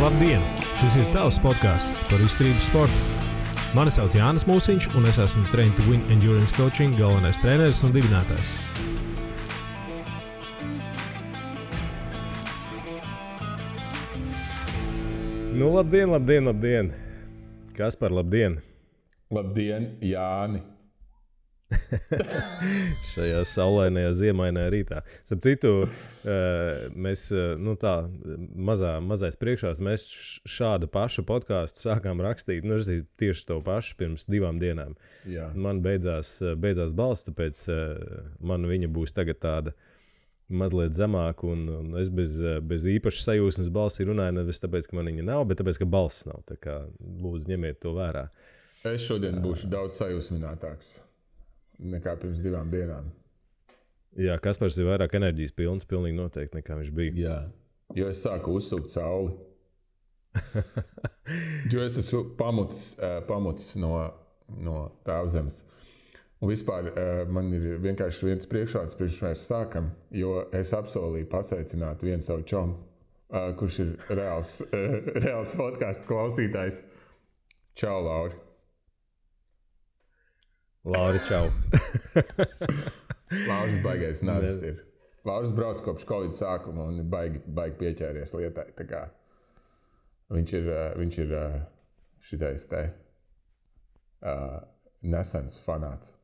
Labdien! Šis ir tavs podcasts par izturības sportu. Mani sauc Jānis Mūsiņš, un es esmu Train to Win Endurance Coaching galvenais treneris un dibinātājs. Nu, labdien! Kas par labdien? Labdien, Jāni! Šajā saulainajā ziemainajā rītā. Starp citu, mēs, mazais priekšās, mēs šādu pašu podcastu sākām rakstīt, tieši to pašu pirms 2 dienām. Jā. Man beidzās balss, tāpēc man viņa būs tagad tāda mazliet zemāka, un es bez īpašas sajūsmas balsī runāju, nevis tāpēc, ka man viņa nav, bet tāpēc, ka balss nav. Tā kā lūdzu ņemiet to vērā. Es šodien būšu daudz sajūsminātāks nekā pirms 2 dienām. Jā, Kaspars ir vairāk enerģijas pilns, pilnīgi noteikti, nekā viņš bija. Jā, jo es sāku uzsūkt sauli. Jo es esmu pamutis no tēvzemes. Un vispār man ir vienkārši viens priekšvārds, pirms mēs sākam, jo es apsolīju pasveicināt vienu savu čomu, kurš ir reāls podcastu klausītājs. Čau, Lauri! Lauri, čau! Lauris baigais nazis ir. Lauris brauc kopš Covid sākuma un baigi pieķēries lietai. Tā kā viņš ir šitais te nesens fanāts.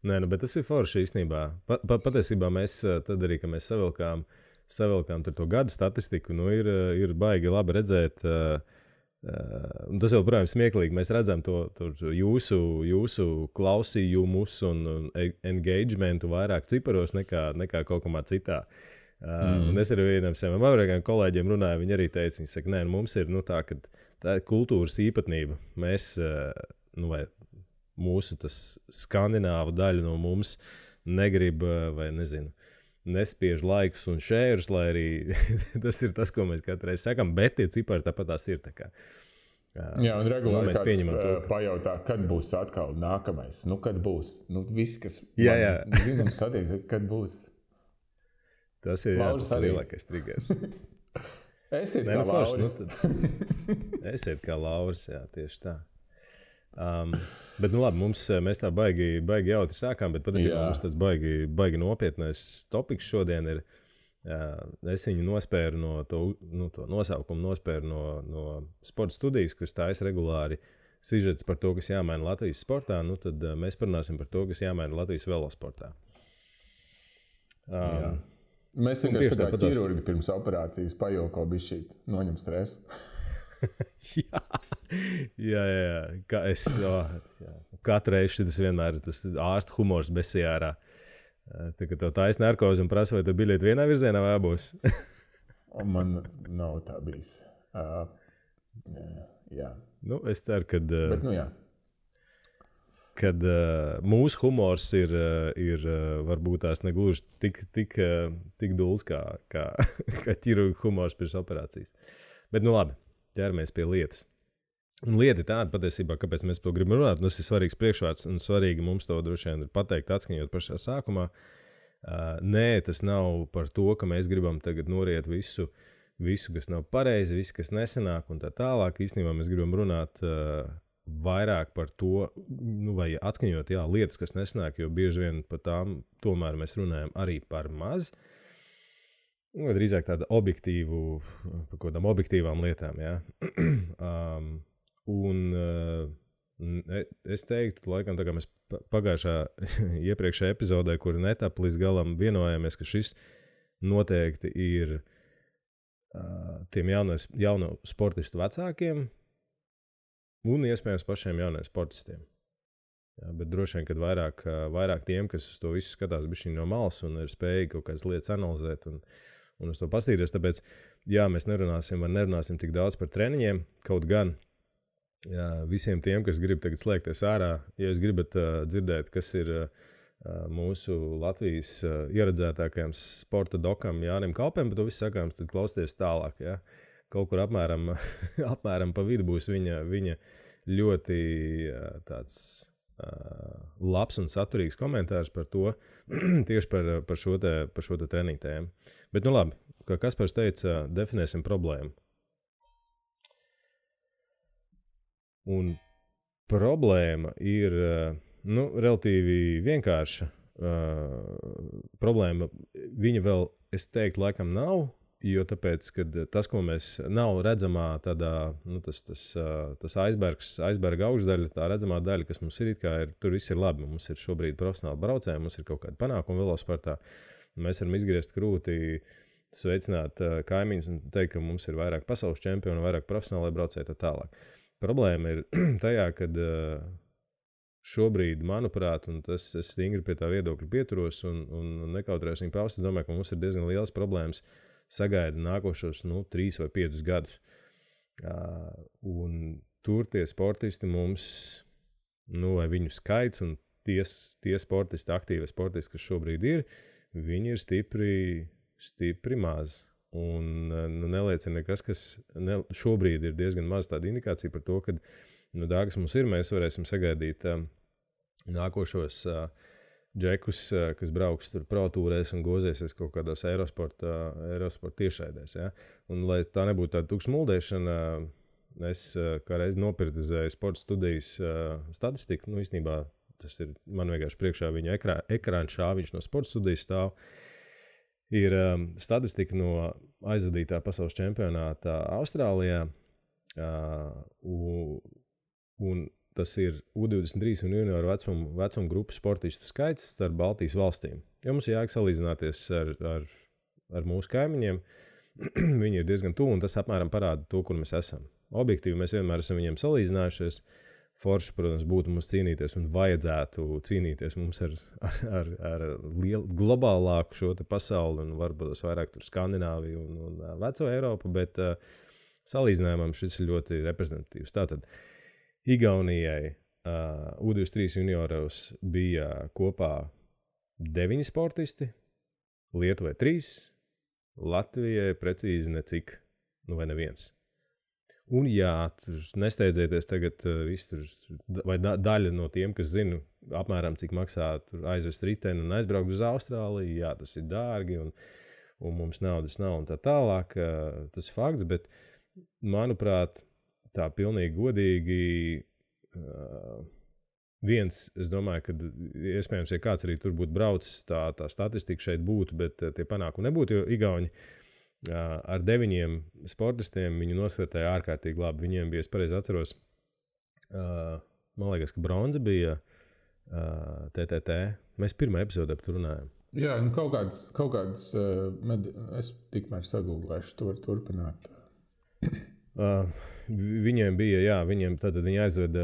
Nē, bet tas ir forši īstenībā. Patiesībā mēs tad arī, kad mēs savilkām to gadu statistiku, ir baigi labi redzēt. Un tas jau, protams, smieklīgi. Mēs redzam to jūsu klausījumus un engagementu vairāk ciparos nekā kaut kamā citā. Un es ar vienam saviem amerikāņu kolēģiem runāju, viņi arī teica, viņi saka, nē, mums ir tā, ka tā ir kultūras īpatnība. Mēs, vai mūsu tas skandināvu daļa no mums negrib, vai nezinu, nespiež laikus un šērus, lai arī tas ir tas, ko mēs katru reizi sakam, bet tie cipari tāpat tās ir. Tā kā, jā, un regulāri kāds pajautā, kad būs atkal nākamais. Kad būs? Viss, kas zina un satiek, kad būs. Tas ir lielākais triggers. Esiet kā Lauris. Esiet kā Lauris, jā, tieši tā. Bet labi, mēs tā baigi jautri sākām, bet patiesībā mums tas baigi nopietnais topiks šodien ir. Es viņu nospēru no to nosaukumu nospēru no sporta studijas, kas taisa regulāri sižets par to, kas jāmaina Latvijas sportā. Tad mēs parunāsim par to, kas jāmaina Latvijas velosportā. Mēs vienkārši tā kā ķirurgi pirms operācijas pajoko bišķīt, noņem stresu. Jā. Katru reizi tas vienmēr ir tas ārsta humors besijārā. Tā kā tev taisa narkozi un prasa, vai tu biļeti vienā virzienā vai abos? Man nav tā bijis. Jā. Es ceru, Bet, jā. Kad mūsu humors ir varbūt tās negluži tik dulls kā ķirurga humors pirms operācijas. Bet labi. Ķeramies pie lietas. Un lieta ir tāda patiesībā, kāpēc mēs to gribam runāt. Tas ir svarīgs priekšvārds un svarīgi mums to droši vien ir pateikt, atskaņot pašā sākumā. Nē, tas nav par to, ka mēs gribam tagad noriet visu, kas nav pareizi, visu, kas nesanāk un tā tālāk. Īstenībā mēs gribam runāt vairāk par to, vai atskaņot lietas, kas nesanāk, jo bieži vien par tām tomēr mēs runājam arī par maz. Drīzāk tāda par kādām objektīvām lietām, jā. Es teiktu, laikam, tā kā mēs pagājušā iepriekšējā epizodē, kur netap līdz galam vienojāmies, ka šis noteikti ir tiem jauno sportistu vecākiem un iespējams pašiem jauniem sportistiem. Jā, bet droši vien, kad vairāk tiem, kas uz to visu skatās bišķiņ no malas un ir spējīgi kaut kādas lietas analizēt un uz to pastīties. Tāpēc, mēs nerunāsim tik daudz par treniņiem, kaut gan visiem tiem, kas grib tagad slēgties ārā, ja jūs gribat dzirdēt, kas ir mūsu Latvijas ieredzētākajam sporta dokam Jānim Kalpēm, bet to viss sakāms, tad klausieties tālāk. Ja? Kaut kur apmēram pa vidu būs viņa ļoti tāds labs un saturīgs komentārs par to, tieši par šo te treniņu tēmu. Bet labi, kā Kaspars teica, definēsim problēmu. Un problēma ir relatīvi vienkārša. Problēma viņa vēl, es teiktu, laikam nav, jo tāpēc, kad tas, ko mēs nav redzamā tādā, tas aizberga augšdaļa, tā redzamā daļa, kas mums ir, tur viss ir labi. Mums ir šobrīd profesionāli braucēji, mums ir kaut kāda panākuma velosportā. Mēs varam izgriezt krūti, sveicināt kaimiņus un teikt, ka mums ir vairāk pasaules čempionu, vairāk profesionālai braucēji tā tālāk. Problēma ir tajā, kad šobrīd, manuprāt, un es stingri pie tā viedokļa pieturos un nekautrējos viņu paust, es domāju, ka mums ir diezgan liels problēmas sagaida nākošos 3 vai 5 gadus. Un tur tie sportisti mums, vai viņu skaits un tie sportisti, aktīvie sportisti, kas šobrīd ir, viņi ir stipri maz. Un neliecina nekas, kas šobrīd ir diezgan maz tāda indikācija par to, ka, dārgas mums ir, mēs varēsim sagaidīt nākošos džekus, kas brauks tur protūrēs un gozēsies kaut kādās Eurosporta tiešraidēs. Ja? Un, lai tā nebūtu tāda tukša muldēšana, es kā reiz nopirtizēju sporta studijas statistiku. Īstenībā tas ir man vienkārši priekšā viņa ekrāna šāviņš no sporta studijas stāv. Ir statistika no aizvadītā pasaules čempionāta Austrālijā, un tas ir U23 un junioru vecuma grupu sportistu skaits starp Baltijas valstīm. Jo mums jāiek salīdzināties ar mūsu kaimiņiem, viņi ir diezgan tuvu, un tas apmēram parāda to, kur mēs esam. Objektīvi mēs vienmēr esam viņiem salīdzinājušies. Forši, protams, būtu mums cīnīties un vajadzētu cīnīties mums ar globālāku šo te pasauli un varbūt vairāk tur Skandināviju un veco Eiropu, bet salīdzinājumam šis ir ļoti reprezentatīvs. Tātad Igaunijai U23 junioros bija kopā 9 sportisti, Lietuvai 3, Latvijai precīzi necik, vai neviens. Un jā, tur nesteidzieties tagad vai daļa no tiem, kas zina apmēram, cik maksā tur aizvest riteni un aizbraukt uz Austrāliju. Jā, tas ir dārgi un mums naudas nav un tā tālāk. Tas ir fakts, bet manuprāt, tā pilnīgi godīgi es domāju, ka iespējams, ja kāds arī tur būtu braucis, tā statistika šeit būtu, bet tie panākumi nebūtu, jo Igauni ar 9 sportistiem viņu nosvērtēja ārkārtīgi labi. Viņiem bija, es pareizi atceros, man liekas, ka bronza bija TTT. Mēs pirmā epizodē par to runājam. Jā, kaut kāds es tikmēr sagūglēšu, to var turpināt. Viņiem bija, viņi aizveda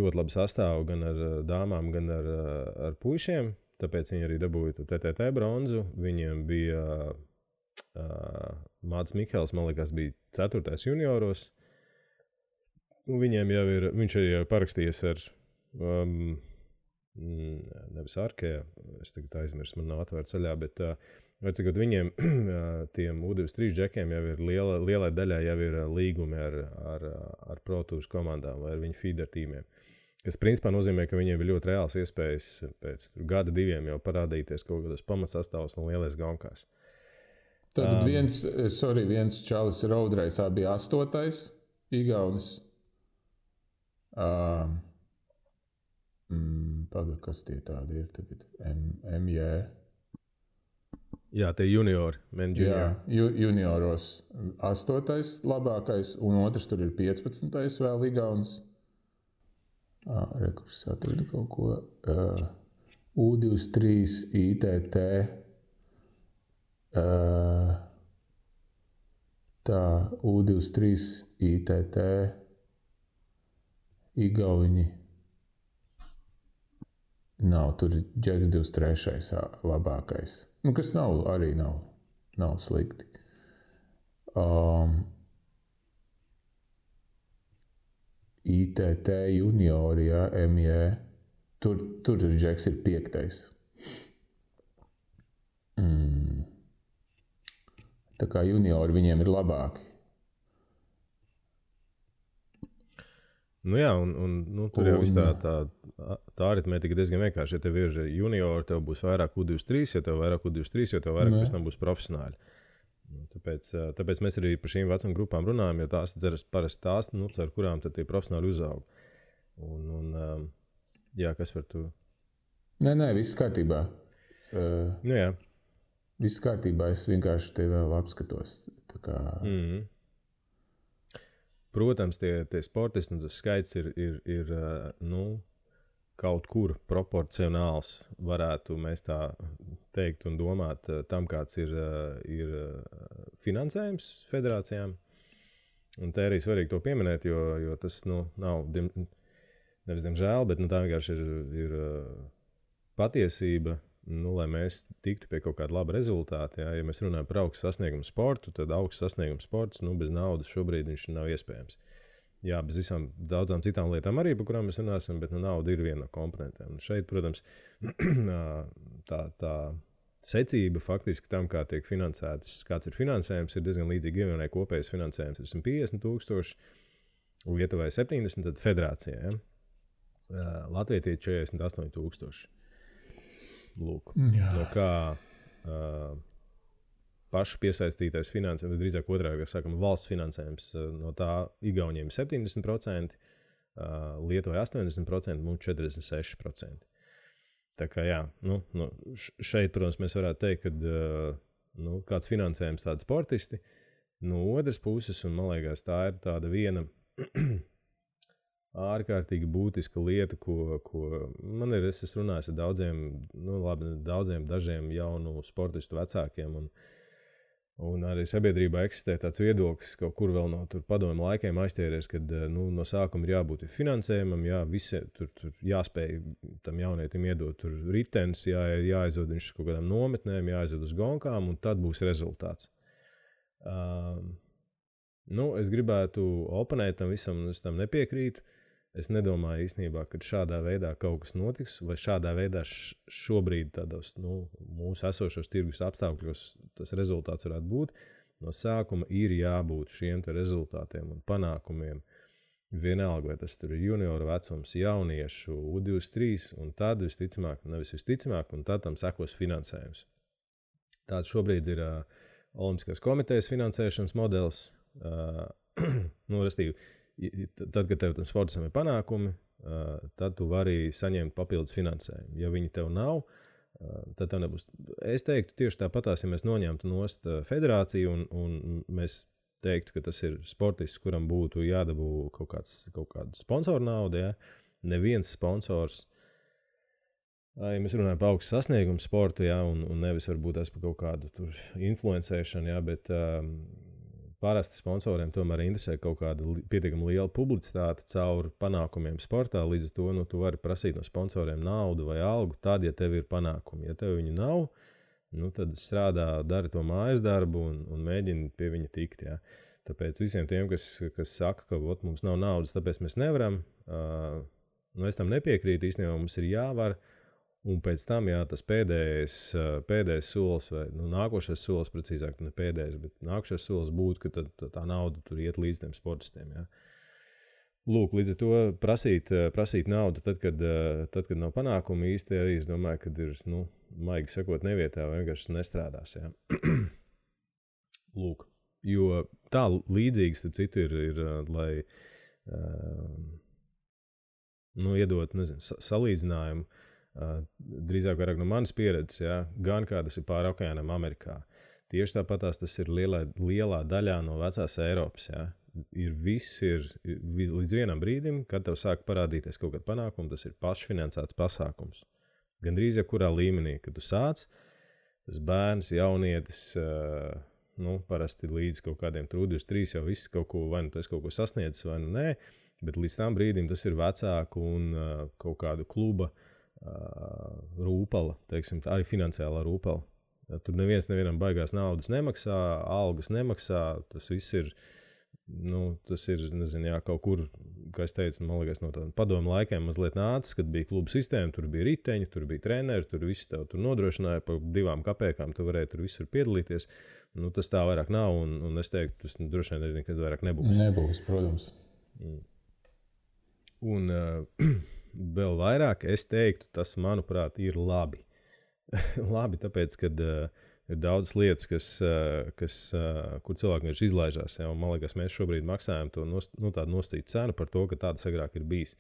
ļoti labu sastāvu gan ar dāmām, gan ar puišiem, tāpēc viņi arī dabūja TTT bronzu. Viņiem bija Mācis Mikels, man liekas, bija 4. junioros. Viņiem jau ir, viņš arī parakstījies ar nevis Arkēja, es tagad aizmirstu, man nav atvērts ceļā, bet vecākot viņiem, tiem U23 džekiem jau ir lielai daļai jau ir līgumi ar protūras komandām vai ar viņu feeder tīmiem. Kas principā nozīmē, ka viņiem ir ļoti reāls iespējas pēc gada 2 jau parādīties kaut kādos pamatsastāvos un lielais gaunkās. Tad viens čalis roadreisā bija 8. Igaunis. Kas tie tādi ir tagad? MJ. Jā, tie juniori. Jā, junioros 8. labākais, un otrs tur ir 15. vēl Igaunis. Rekurs atradu kaut ko. U23 ITT. Tā, U23 ITT Igauņi nav, tur ir džeks 23. labākais. Kas nav slikti. ITT juniori, ja, MJ, tur džeks ir 5. Tā kā juniori viņiem ir labāki. Jā, un tur jau viss tā aritmētika diezgan vienkārši. Ja tev ir juniori, tev būs vairāk U23, ja tev vairāk U23, jo tev vairāk pēc tam būs profesionāļi. Tāpēc mēs arī par šīm vecuma grupām runājam, jo tās ir parasti tās, ar kurām tad tie profesionāli uzaug. Jā, kas par to? Nē, viss kārtībā. Jā. Viss kārtībā, es vienkārši tevi vēl apskatos. Tā kā... Protams, tie sportisti, tas skaits ir kaut kur proporcionāls, varētu mēs tā teikt un domāt tam, kāds ir finansējums federācijām. Un te arī svarīgi to pieminēt, jo tas nav, nevis diemžēl, bet tā vienkārši ir patiesība, lai mēs tiktu pie kaut kāda laba rezultāta. Ja mēs runājam par augstu sasniegumu sportu, tad augsts sasniegumu sports bez naudas šobrīd viņš nav iespējams. Jā, bez visām daudzām citām lietām arī, par kurām mēs runāsim, bet nauda ir viena no komponentiem. Un šeit, protams, tā secība faktiski tam, kā tiek finansēts, kāds ir finansējums, ir diezgan līdzīgi. Igaunijai kopējais finansējums ir 150,000, Lietuvai 70, tad federācijai. Ja? Latvijai 48,000. Lūk, no kā pašu piesaistītais finansējums, drīzāk otrādi, kā sakam, valsts finansējums, no tā Igauniem 70%, Lietuvai 80%, mums 46%. Tā kā jā, šeit, protams, mēs varētu teikt, ka kāds finansējums tādi sportisti, no otras puses, un man liekas, tā ir tāda viena ārkārtīgi būtiska lieta, ko man ir, es runāju ar dažiem jaunu sportistu vecākiem, un arī sabiedrībā eksistē tāds viedoklis, kaut kur vēl no padomu laikiem aizķēries, kad no sākuma ir jābūt finansējumam, tur jāspēj tam jaunietim iedot tur ritenis, jāaizved viņš kaut kādām nometnēm, jāaizved uz gonkām, un tad būs rezultāts. Es gribētu oponēt tam visam, un es tam nepiekrītu. Es nedomāju īstenībā, ka šādā veidā kaut kas notiks, vai šādā veidā šobrīd tādos mūsu esošos tirgus apstākļos tas rezultāts varētu būt. No sākuma ir jābūt šiem te rezultātiem un panākumiem. Vienalga, vai tas tur ir junioru vecums, jauniešu, U23, un tad visticamāk, un tad tam sekos finansējums. Tāds šobrīd ir Olimpiskās komitejas finansēšanas modelis. Restīvi, tad, kad tev tam sportistam ir panākumi, tad tu vari saņemt papildus finansējumu. Ja viņi tev nav, tad tev nebūs. Es teiktu tieši tāpatās, ja mēs noņemtu nost federāciju un mēs teiktu, ka tas ir sportists, kuram būtu jādabū kaut kāda sponsoru nauda. Ja? Neviens sponsors, ja mēs runājam par augstu sasniegumu sportu, ja? un nevis varbūt par kaut kādu tur influencēšanu, ja? Bet parasti sponsoriem tomēr interesē kaut kāda pietiekami liela publicitāte caur panākumiem sportā. Līdz ar to tu vari prasīt no sponsoriem naudu vai algu tad, ja tev ir panākumi. Ja tev viņu nav, tad strādā, dari to mājas darbu un mēģini pie viņa tikt. Ja. Tāpēc visiem tiem, kas saka, ka mums nav naudas, tāpēc mēs nevaram, es tam nepiekrītu. Īstenībā mums ir jāvar. Un pēc tam, tas pēdējais solis, vai nākošais solis, precīzāk, ne pēdējais, bet nākošais solis būtu, ka tā nauda tur iet līdz tiem sportistiem. Ja. Lūk, līdz ar to prasīt naudu, tad, kad nav panākumi īsti arī, es domāju, ka ir, maigi sakot, nevietā vai vienkārši nestrādās. Ja. Lūk, jo tā līdzīgi, starp citu, ir lai iedot, salīdzinājumu, drīzāk vairāk no manas pieredzes, ja, gan kā tas ir pāri okeānam Amerikā. Tieši tāpatās tas ir lielā daļā no vecās Eiropas. Ja. Viss ir līdz vienam brīdim, kad tev sāk parādīties kaut kāda panākuma, tas ir pašfinansēts pasākums. Gan drīz jebkurā līmenī, kad tu sāc, tas bērns, jaunietis, parasti līdz kaut kādiem 23 jau viss kaut ko, vai tas kaut ko sasniedzis, vai nē, bet līdz tam brīdim tas ir vecāku un kaut kādu kluba rūpala, teiksim, arī finansiālā rūpala. Ja, tur nevienam baigās naudas nemaksā, algas nemaksā, tas viss ir, nezinu, kaut kur, kā es teicu, man liekas, no tādiem padomu laikiem mazliet nācis, kad bija kluba sistēma, tur bija riteņi, tur bija treneri, tur viss tev tur nodrošināja par 2 kapēkām, tu varēji tur visur piedalīties. Tas tā vairāk nav, un es teiktu, tas droši vien arī nekad vairāk nebūs. Nebūs, protams. Un vēl vairāk es teiktu, tas, manuprāt, ir labi. Labi, tāpēc, kad ir daudz lietas, kur cilvēki vienkārši izlaižās. Ja? Man liekas, mēs šobrīd maksājam to tādu nostītu cenu par to, ka tādas agrāk ir bijis.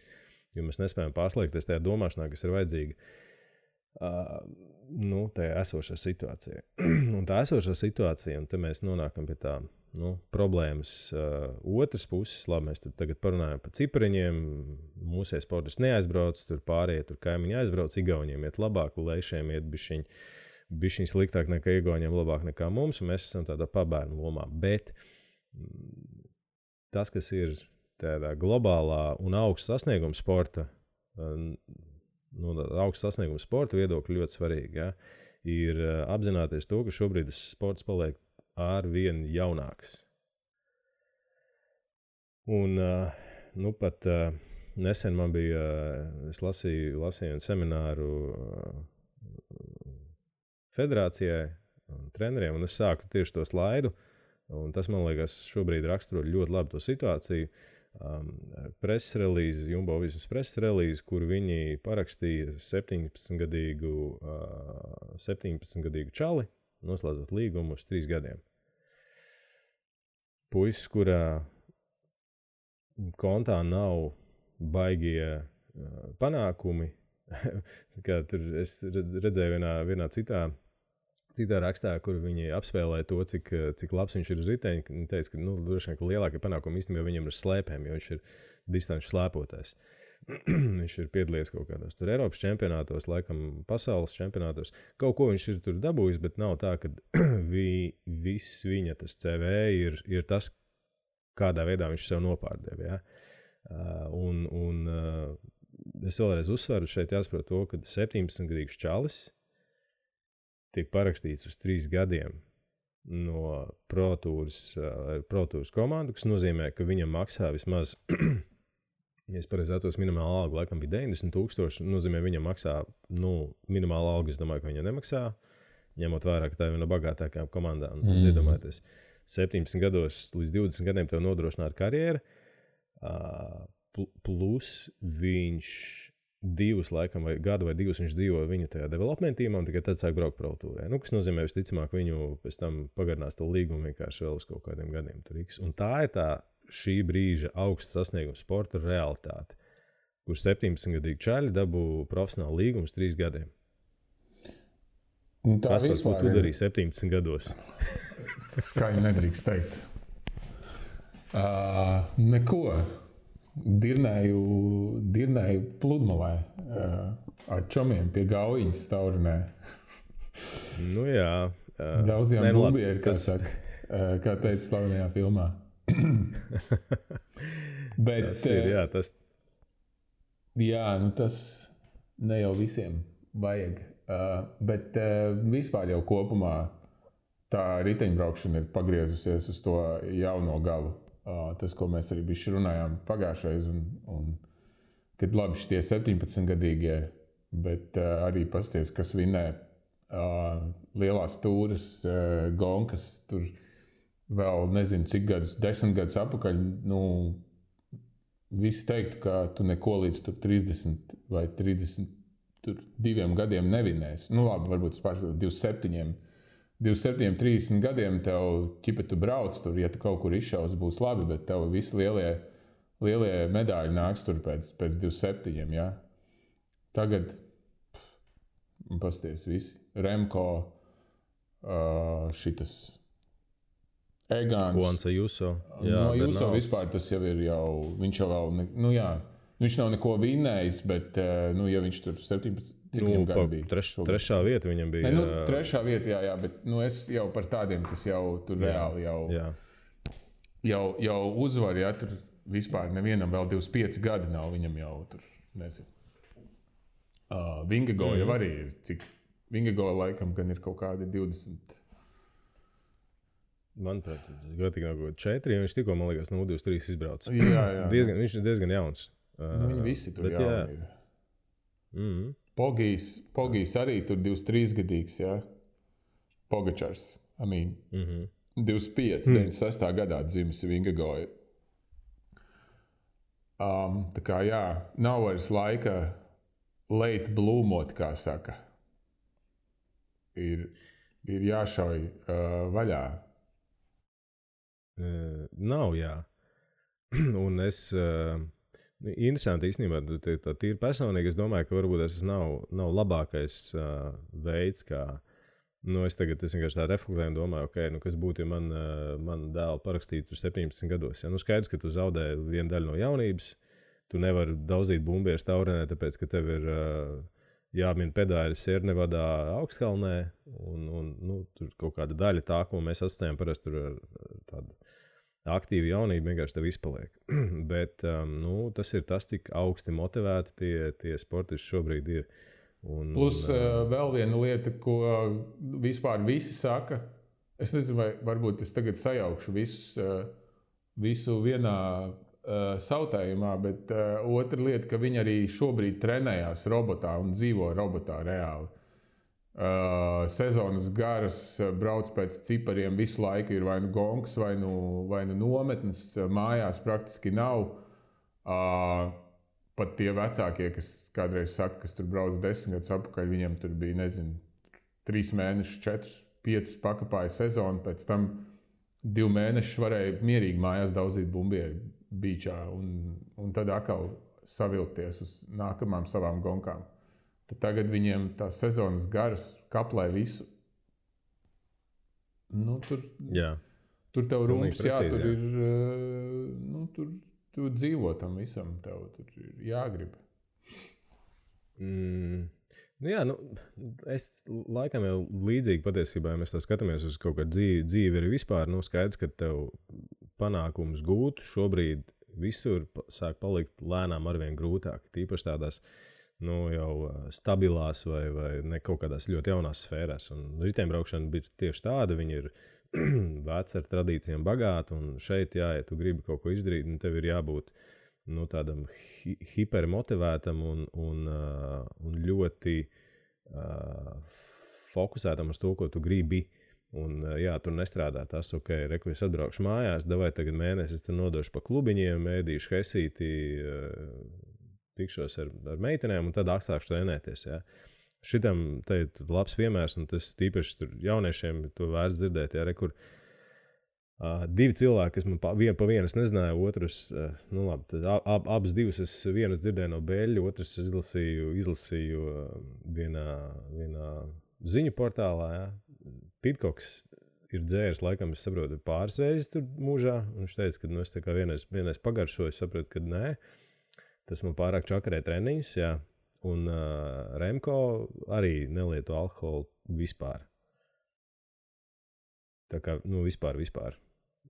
Jo mēs nespējam pārslēgties tajā domāšanā, kas ir vajadzīga tajā esošā situācijā. Un tā esošā situācija, un te mēs nonākam pie tā problēmas otras puses. Labi, mēs tagad parunājam par cipariņiem. Mūsu sportists neaizbrauc, tur pārējie tur kaimiņi aizbrauc, Igauniem iet labāk, Leišiem iet bišķiņ sliktāk nekā Igauniem, labāk nekā mums, un mēs esam tādā pabērnu lomā. Bet tas, kas ir tādā globālā un augsta sasnieguma sporta, augsta sasnieguma sporta viedokļa ļoti svarīgi, ja? Ir apzināties to, ka šobrīd sports paliek arvien jaunāks. Un pat nesen man bija, es lasīju semināru federācijai un treneriem, un es sāku tieši to slaidu, un tas, man liekas, šobrīd raksturo ļoti labi to situāciju. Preses relīze, Jumbo Vismas preses relīze, kur viņi parakstīja 17-gadīgu čali, noslēdzot līgumu uz 3 gadiem. Puisis, kurā kontā nav baigie panākumi, kā tur es redzēju vienā citā rakstā, kur viņi apspēlēja to, cik labs viņš ir uz riteņa. Viņi teica, ka droši vien, ka lielākie panākumi īstenībā viņam ir slēpēm, jo viņš ir distanču slēpotājs. Viņš ir piedalījies kaut kādos tur Eiropas čempionātos, laikam pasaules čempionātos. Kaut ko viņš ir tur dabūjis, bet nav tā, ka viss viņa tas CV ir tas, kādā veidā viņš sev nopārdeva. Ja? Un es vēlreiz uzsveru šeit jāsaprot to, ka 17-gadīgs čalis tiek parakstīts uz 3 gadiem no Pro Tours komandu, kas nozīmē, ka viņam maksā vismaz, ja es pareizi atceros, minimāla alga laikam bija 90,000, nozīmē, viņam maksā, minimāla alga, es domāju, ka viņam nemaksā, ņemot vērā, ka tā ir viena no bagātākajām komandām. Tad iedomājieties, 17 gados līdz 20 gadiem tev nodrošināt karjeru, plus viņš 2 laikam, vai gadu vai 2 viņš dzīvo viņu tajā development teamā un tikai tad sāk braukt Pro Tourē. Kas nozīmē, visticamāk, viņu pēc tam pagarinās to līgumu vienkārši vēl uz kaut kādiem gadiem. Un tā ir šī brīža augsta sasnieguma sporta realitāte, kur 17-gadīgi čaļi dabū profesionālu līgumu uz 3 gadiem. Kas par ko tu darīji 17 gados? Tas skaļi nedrīkst teikt. Neko. Dirnēju pludmalē ar čomiem pie Gaujiņas Staurunē. Jā. Daudziem bubieri, saka, kā teica slavenajā filmā. Bet, tas ir, jā, tas... Jā, tas ne jau visiem vajag. Bet vispār jau kopumā tā riteņbraukšana ir pagriezusies uz to jauno galu. Tas, ko mēs arī bišķi runājām pagājušreiz, un kad labi šitie 17-gadīgie, bet arī pasties, kas vinē lielās tūras, gonkas, tur vēl nezinu cik gadus, 10 gadus apakaļ, visi teiktu, ka tu neko līdz tur 30 vai 32 gadiem nevinēsi. Labi, varbūt pār 27, 30 gadiem tev ķipa tu brauc tur, ja tu kaut kur izšaus, būs labi, bet tev visi lielie medaļi nāks tur pēc 27, ja? Tagad, pasties visi, Remko, šitas Egāns. Juansa Juso. No Juso vispār tas jau ir viņš jau vēl, viņš nav neko vinnējis, bet, ja viņš tur 17, cik viņam gadu bija? Trešā vieta viņam bija. Trešā vieta, jā, bet es jau par tādiem, kas jau tur reāli jau uzvar, ja tur vispār nevienam vēl 25 gadi nav, viņam jau tur, nezinu. Vingegaard jau arī ir, cik Vingegaard laikam gan ir kaut kādi 20. Manuprāt, gatīgi nav kaut 4, viņš tikko, man liekas, no 23 izbrauc. Jā. Viņš ir diezgan jauns. Viņi visi tur jauni ir. Pogijs arī tur 23 gadīgs, jā. Pogačars, 25, 96. gadā dzimis Vingegaard. Tā kā jā, nav vairs laika late blūmot, kā saka. Ir ir jāšauj vaļā. Nav, jā. Un es, interesanti īstenībā, tā tīri personīgi, es domāju, ka varbūt tas nav labākais veids, kā, es vienkārši tā reflektēju un domāju, kas būtu, ja man dēlu parakstītu tur 17 gados. Ja? Skaidrs, ka tu zaudē vienu daļu no jaunības, tu nevari daudzīt bumbieres taurenē, tāpēc, ka tev ir jāmin pedāļi Siernevadā Augstkalnē, un tur kaut kāda daļa tā, ko mēs asociējam parasti tur ar tādu aktīvu jaunību, vienkārši tev izpaliek. Bet tas ir tas, cik augsti motivēti tie sportisti šobrīd ir. Plus vēl viena lieta, ko vispār visi saka, es nezinu, vai varbūt es tagad sajaukšu visu vienā sautējumā, bet otra lieta, ka viņi arī šobrīd trenējās robotā un dzīvo robotā reāli. Sezonas garas, brauc pēc cipariem, visu laiku ir vai nu gongs, vai nu nometnes, mājās praktiski nav. Pat tie vecākie, kas kādreiz saka, kas tur brauc 10 gadus atpakaļ, viņiem tur bija, 3 mēnešus, 4, 5 pakāpāja sezonu, pēc tam 2 mēnešus varēja mierīgi mājās daudzīt bumbieri beachā un tad atkal savilkties uz nākamām savām gonkām. Tad tagad viņiem tās sezonas garas kaplē visu. Tur tev rūms, tur ir, tu dzīvo tam visam, tev tur ir jāgrib. Es laikam jau līdzīgi patiesībā, ja mēs tā skatāmies uz kaut kādu dzīvi arī vispār, skaidrs, ka tev panākumus gūt šobrīd visur sāk palikt lēnām arvien grūtāk, tīpaši tādās jau stabilās vai ne kaut kādās ļoti jaunās sfērās. Un riteņbraukšana bija tieši tāda, viņi ir veci ar tradīcijām bagāti, un šeit, ja tu gribi kaut ko izdarīt, tev ir jābūt tādam hipermotivētam un ļoti fokusētam uz to, ko tu gribi. Un, tur nestrādā tas, es atbraukšu mājās, davai tagad mēnesi, es tur nodošu pa klubiņiem, ēdīšu hesīti, tikšos ar meitenēm un tad sākšu trenēties. Ja. Šitam te ir labs piemērs, un tas tīpaši tur jauniešiem to vērts dzirdēt, ja, kur 2 cilvēki, kas man pa vienu es nezināju, otrs, abas divas es vienas dzirdēju no Beļļa, otrs izlasīju vienā ziņu portālā, ja. Pitkoks ir dzēris, laikam, es saprotu, pāris reizes tur mūžā, un viņš teica, ka es tā kā vienreiz pagaršoju, es saprotu, ka nē, tas man pārāk čakarē treniņus, jā, un Remko arī nelieto alkoholu vispār. Tā kā, vispār.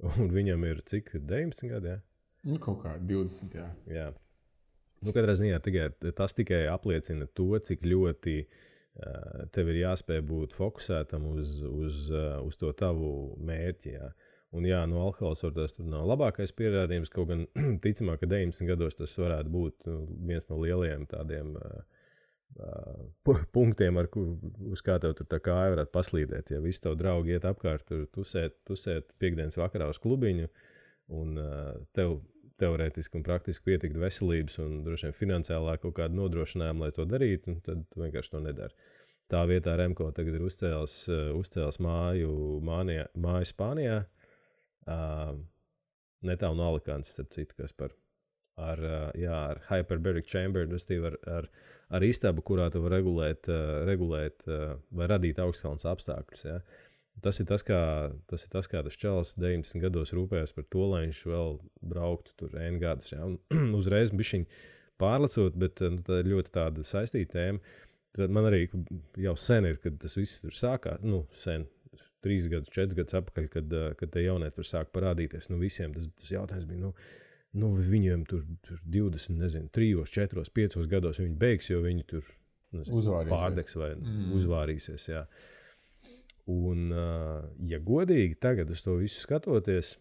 Un viņam ir cik, 19 gadi, jā? Kaut kā 20, jā. Jā. Katrā ziņā tas tikai apliecina to, cik ļoti tev ir jāspēj būt fokusētam uz to tavu mērķi. Jā. Un alkohols varbūt tur nav labākais pierādījums, kaut gan ticamāk, ka 19 gados tas varētu būt viens no lielajiem tādiem punktiem, uz kā tev tur tā kāja varētu paslīdēt. Ja visi tavi draugi iet apkārt, tur tusēt piekdienas vakarā uz klubiņu, un tev teorētiski un praktiski pietikt veselības un droši vien finansiālā kaut kāda nodrošinājuma, lai to darītu, un tad tu vienkārši to nedari. Tā vietā Remko tagad ir uzcēlis māju Spānijā, netālu no Alicantes, starp citu, kas ar hyperbaric chamber, ar istabu, kurā tu var regulēt vai radīt augstkalnes apstākļus. Ja. Tas ir tas, kā tas čalis 19 gados rūpējas par to, lai viņš vēl brauktu tur N gadus. Ja. Un uzreiz bišķiņ pārlecot, bet tā ir ļoti tāda saistīta tēma. Tad man arī jau sen ir, kad tas viss tur sākās, sen, 3 gadus, 4 gadus atpakaļ, kad te jaunieti tur sāk parādīties. Visiem tas jautājums bija, viņiem tur 20, 3, 4, 5 gados viņi beigs, jo viņi tur pārdegs vai uzvārīsies, jā. Un, ja godīgi tagad uz to visu skatoties,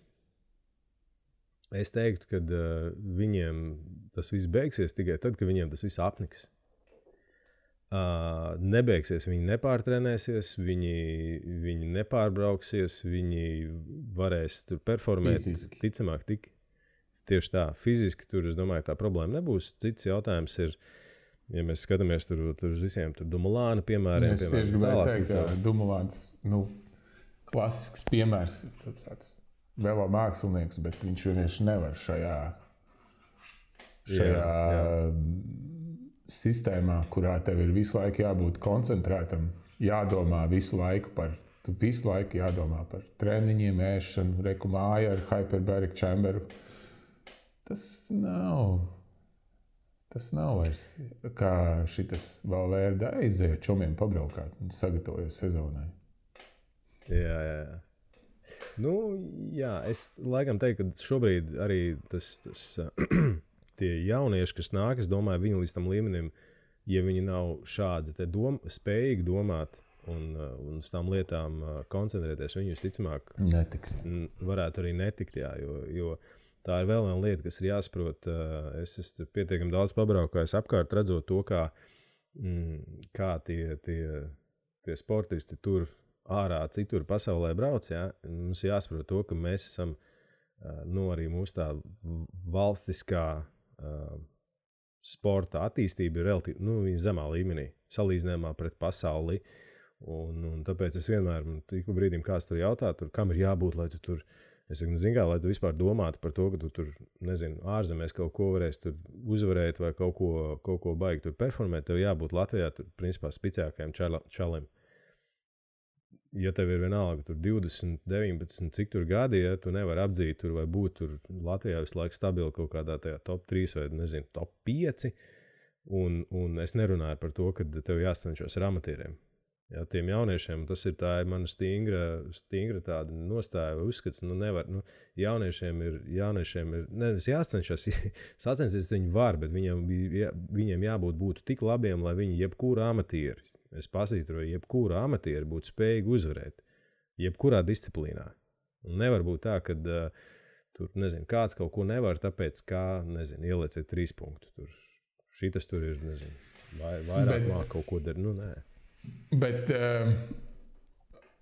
es teiktu, ka viņiem tas viss beigsies tikai tad, kad viņiem tas viss apniks. Nebeigsies, viņi nepārtrenēsies, viņi nepārbrauksies, viņi varēs tur performēt. Fiziski. Ticamāk, tieši tā, fiziski tur, es domāju, tā problēma nebūs. Cits jautājums ir, Ja mēs skatāmies tur uz visiem Dumulāna piemēriem. Es tieši gribēju teikt, ka Dumulāns, klasisks piemērs, tāds vēl mākslinieks, bet viņš vienkārši nevar šajā sistēmā, kurā tev ir visu laiku jābūt koncentrētam, jādomā visu laiku par treniņiem, ēšanu, reku māju ar hyperbaric chamberu. Tas nav vairs kā šitas Valverde aiziet čomiem pabraukāt un sagatavojas sezonai. Jā. Es laikam teiktu, ka šobrīd arī tas tie jaunieši, kas nāk, es domāju, viņi līdz tam līmenim, ja viņi nav šādi spējīgi domāt un uz tām lietām koncentrēties, viņi visticamāk varētu arī netikt, jo tā ir vēl viena lieta, kas ir jāsaprot. Es esmu pietiekami daudz pabraukājis apkārt, redzot to, kā tie sportisti tur ārā citur pasaulē brauc. Ja? Mums jāsaprot to, ka mēs esam arī mūsu tā valstiskā sporta attīstība ir relatīvi zemā līmenī, salīdzinājumā pret pasauli. Un tāpēc es vienmēr, ik pa brīdim kāds tur jautā, kam ir jābūt, lai tu tur, es saku, lai tu vispār domātu par to, ka tu tur, ārzemēs kaut ko varēs tur uzvarēt vai kaut ko baigi tur performēt, tev jābūt Latvijā tur, principā, spicākajam čalim. Ja tev ir vienalga tur 20, 19, cik tur gadi, ja tu nevari apdzīt tur vai būt tur Latvijā visu laiku stabili kaut kādā tajā top 3 vai, top 5, un es nerunāju par to, ka tev jāsacenšos ar amatieriem. Ja, tiem jauniešiem tas ir mana stingra tāda nostāja vai uzskats, nevar, jauniešiem ir, nevis jāsacenšas, sacensties viņi var, bet viņiem jābūt tik labiem, lai viņi jebkuru amatieri, es pasītu, vai jebkura amatieri būtu spējīgi uzvarēt, jebkurā disciplīnā. Un nevar būt tā, ka tur, kāds kaut ko nevar, tāpēc, ielieciet 3 punktu. Šitas tur ir, vairāk māk kaut ko dar, nē. Bet,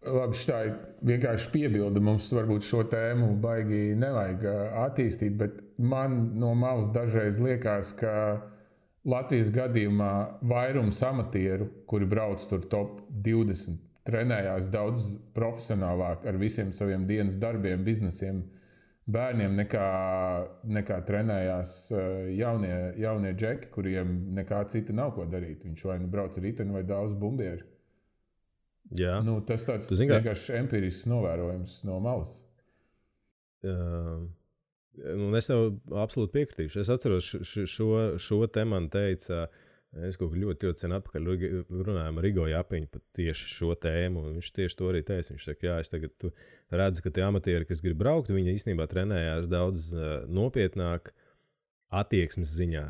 labi, šitā vienkārši piebilda, mums varbūt šo tēmu baigi nevajag attīstīt, bet man no malas dažreiz liekas, ka Latvijas gadījumā vairums amatieru, kuri brauc tur top 20, trenējās daudz profesionālāk ar visiem saviem dienas darbiem, biznesiem, bērniem, nekā trenējās jaunie džeki, kuriem nekā cita nav ko darīt. Viņš vai brauc ar riteni vai daudz bumbieri. Jā. Tas tāds vienkārši empirisks novērojums no malas. Es tev absolūti piekritīšu. Es atceros, šo te man teica, es kaut kā ļoti sen atpakaļ runājām ar Rigo Japiņu par tieši šo tēmu, un viņš tieši to arī teica. Viņš saka, es tagad redzu, ka tie amatieri, kas grib braukt, viņi īstenībā trenējās daudz nopietnāk attieksmes ziņā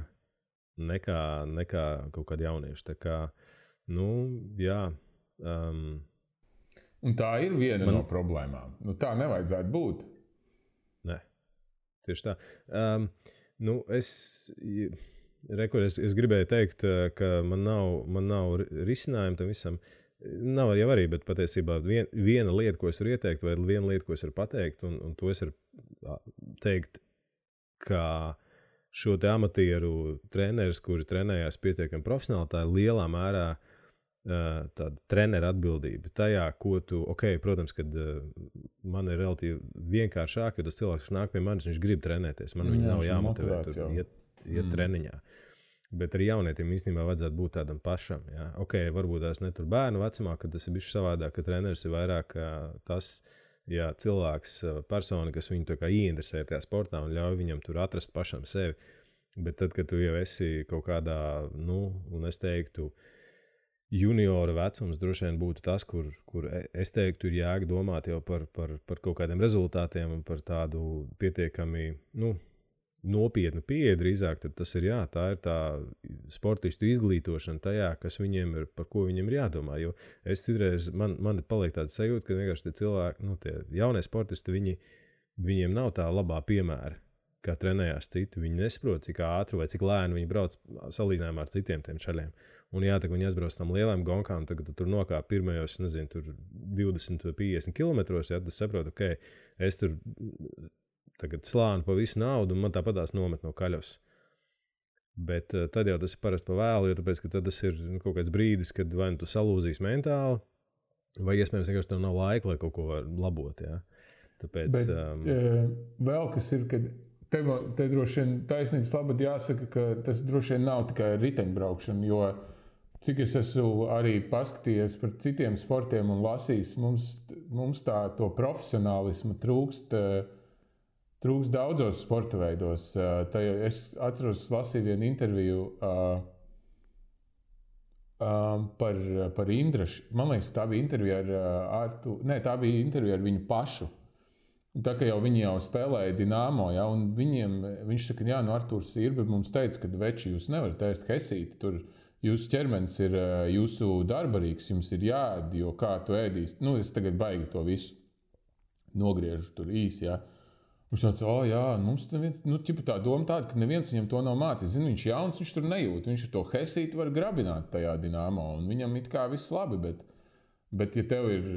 nekā kaut kādi jaunieši. Tā kā, jā. Un tā ir viena no problēmām. Tā nevajadzētu būt. Nē. Tieši tā. Es gribēju teikt, ka man nav risinājumu tam visam. Nav jau arī, bet patiesībā viena lieta, ko es varu ieteikt, vai viena lieta, ko es varu pateikt, un to es varu teikt, ka šo te amatieru treneris, kuri trenējās pietiekami profesionāli, tā ir lielā mērā tāda trenera atbildība tajā, ko tu, protams, kad man ir relatīvi vienkāršāk, kad tas cilvēks, kas nāk pie manis, viņš grib trenēties, man viņu nav jāmotivē iet treniņā. Bet arī jaunietiem īstenībā vajadzētu būt tādam pašam. Ja? Varbūt tās ne tur bērnu vecumā, kad tas ir bišķi savādāk, ka treneris ir vairāk tas cilvēks, persona, kas viņu tā kā ieinteresē tajā sportā un ļauj viņam tur atrast pašam sevi. Bet tad, kad tu jau esi kaut kādā, un es teiktu, juniora vecums droši vien būtu tas, kur es teiktu, ir jēga domāt jau par kaut kādiem rezultātiem un par tādu pietiekami, nopietnu pieeja drīzāk, tad tas ir tā ir tā sportistu izglītošana tajā, kas viņiem ir, par ko viņiem ir jādomā. Jo es citreiz, man paliek tāda sajūta, ka vienkārši tie cilvēki, tie jaunie sportisti, viņiem nav tā labā piemēra, kā trenējās citi. Viņi nesaprot, cik ātri vai cik lēni viņi brauc salīdzinājumā ar citiem tiem čaļiem. Un tā, ka viņi aizbrauc tam lielām gonkām, tagad tu tur nokāp pirmajos, tur 20 vai 50 kilometros, tu saproti, es tur tagad slānu pa visu naudu, un man tāpatās nomet no kaļos. Bet tad jau tas ir parasti pa vēlu, jo tāpēc, ka tad tas ir kaut kāds brīdis, kad vai nu tu salūzīs mentāli, vai iespējams vienkārši tev nav laika, lai kaut ko var labot. Ja? Tāpēc, vēl kas ir, kad te droši vien taisnības labad jāsaka, ka tas droši vien nav tikai riteņbraukšana, jo cik es esmu arī paskatījies par citiem sportiem un lasījis, mums to profesionālismu trūkst daudzos sporta veidos. Es atceros, lasīju vienu interviju par Indrašu. Man liekas, tā bija intervija tā bija intervija ar viņu pašu. Tā kā viņi jau spēlēja Dinamo, ja, un viņš saka, jā, Artūrs Sirbe mums teica, ka veči jūs nevarat ēst hesīti, tur jūsu ķermenis ir jūsu darbarīgs, jums ir jāēd, jo kā tu ēdīsi. Es tagad baigi to visu nogriežu tur īsi, ja. Viņš tāds, jā, mums tā doma tāda, ka neviens viņam to nav mācījis. Viņš jauns, viņš tur nejūt. Viņš ar to hesīti var grabināt tajā Dinamo, un viņam it kā viss labi, bet ja tev ir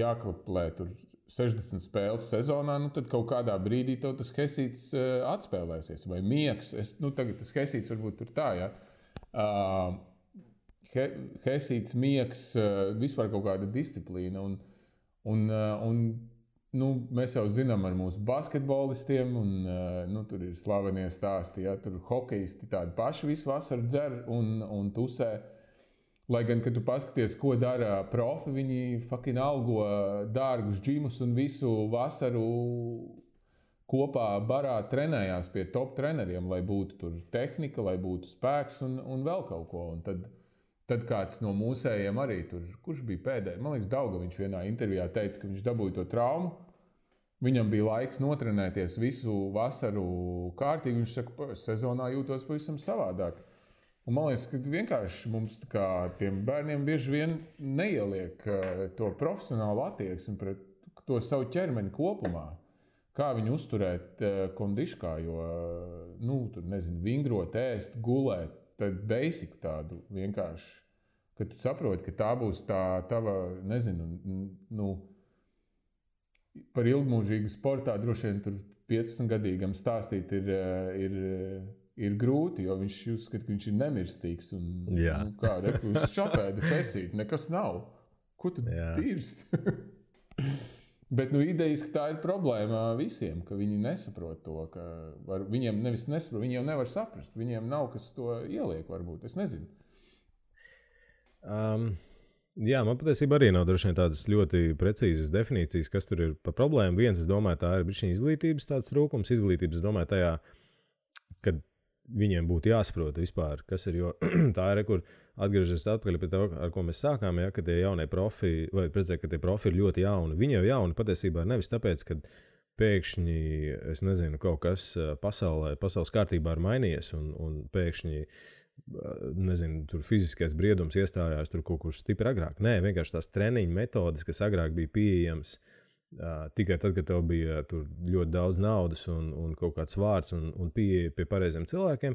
jāklaplē tur 60 spēles sezonā, tad kaut kādā brīdī tev tas hesīts atspēlēsies, vai miegs. Tagad tas hesīts varbūt tur tā, ja. Hesīts, miegs, vispār kaut kāda disciplīna, un mēs jau zinām ar mūsu basketbolistiem, un tur ir slavenie stāsti, ja, tur hokejisti tādi paši visu vasaru dzer un tusē. Lai gan, kad tu paskaties, ko dara profi, viņi fucking algo dārgus džimus un visu vasaru kopā barā trenējās pie top treneriem, lai būtu tur tehnika, lai būtu spēks un vēl kaut ko. Un tad kāds no mūsējiem arī tur, kurš bija pēdējais, man liekas, Daugaviņš vienā intervijā teica, ka viņš dabūja to traumu. Viņam bija laiks notrenēties visu vasaru kārtīgi. Viņš saka, sezonā jūtos pavisam savādāk. Un man liekas, ka vienkārši mums tiem bērniem bieži vien neieliek to profesionālu attieksmi pret to savu ķermeni kopumā. Kā viņu uzturēt kondiškā, jo, tur nezinu, vingrot, ēst, gulēt, tad basic tādu vienkārši, kad tu saproti, ka tā būs tā tava, nezinu, par ilgmūžīgu sportā droši vien tur 15-gadīgam stāstīt ir grūti, jo viņš uzskata, ka viņš ir nemirstīgs. Uz šapēdu pesīt, nekas nav. Ko tu dirst? Bet idejas, ka tā ir problēma visiem, ka viņi nesaprot to, ka viņiem nevis nesaprot, viņi jau nevar saprast, viņiem nav kas to ieliek varbūt, es nezinu. Jā, man patiesībā arī nav droši vien tādas ļoti precīzas definīcijas, kas tur ir par problēmu. Viens, es domāju, tā ir bišķiņa izglītības tāds trūkums. Izglītības, domāju, tajā, kad viņiem būtu jāsaprot vispār, kas ir, jo tā ir, kur atgriežas atpakaļ pie tā, ar ko mēs sākām, ja, ka tie jaunie profi, vai redzēt, ka tie profi ir ļoti jauni. Viņi jau jauni patiesībā nevis tāpēc, ka pēkšņi, es nezinu, kaut kas pasaules kārtībā ir mainījies un pēkšņi nezinu, tur fiziskais briedums iestājās tur kaut kur stipri agrāk. Nē, vienkārši tās treniņu metodes, kas agrāk bija pieejams tikai tad, kad tev bija tur ļoti daudz naudas un kaut kāds vārds un pieeja pie pareiziem cilvēkiem,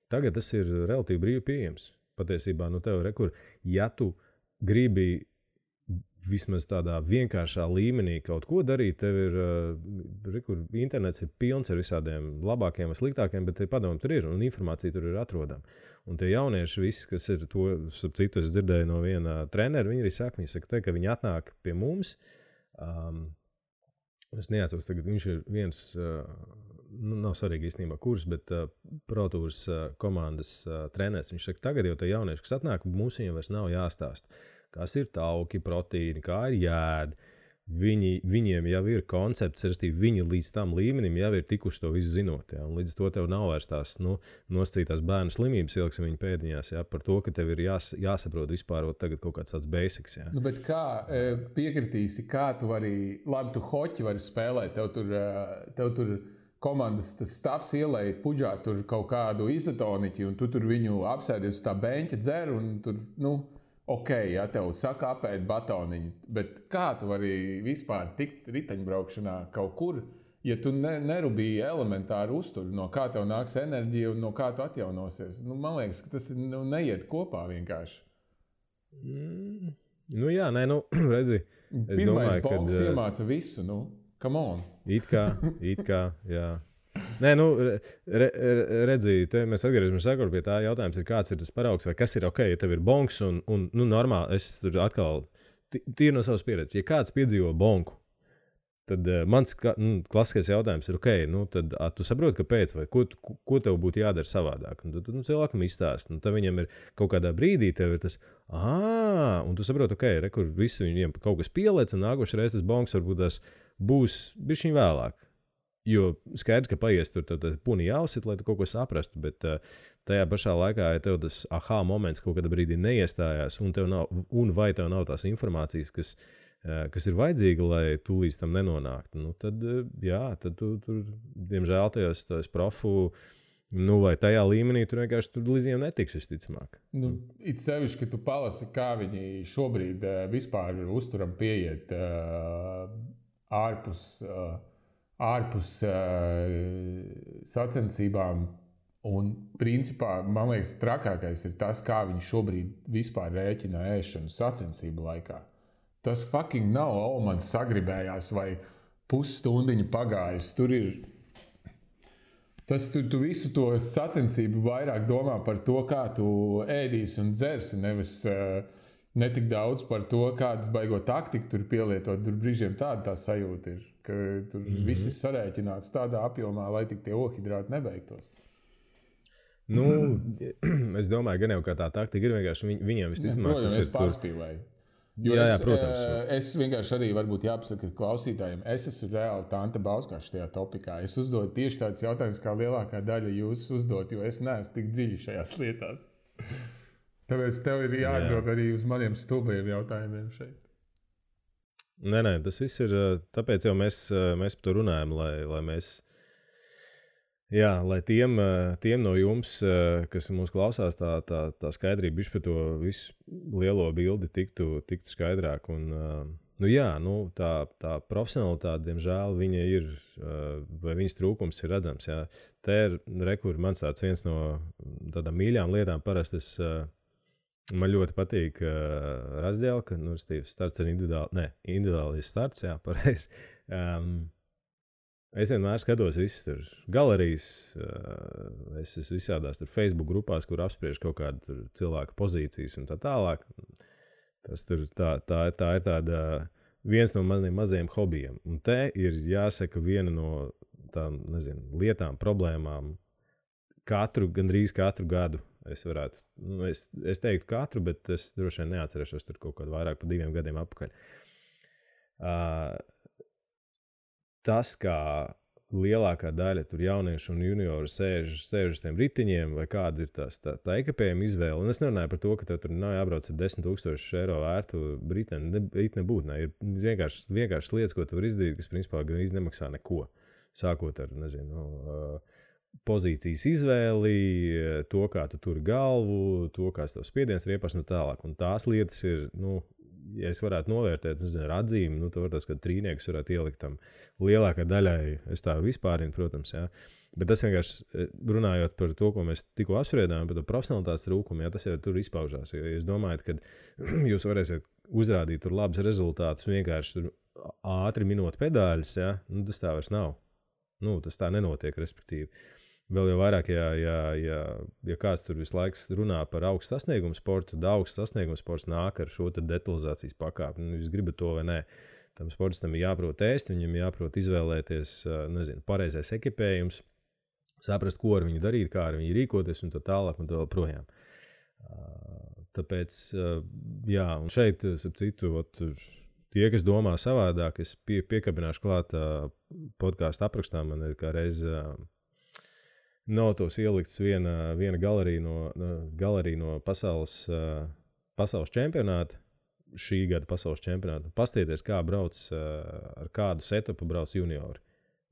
tagad tas ir relatīvi brīvi pieejams. Patiesībā, tev rekur, ja tu gribi vismaz tādā vienkāršā līmenī kaut ko darīt, tev ir, internets ir pilns ar visādiem labākiem vai sliktākiem, bet padomu tur ir un informācija tur ir atrodama. Un tie jaunieši visi, kas ir to, ap citu es dzirdēju no viena trenera, viņi arī saka, ka viņi atnāk pie mums, es neatceros tagad, viņš ir viens, nav svarīgi īstenībā kurs, bet ProTours komandas treneris, viņš saka, tagad jau tie jaunieši, kas atnāk, mums viņiem vairs nav jāstāst. Kas ir tauki, proteīni, kā ir jāēd. Viņiem jau ir koncepts, viņi līdz tam līmenim jau ir tikuši to visu zinot. Ja? Un līdz to tev nav vairs tās nosacītās bērnu slimības, ieliksim viņu pēdiņās, ja? Par to, ka tev ir jāsaprot vispār tagad kaut kāds tāds basics. Ja? Bet kā piekritīsi, kā tu vari, labi, tu hoķi vari spēlēt, tev tur komandas stāvs ielēja puģā tur kaut kādu izotoniķi, un tu tur viņu apsēdies uz tā beņķa dzer, un tur, ok, ja tev saka apēd batoniņu, bet kā tu vari vispār tikt riteņbraukšanā kaut kur, ja tu nerubīji elementāru uzturu, no kā tev nāks enerģija un no kā tu atjaunosies? Man liekas, ka tas neiet kopā vienkārši. Redzi. Pirmais boks iemāca visu, come on. It kā, jā. Nē, nu, redzīt, mēs atgriežamies pie tā jautājums, kāds ir tas paraugs, vai kas ir ok, ja tev ir bonks un nu, normāli, es tur atkal, tīri no savas pieredzes, ja kāds piedzīvo bonku, tad mans klasiskais jautājums ir, ok, nu, tad tu saproti, kāpēc, vai ko tev būtu jādara savādāk. Un tad cilvēkam izstāst. Tad viņam ir kaut kādā brīdī, tev ir tas, un tu saproti, ok, kur visi viņiem kaut kas pieliec, un nākošais reizes tas bonks varbūt tas būs bišķiņ vēlāk. Jo skaidrs, ka paies tur puni jāuzsit, lai tu kaut ko saprastu, bet tajā pašā laikā, ja tev tas moments kaut kādā brīdī neiestājās, un vai tev nav tās informācijas, kas ir vajadzīga, lai tu līdz tam nenonāktu, nu, tad tu diemžēl tajos profu, nu, vai tajā līmenī tur vienkārši tur līdz viņiem netiks visticamāk. Nu, it sevišķi, ka tu palasi, kā viņi šobrīd vispār uzturam pieiet ārpus sacensībām, un principā, man liekas, trakākais ir tas, kā viņi šobrīd vispār rēķina ēšanu sacensību laikā. Tas fucking nav, man sagribējās, vai pusstundiņa pagājis. Tur ir. Tu visu to sacensību vairāk domā par to, kā tu ēdīsi un dzersi, nevis ne tik daudz par to, kādu baigo taktiku tur pielietot. Tur brīžiem tā sajūta ir, ka tur viss ir sarēķināts tādā apjomā, lai tik tie ohidrāti nebeigtos. Nu, es domāju, gan jau kā tā taktika ir vienkārši viņiem visticamāk. Protams, es pārspīlēju. Protams. Es vienkārši arī varbūt jāpasaka klausītājiem, es esmu reāli Tante Bauskaša šajā topikā. Es uzdodu tieši tādus jautājumus, kā lielākā daļa jūs uzdot, jo es neesmu tik dziļi šajās lietās. Tāpēc tev ir jāatbild arī uz maniem stulbajiem jautājumiem šeit. Nē, tas viss ir, tāpēc jau mēs par to runājam, lai mēs, lai tiem no jums, kas mūs klausās, tā skaidrība bišķi par to visu lielo bildi tiktu skaidrāk. Un, tā profesionalitāte, diemžēl, viņa ir, vai viņas trūkums ir redzams. Jā. Te ir rekur, mans tāds viens no tādām mīļām lietām, parasti man ļoti patīk razdēlka, starts ar individuāli starts, jā, pareizi. Es vienmēr skatos visas tur galerijas, es esmu visādās tur Facebook grupās, kur apspriež kaut kādu cilvēku pozīcijas un tā tālāk. Tas tur tā ir tāda viens no maniem mazajiem hobijiem. Un te ir jāsaka viena no tām, lietām, problēmām gandrīz katru gadu. Es varētu, es teiktu katru, bet es droši vien neatcerēšos tur kaut kādu vairāk pa 2 gadiem atpakaļ. Tas, kā lielākā daļa tur jauniešu un junioru sēž uz tiem ritiņiem, vai kāda ir tā ekipējuma izvēle. Un es nerunāju par to, ka tev tur nav jābrauc ar 10,000 eiro vērtu riteni. Nebūtu, ne. Ir vienkārši lietas, ko tu vari izdarīt, kas principā gan nemaksā neko. Sākot ar, pozīcijas izvēli, to, kā tu turi galvu, to, kā tev spiediens ir iepaši un tālāk. Un tās lietas ir, ja es varētu novērtēt, ar atzīmi, tu vari ka trīniekus varētu ielikt tam lielākai daļai, es tā vispārinu, protams, jā. Bet tas vienkārši runājot par to, ko mēs tikko apspriedām, par to profesionalitātes trūkumu, jā, tas jau tur izpaužās. Ja jūs domājat, ka jūs varēsiet uzrādīt tur labus rezultātus, vienkārši tur ātri minot pedāļus, jā, tas tā vairs nav. Tas tā nenotiek, respektīvi. Vēl jau vairāk, ja kāds tur visu laiku runā par augstu sasniegumu sportu, tad augsts sasniegumu sports nāk ar šo detalizācijas pakāpi. Jūs gribat to vai nē. Tam sportistam ir jāprot ēst, viņam jāprot izvēlēties, pareizais ekipējums, saprast, ko ar viņu darīt, kā ar viņu rīkoties un tā tālāk un tā vēl projām. Tāpēc, un šeit, ap citu, tie, kas domā savādāk, es piekabināšu klāt podcastu aprakstā, man ir kā reiz notos ielikts viena galerija no pasaules čempionāta, šī gada pasaules čempionāta. Pastieties, kā brauc, ar kādu setupu brauc juniori.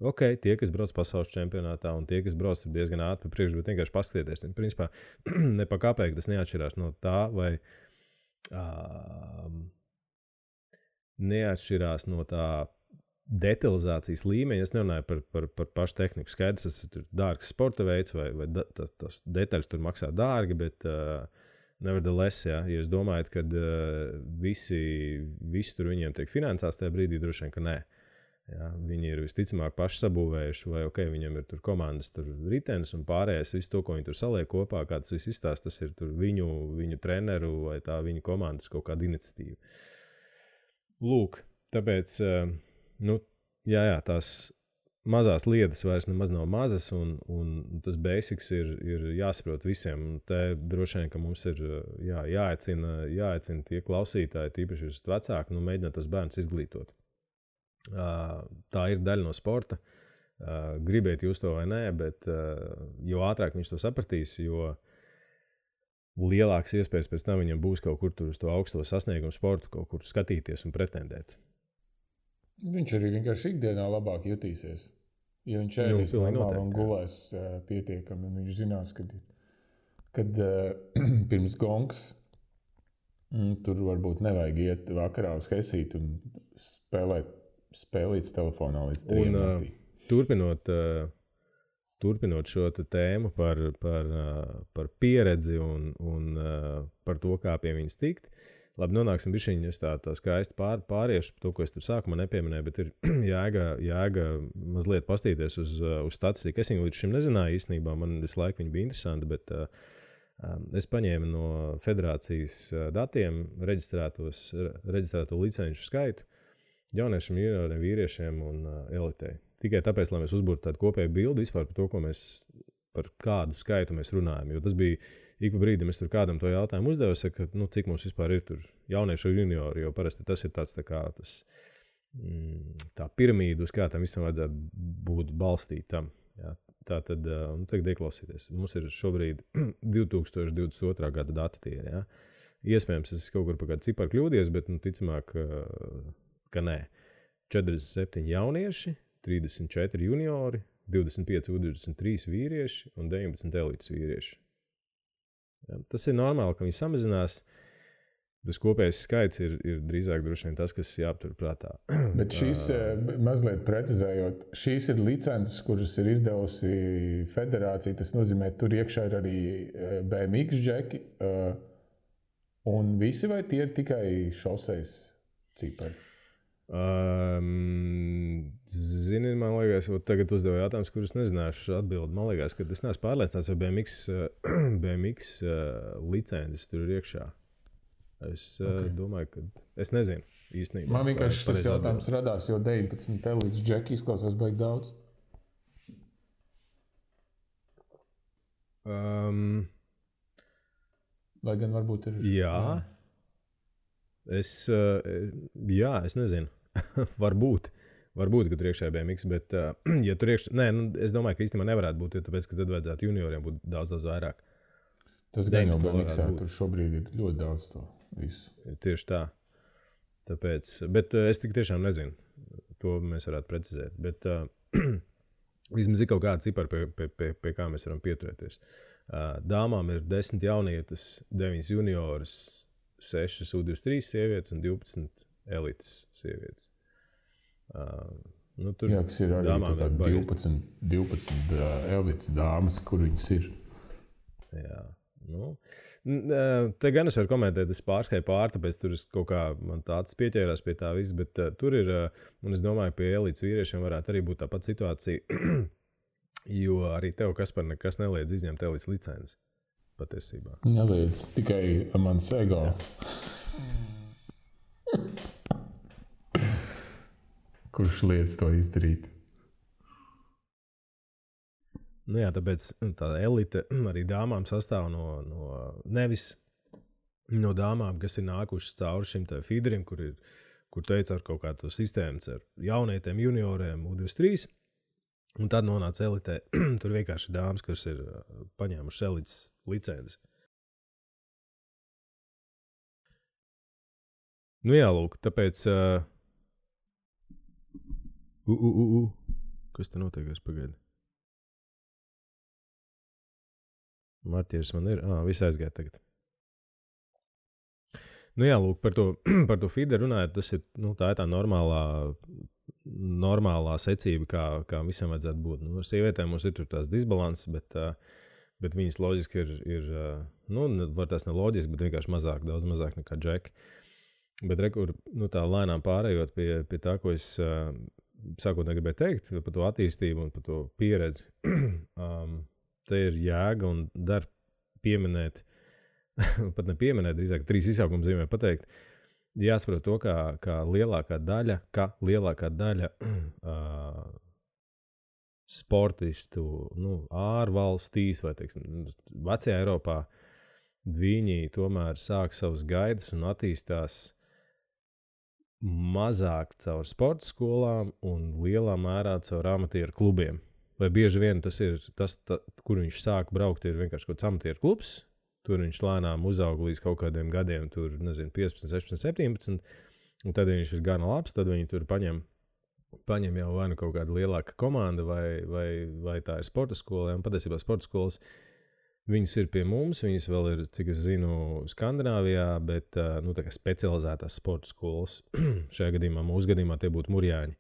Ok, tie, kas brauc pasaules čempionātā un tie, kas brauc diezgan ātri pa priekšu, bet vienkārši pastieties. Principā, ne pa kāpēk tas neatšķirās no tā, vai neatšķirās no tā detalizācijas līmeņa. Es nerunāju par pašu tehniku. Skaidrs, tas ir dārgs sporta veids, vai tas detaļas tur maksā dārgi, bet nevertheless, ja jūs domājat, ka visi tur viņiem tiek finansēts, tajā brīdī droši vien, ka nē. Ja, viņi ir visticamāk paši sabūvējuši, vai viņam ir tur komandas, tur ritenis un pārējais, visu to, ko viņi tur saliek kopā, kā tas viss izstāst, tas ir tur viņu treneru vai tā viņu komandas kaut kāda iniciatīva. Lūk, tāpēc, tās mazās lietas vairs nemaz nav mazas, un tas basics ir jāsaprot visiem. Un te droši vien, ka mums ir jāaicina tie klausītāji, tīpaši ir vecāki, mēģināt tos bērnus izglītot. Tā ir daļa no sporta. Gribiet jūs to vai nē, bet jo ātrāk viņš to sapratīs, jo lielāks iespējas pēc tam viņam būs kaut kur tur uz to augsto sasniegumu sportu, kaut kur skatīties un pretendēt. Viņš arī vienkārši ikdienā labāk jutīsies. Ja viņš ēdīs normāli un gulēs pietiekami, un viņš zinās, kad pirms gongs tur varbūt nevajag iet vakarā uz Hesīti un spēlīts telefonā līdz 3 naktī. Turpinot šo tēmu par pieredzi un par to, kā pie viņas tikt, labi, nonāksim bišķiņi, es tā skaisti pāriešu to, ko es tur sākumā nepieminēju, bet ir jāga mazliet pastīties uz statistiku. Es viņu līdz šim nezināju īstenībā, man visu laiku viņa bija interesanti, bet es paņēmu no federācijas datiem reģistrēto licenču skaitu jauniešiem, junioriem, vīriešiem un elitei. Tikai tāpēc, lai mēs uzbūrtu tādu kopēju bildi vispār par kādu skaitu mēs runājam. Jo tas bija ik pa brīdim, es tur kādam to jautājumu uzdevu, ka, cik mums vispār ir tur jaunieši un juniori, jo parasti tas ir tāds tā piramīda, uz kā tam visam vajadzētu būt balstītam. Ja. Tā tad, tagad ieklausīties. Mums ir šobrīd 2022. gada dati tie, ja. Iespējams, es kaut kur pa kādu ciparu kļūdies, bet, ticamāk, ka nē. 47 jaunieši, 34 juniori, 25 U23 vīrieši un 19 elites vīrieši. Ja, tas ir normāli, ka viņi samazinās. Tas kopējais skaits ir drīzāk droši vien tas, kas jāaptur prātā. Bet šīs, mazliet precizējot, šīs ir licences, kuras ir izdevusi federācija. Tas nozīmē, tur iekšā ir arī BMX džeki. Un visi vai tie ir tikai šoseis cipari? Zini, man liekas, tagad uzdevu jautājumus, kurus nezināšu atbildi. Man liekas, ka es neesmu pārliecināts, vai BMX licences tur ir iekšā. Es domāju, ka es nezinu īstenībā. Man vienkārši tas jautājums radās, jo 19 elites džeki izklausās baigi daudz. Lai gan varbūt ir... Jā. Es nezinu. Varbūt, ka tur iekšā ir BMX, bet ja tur iekšā... Nē, es domāju, ka īstenībā nevarētu būt, jo tāpēc, ka tad vajadzētu junioriem būt daudz vairāk. Tas gan jau BMXā, tur šobrīd ir ļoti daudz to visu. Tieši tā. Tāpēc, bet es tik tiešām nezinu. To mēs varētu precizēt. Bet vismaz ir kaut kāda cipara, pie kā mēs varam pieturēties. Dāmām ir 10 jaunietes, 9 junioras, 6 U23 sievietes un 12 elites sievietes. Tur jā, kas ir arī 12 elites dāmas, kur viņas ir. Jā. Te gan es varu komentēt, es pārskrēju tāpēc tur es kaut kā man tāds pieķērās pie tā viss, bet tur ir, un es domāju, pie elites vīriešiem varētu arī būt tāpat situācija, jo arī tev, Kaspar, nekas neliedz izņemt elites licenci. Patiesībā. Neliedz, tikai mans ego. Kurš liedz to izdarīt? Jā, tāpēc tā elite arī dāmām sastāv nevis no dāmām, kas ir nākušas cauri šim te feederim, kur teica ar kaut kādu sistēmu ar jaunietiem, junioriem, U23. Un tad nonāca elitē. Tur vienkārši dāmas, kas ir paņēmušas elites licenci. Jā, lūk, tāpēc... Kas te notiekās pagaidi? Martieris man ir... Viss aizgāja tagad. Jā, lūk, par to feeder runājot, tas ir, tā ir tā normālā secība, kā visam vajadzētu būt. Ar sievietēm mums ir tur tās disbalanses, bet viņas loģiski ir var tās ne loģiski, bet vienkārši mazāk, daudz mazāk nekā džeki. Bet tā lēnām pārējot pie tā, ko es sākotnēji gribēju teikt par to attīstību un par to pieredzi. Te ir jēga un dar pieminēt, pat ne pieminēt, drīzāk 3 izsaukuma zīmē pateikt, jāsaprot to, kā lielākā daļa sportistu ārvalstīs vai, teiksim, vecajā Eiropā, viņi tomēr sāk savus gaidas un attīstās mazāk caur sporta skolām un lielā mērā caur amatieru klubiem. Vai bieži vien tas ir tas, kur viņš sāk braukt, ir vienkārši kaut kāds amatieru klubs. Tur viņš lēnām uzaug līdz kaut kādiem gadiem, tur, nezinu, 15, 16, 17, un tad viņš ir gana labs, tad viņi tur paņem jau vai nu kaut kāda lielāka komanda, vai tā ir sporta skola, un patiesībā sporta skolas, viņas ir pie mums, viņas vēl ir, cik es zinu, Skandināvijā, bet, tā kā specializētās sporta skolas, šajā gadījumā, mūsu gadījumā tie būtu Murjāņi,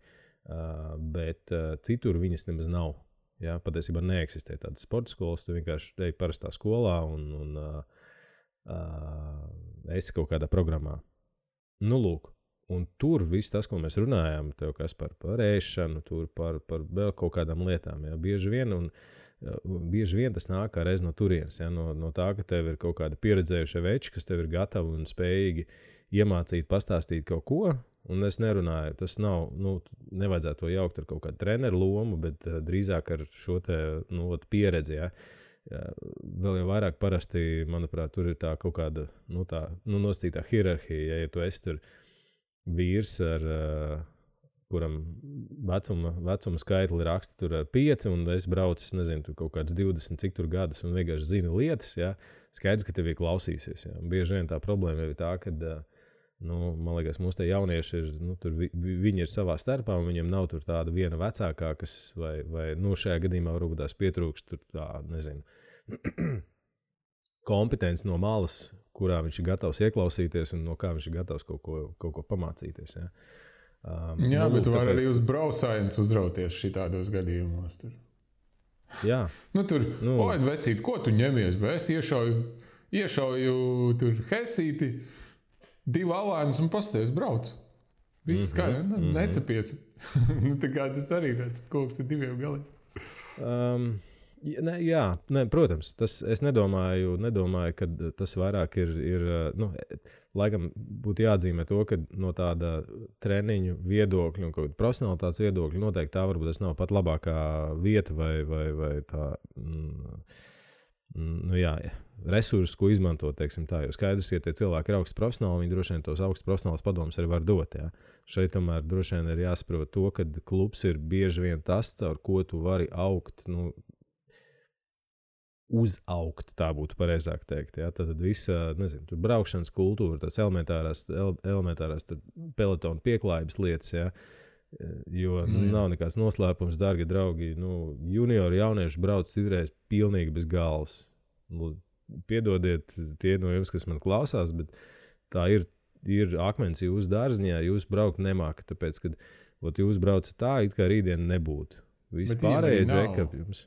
bet citur viņas nemaz nav. Ja, patiesībā neeksistē tādas sporta skolas, tu vienkārši ej parastā skolā un esi kaut kādā programmā. Nu, lūk, un tur viss tas, ko mēs runājām, tev kas par ēšanu, tur par vēl kaut kādām lietām, ja, bieži vien tas nāk kā reiz no turienes, ja, no tā, ka tev ir kaut kāda pieredzējušie veči, kas tev ir gatavi un spējīgi iemācīt, pastāstīt kaut ko. Un es nerunāju, tas nav, nevajadzētu to jaukt ar kaut kādu treneru lomu, bet drīzāk ar šo te, pieredzi, ja. Vēl jau vairāk parasti, manuprāt, tur ir tā kaut kāda, nosacītā hierarhija, ja tu esi tur vīrs ar, kuram vecuma skaitli raksta tur ar 5, un es braucu, nezinu, tur kaut kāds 20, cik tur gadus, un vienkārši zinu lietas, ja, skaidrs, ka tev klausīsies, ja. Bieži vien tā problēma ir tā, kad man liekas, mūsu te jaunieši ir, tur viņi ir savā starpā, un viņiem nav tur tāda viena vecākā, kas, vai šajā gadījumā varbūt tās pietrūkst tur tā, nezinu, kompetence no malas, kurā viņš ir gatavs ieklausīties, un no kā viņš ir gatavs kaut ko pamācīties, ja. Jā, bet tu vari arī uz braucājums uzrauties šitādos gadījumos tur. Jā. Oi, vecīt, ko tu ņemies, bet es iešauju tur hesīti, 2 alēnus un pastāvis brauc. Viss skaidrs, necepies. Tā kā tas arī tāds koks ar 2 galiem. Protams, es nedomāju, ka tas vairāk ir laikam būtu jāatzīmē to, ka no tāda treniņu viedokļa un kaut kāda profesionalitātes viedokļa noteikti tā varbūt tas nav pat labākā vieta vai tā, resursus, ko izmantot, teiksim tā, jo skaidrs, ja tie cilvēki ir augsts profesionāli, viņi droši vien tos augsts profesionāls padomus arī var dot, ja. Šeit tomēr droši vien ir jāsaprot to, ka klubs ir bieži vien tas, caur ko tu vari augt, uzaugt, tā būtu pareizāk teikt, ja. Tad visa, nezinu, tur braukšanas kultūra, tās elementārās pelotonu pieklājības lietas, ja. Jo nav nekāds noslēpums, dārgi draugi, juniori jaunieši brauc citreiz pilnīgi bez galvas. Piedodiet tie no jums, kas man klausās, bet tā ir akmens jūsu dārziņā, jūs braukt nemākat, tāpēc, kad jūs braucat tā, it kā rītdien nebūtu. Visi pārējie džekapi jums.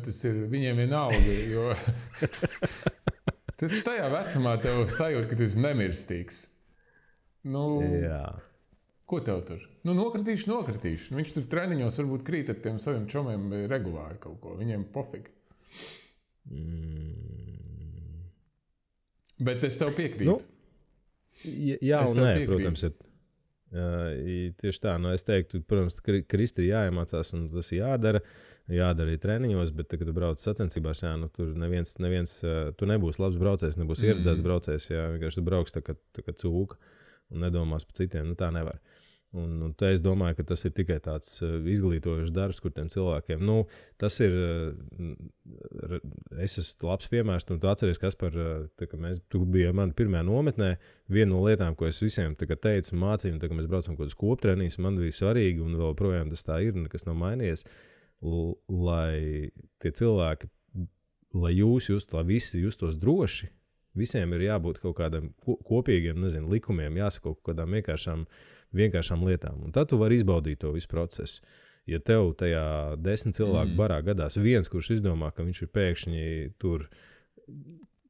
Tas ir viņiem vienalga, jo tas tajā vecumā tev sajūt, ka tu esi nemirstīgs. Jā. Ko tev tur? Nokritīšu. Viņš tur treniņos varbūt krīt ar tiem saviem čomiem regulāri kaut ko. Viņiem pofīgi. Bet es tev piekrītu. Jā un nē, protams, ir tieši tā. Es teiktu, protams, Kristi jāiemācās un tas jādara arī treniņos, bet, kad tu brauc sacensībās, tur neviens, tu nebūsi labs braucējs, nebūsi ieredzēts braucējs, vienkārši tu brauks tā kā cūka un nedomās par citiem, tā nevar. Un te es domāju, ka tas ir tikai tāds izglītojošs darbs, kur tiem cilvēkiem, tas ir, es esmu labs piemērs, un tu atceries, Kaspar, tu biji mani pirmajā nometnē, viena no lietām, ko es visiem teicu un mācīju, kad mēs braucam kaut uz koptrenīs, man bija svarīgi, un vēl projām tas tā ir, nekas nav mainījies, lai tie cilvēki, lai visi justos droši, visiem ir jābūt kaut kādam kopīgiem, likumiem, jāsaka kaut kādām vienkāršām lietām. Un tad tu vari izbaudīt to visu procesu. Ja tev tajā 10 cilvēku barā gadās viens, kurš izdomā, ka viņš ir pēkšņi tur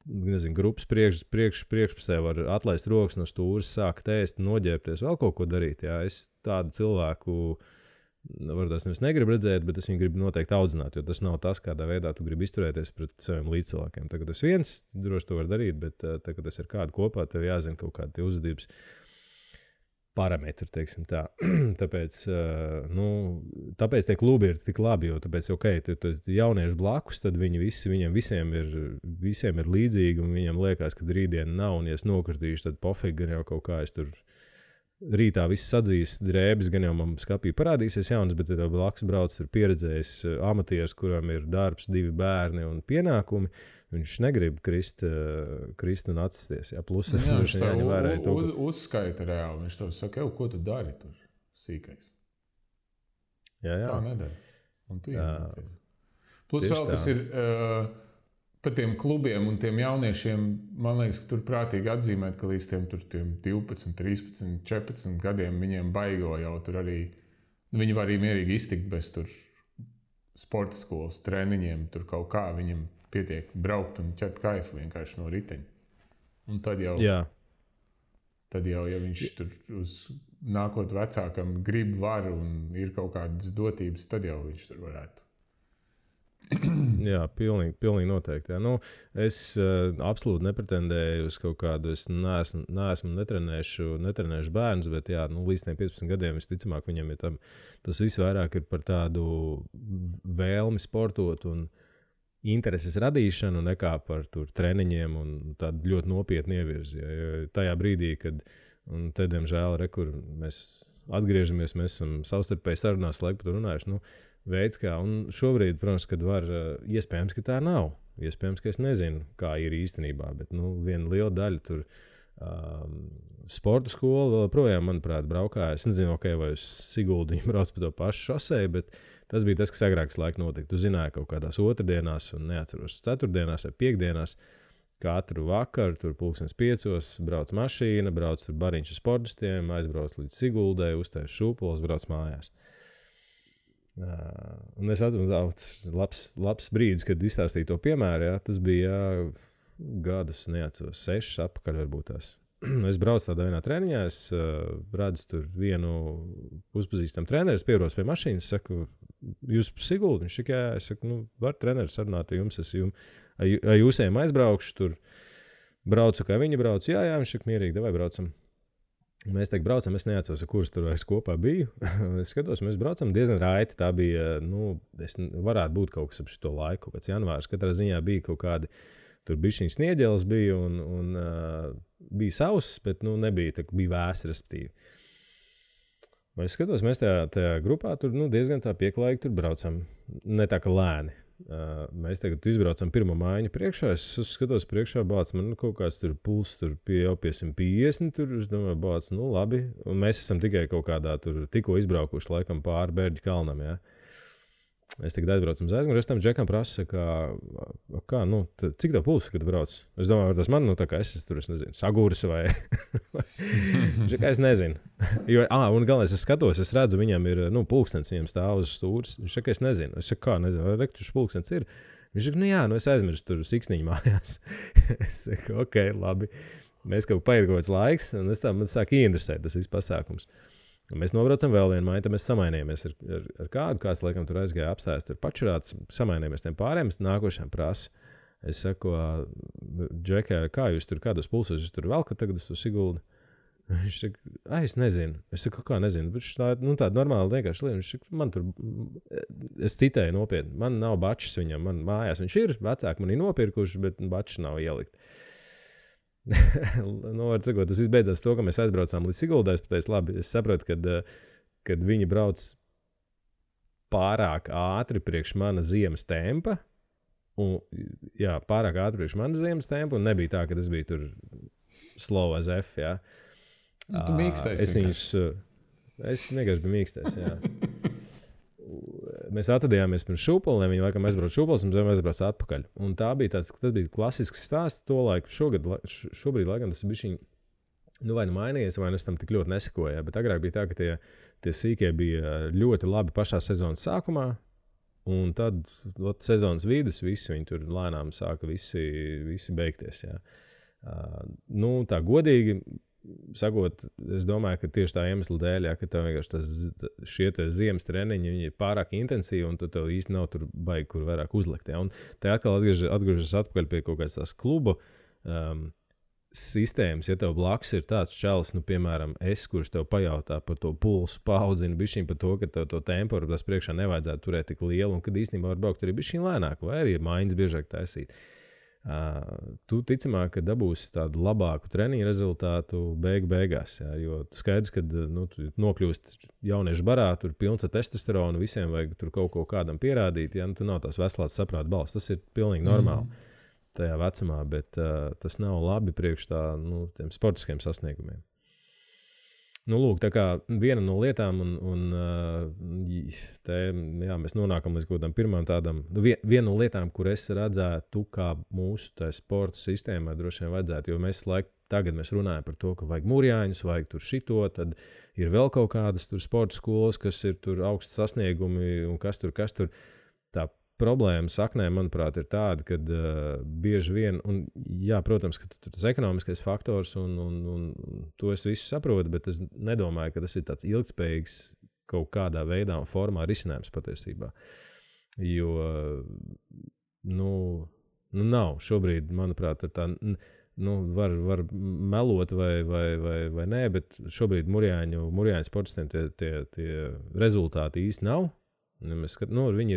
nezinu, grupas priekšpusē var atlaist rokas no stūres, sākt ēst, noģērbties, vēl kaut ko darīt. Jā. Es tādu cilvēku varbūt nevis negribu redzēt, bet es viņu gribu noteikti audzināt, jo tas nav tas, kādā veidā tu gribi izturēties pret saviem līdzcilvēkiem. Tagad es viens droši to var darīt, bet tagad tas ir kādu kopā, tev jāzina kaut kādi tie uzvedības parametri, teiksim tā. Tāpēc tie klubi ir tik labi, jo tāpēc, jaunieši blakus, tad viņiem visiem ir līdzīgi, un viņiem liekas, ka rītdiena nav, un ja es nokritīšu, tad pofīgi gan jau kaut kā es tur rītā viss sadzīs drēbes, gan jau man skapī parādīsies jaunas, bet tev blakus brauc ir pieredzējis amatieris, kuram ir darbs, 2 bērni un pienākumi. Viņš negrib krist un atsisties. Jā, plus viņš jāņem vērā to uzskaita reāli. Viņš tev saka, ko tu dari tur sīkais. Jā. Tā nedara. Un tu iemācies. Plus vēl tas ir par tiem klubiem un tiem jauniešiem, man liekas, ka tur prātīgi atzīmēt, ka līdz tiem 12, 13, 14 gadiem viņiem baigo jau tur arī, viņi var arī mierīgi iztikt bez tur sporta skolas treniņiem, tur kaut kā viņam pietiek braukt un ķert kaifu vienkārši no riteņa. Un tad jau, ja viņš tur uz nākot vecākam grib var un ir kaut kādas dotības, tad jau viņš tur varētu. Jā, pilnīgi noteikti. Jā. Es absolūti nepretendēju uz kaut kādu, es neesmu netrenēšu bērnus, bet jā, līdz 15 gadiem visticamāk viņam ir tas viss vairāk ir par tādu vēlmi sportot un intereses radīšanu nekā par tur treniņiem un tādu ļoti nopietnu ievirzi. Ja tajā brīdī, kad, un te, diemžēl, kur mēs atgriežamies, mēs esam savstarpēji sarunās laiku par to runājuši, veids kā, un šobrīd, protams, kad var, iespējams, ka tā nav. Iespējams, ka es nezinu, kā ir īstenībā, bet, viena liela daļa tur sporta skola vēl projām, manuprāt, braukā. Es nezinu, vai uz Siguldu viņi brauc pa to pašu šoseju, bet tas bija tas, kas agrākas laika notika. Tu zināji kaut kādās otrdienās, un neatceros ceturtdienās vai piekdienās, katru vakaru, tur 5:00 brauc mašīna, brauc tur bariņš ar sportistiem, aizbrauc līdz Siguldai, uztais šūpoles, brauc mājās. Un es atceros, labs brīdis, kad izstāstīju to piemēru, jā, tas bija gadus, neatceros, 6 atpakaļ varbūt tās. Es braucu tādā vienā treniņā, es redzu tur vienu uzpazīstamu treneru, es pieros pie mašīnas, saku, jūs pa Siguldu? Viņš saka, jā, es saku, var treneris sarunāt, jums, ar jūsiem aizbraukšu, tur braucu, kā viņi brauc, jā, viņš saka, mierīgi, davai braucam. Mēs tagad braucam, es neatceros, kurš tur vairs kopā biju. Es skatos, mēs braucam diezgan raiti. Tā bija, varētu būt kaut kas ap šito laiku, kāds janvārs. Katrā ziņā bija kaut kādi, tur bišķiņ snieģeles bija un bija sauss, bet nebija, bija vēsi, respektīvi. Es skatos, mēs tajā grupā tur diezgan tā pieklājīgi tur braucam. Ne tā, ka lēni. Mēs tagad izbraucam pirmo mājiņu priekšā, es skatos priekšā, bāc, man kaut kāds tur puls tur jau pie 150, tur, es domāju, bāc, labi, un mēs esam tikai kaut kādā tur tikko izbraukuši laikam pāri Bērģu kalnam, jā. Es tagad aizbraucam uz aizmuguri, es tam džekam prasu, cik tev puls, kad brauc? Es domāju, tas man, tā kā es tur, es nezinu, sagūris vai... Džekā es nezinu. Un galvenais, es skatos, es redzu, viņam ir, pulkstens, viņam stāv uz stūres. Viņš saka, es nezinu. Es saku, kā nezinu, vai rektušs pulkstens ir? Viņš saka, jā, es aizmirstu tur siksniņu mājās. Es saku, ok, labi. Mēs kaut paiet kaut kāds laiks, un man sāk ieinteresēt tas viss pasākums. Un mēs nobraucam vēl vienu māju, tad mēs samainījāmies ar kādu, kāds laikam tur aizgāja apstājas, tur pačurāts, samainījāmies tiem pārējiem, es nākošajām prasu. Es saku, Džekai, kā jūs tur, kādos pulsos jūs tur velkat tagad uz to Siguldu? Viņš saka, es nezinu. Es saku, kā nezinu, bet tāda normāla vienkārši lieta. Viņš saka, man tur, es citēju nopietni, man nav bačs viņam, man mājās viņš ir, vecāki man ir nopirkuši, bet bačs nav ielikt. Var sakot, tas viss beidzās to, ka mēs aizbraucām līdz Siguldai. Es pateicu, labi, es saprotu, kad viņi brauc pārāk ātri priekš mana ziemas tempa, un, jā, pārāk ātri priekš mana ziemas tempa, un nebija tā, ka es biju tur slow as F, jā. Tu mīkstais. Es vienkārši biju mīkstais, jā. Mēs atradījāmies pirms šūpoliem, viņi laikam aizbrauc šūpols, un mēs aizbrauc atpakaļ. Un tas bija klasisks stāsts to laiku. Šobrīd laikam tas bišķiņ, vai mainījies, vai es tam tik ļoti nesekoju, bet agrāk bija tā, ka tie sīkie bija ļoti labi pašā sezonas sākumā, Un tad sezonas vidus viņi tur lēnām sāka visi beigties. Jā. Tā godīgi sakot, es domāju, ka tieši tā iemesla dēļ, ka tev vienkārši šie ziemas treniņi viņi ir pārāk intensīvi, un tu tev īsti nav tur baigi, kur vairāk uzlikt. Jā. Un te atkal atgriežas atpakaļ pie kaut kādas tās kluba sistēmas. Ja tev blakus ir tāds čalis, piemēram, kurš tev pajautā par to pulsu, paaudzina bišķiņ par to, ka tev to temporu tas priekšā nevajadzētu turēt tik lielu, un kad īstenībā var braukt arī bišķiņ lēnāk, vai arī mājiņas biežāk taisīt. Tu ticamāk, ka dabūsi tādu labāku treniņu rezultātu beigās, jā, jo skaidrs, ka tu nokļūst jauniešu barā, tur pilns ar testosteronu, visiem vajag tur kaut ko kādam pierādīt, ja tu nav tās veselās saprāta balss, tas ir pilnīgi normāli tajā vecumā, bet tas nav labi priekš tiem sportiskiem sasniegumiem. Lūk, tā kā viena no lietām, mēs nonākam līdz kaut kādam pirmām tādam, viena no lietām, kur es redzētu, kā mūsu sporta sistēmai droši vien vajadzētu, jo tagad mēs runājam par to, ka vajag mūrjāņus, vajag tur šito, tad ir vēl kaut kādas tur sporta skolas, kas ir tur augsts sasniegumi un kas tur. Tā problēma saknē, manuprāt, ir tāda, ka bieži vien, un jā, protams, ka tas ekonomiskais faktors, un to es visu saprotu, bet es nedomāju, ka tas ir tāds ilgspējīgs kaut kādā veidā un formā risinājums patiesībā. Jo, nav šobrīd, manuprāt, tā, var melot vai nē, bet šobrīd Mūrjāņu sportistiem tie rezultāti īsti nav. Viņi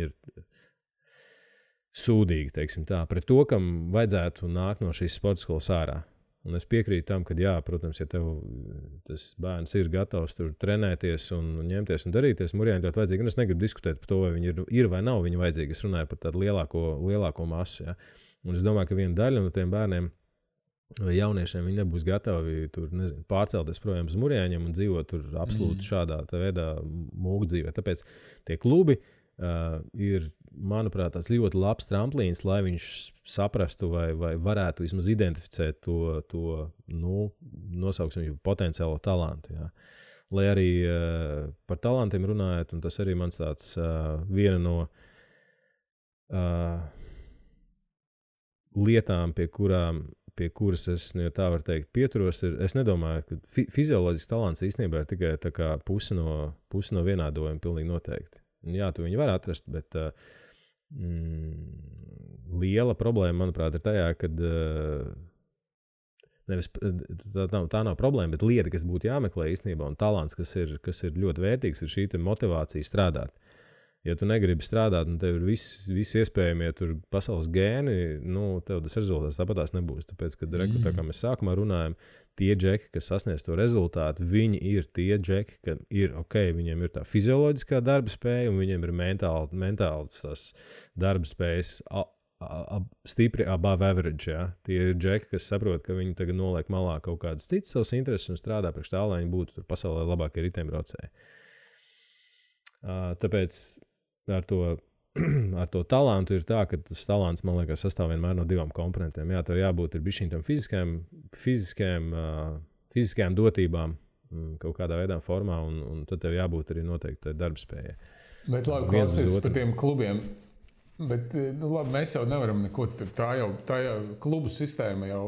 ir sūdīgi, teiksim tā, pret to, kam vajadzētu nākt no šīs sporta skolas ārā. Un es piekrītu tam, ka jā, protams, ja tev tas bērns ir gatavs tur trenēties un ņemties un darīties, Mūrjāņi ļoti vajadzīgi. Un es negribu diskutēt par to, vai viņi ir vai nav viņi vajadzīgi. Es runāju par tādu lielāko masu. Ja. Un es domāju, ka viena daļa no tiem bērniem vai jauniešiem viņi nebūs gatavi tur, pārcelties projām uz Mūrjāņiem un dzīvot tur absolūti šādā veidā mūkdzīvē. Tāpēc tie klubi ir, manuprāt, tāds ļoti labs tramplīns, lai viņš saprastu vai varētu vismaz identificēt to nosauksim viņu potenciālo talantu. Jā. Lai arī par talantiem runājot, un tas arī mans tāds viena no lietām, pie kuras es, tā var teikt, pieturos, es nedomāju, ka fizioloģisks talants īstenībā ir tikai tā kā pusi no vienādojuma pilnīgi noteikti. Jā, tu viņu var atrast, bet liela problēma, manuprāt, ir tajā, kad tā nav problēma, bet lieta, kas būtu jāmeklē īstenībā, un talants, kas ir ļoti vērtīgs, ir šī motivācija strādāt. Ja tu negribi strādāt, un tev ir visi iespējamie tur pasaules gēni, tev tas rezultāts tāpatās nebūs. Tāpēc, kad tā kā mēs sākumā runājam, tie džeki, kas sasniedz to rezultātu, viņi ir tie džeki, ka ir viņiem ir tā fizioloģiskā darba spēja, un viņiem ir mentāls tās darba spējas stipri above average. Ja? Tie ir džeki, kas saprot, ka viņi tagad noliek malā kaut kādas citas savas intereses un strādā priekš tā, lai viņi būtu tur pasaulē labākie riteņbraucēji. Tāpēc ar to talantu ir tā, ka tas talants, man liekas, sastāv vienmēr no divām komponentiem. Jā, tev jābūt ir bišķiņ tam fiziskajām dotībām kaut kādā veidā formā, un tad tev jābūt arī noteikti darbspējai. Bet labi, klausies par tiem klubiem. Bet labi, mēs jau nevaram neko, tā jau klubu sistēma jau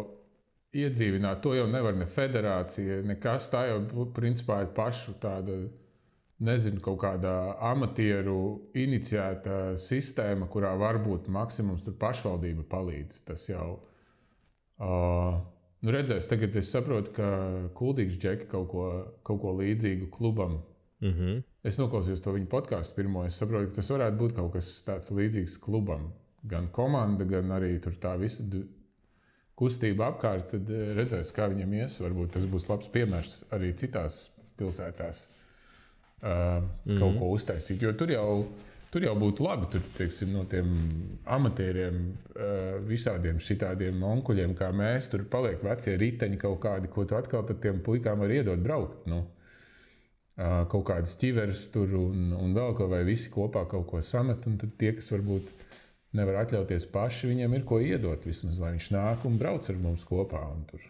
iedzīvināt, to jau nevar ne federācija, nekas, tā jau principā ir pašu tāda, nezinu, kaut kādā amatieru iniciēta sistēma, kurā varbūt maksimums tur pašvaldība palīdz. Tas jau, redzēs, tagad es saprotu, ka Kuldīgs džeki kaut ko līdzīgu klubam. Es noklausījos to viņu podcastu pirmo, es saprotu, ka tas varētu būt kaut kas tāds līdzīgs klubam. Gan komanda, gan arī tur tā visa kustība apkārt, tad redzēs, kā viņam ies. Varbūt tas būs labs piemērs arī citās pilsētās. Kaut ko uztaisīt, jo tur jau būtu labi, tur, teiksim, no tiem amatieriem, visādiem šitādiem onkuļiem, kā mēs, tur paliek vecie riteņi kaut kādi, ko tu atkal tad tiem puikām var iedot braukt, kaut kādas ķiveres tur un vēl ko, vai visi kopā kaut ko samet, un tad tie, kas varbūt nevar atļauties paši, viņiem ir ko iedot vismaz, lai viņš nāk un brauc ar mums kopā un tur.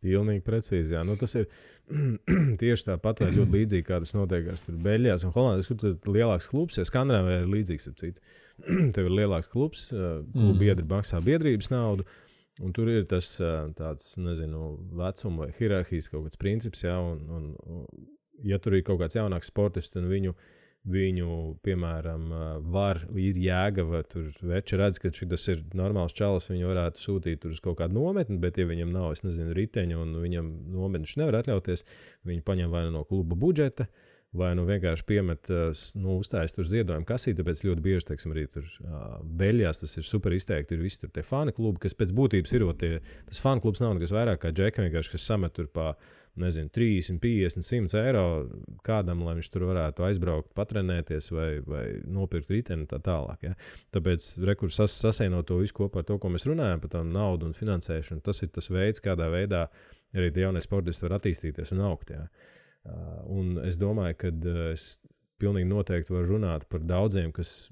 Pilnīgi precīzi, jā. Nu, tas ir tieši tāpat vai ļoti līdzīgi, kā tas notiekās tur Beļģijās un Holandēs, kur tur ir lielāks klubs, ja Skandināvijā ir līdzīgs ap citu. Tev ir lielāks klubs, klubu biedri maksā biedrības naudu, un tur ir tas tāds, nezinu, vecuma vai hierarhijas kaut kāds princips, jā, un ja tur ir kaut kāds jaunāks sportists, un viņu, piemēram, ir jēga, vai tur veči redz, ka šis ir normāls čalis, viņu varētu sūtīt tur uz kaut kādu nometni, bet ja viņam nav, es nezinu, riteņu un viņam nometniš nevar atļauties, viņi paņem vai no kluba budžeta, vai vienkārši piemet, uzstājas tur ziedojumu kasīti, tāpēc ļoti bieži, teiksim, arī tur Beļģijās tas ir super izteikti, ir visi tur tie fani klubi, kas pēc būtības ir, tas fani klubs nav nekas vairāk kā džeka, vienkārši, kas samet tur pa, nezinu, 30, 50, 100 eiro kādam, lai viņš tur varētu aizbraukt, patrenēties vai nopirkt riteni tā tālāk. Ja? Tāpēc rekurs sasēnot to visu kopā ar to, ko mēs runājam par tā naudu un finansēšanu, tas ir tas veids, kādā veidā arī tie jaunie sportisti var attīstīties un augt. Ja? Un es domāju, ka es pilnīgi noteikti varu runāt par daudziem, kas,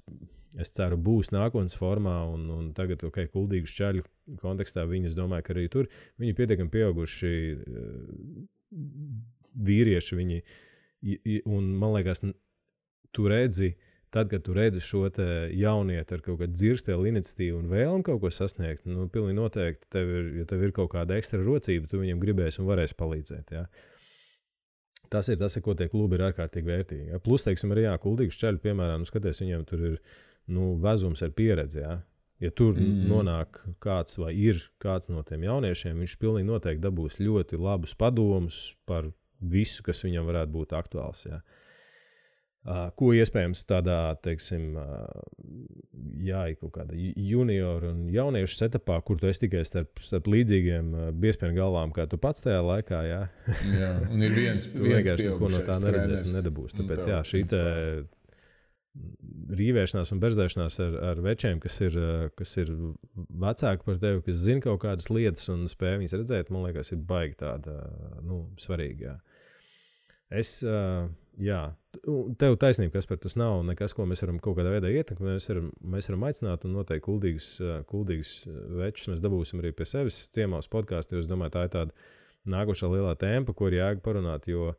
es ceru, būs nākotnes formā un tagad, kuldīgu šķaļu kontekstā viņi, es domāju, ka arī tur viņi pietiekami pieauguši vīrieši viņi, un man liekas, tu redzi, tad, kad tu redzi šo te jaunieti ar kaut kādu dzirstēlu iniciatīvu un vēlmi kaut ko sasniegt, nu, pilnīgi noteikti, ja tev ir kaut kāda ekstra rocība, tu viņam gribēsi un varēsi palīdzēt, jā. Tas ir, ko tie klubi ir ārkārtīgi vērtīgi. Ja? Plus, teiksim, arī kuldīgu šķaļu, piemēram, skaties, viņiem tur ir vezums ar pieredzi, ja? Ja tur nonāk kāds vai ir kāds no tiem jauniešiem, viņš pilnīgi noteikti dabūs ļoti labus padomus par visu, kas viņam varētu būt aktuāls. Ja. Ko iespējams tādā, teiksim, kaut kāda junioru un jauniešu setupā, kur tu esi tikai starp līdzīgiem biezpienu galvām, kā tu pats tajā laikā. Ja. Jā, un ir viens pieaugušais ko no tā neredzēs un nedabūs. Tāpēc, šī te rīvēšanās un berzēšanās ar večiem, kas ir vecāki par tevi, kas zina kaut kādas lietas un spēj viņas redzēt, man liekas, ir baigi tāda, svarīga. Tev taisnība, kas par tas nav nekas, ko mēs varam kaut kādā veidā ietekmēt. Mēs varam aicināt un noteikti kuldīgus večus mēs dabūsim arī pie sevis ciemos podkāstu, jo es domāju, tā ir tāda nākošā lielā tēma, par ko ir jēga parunāt, jo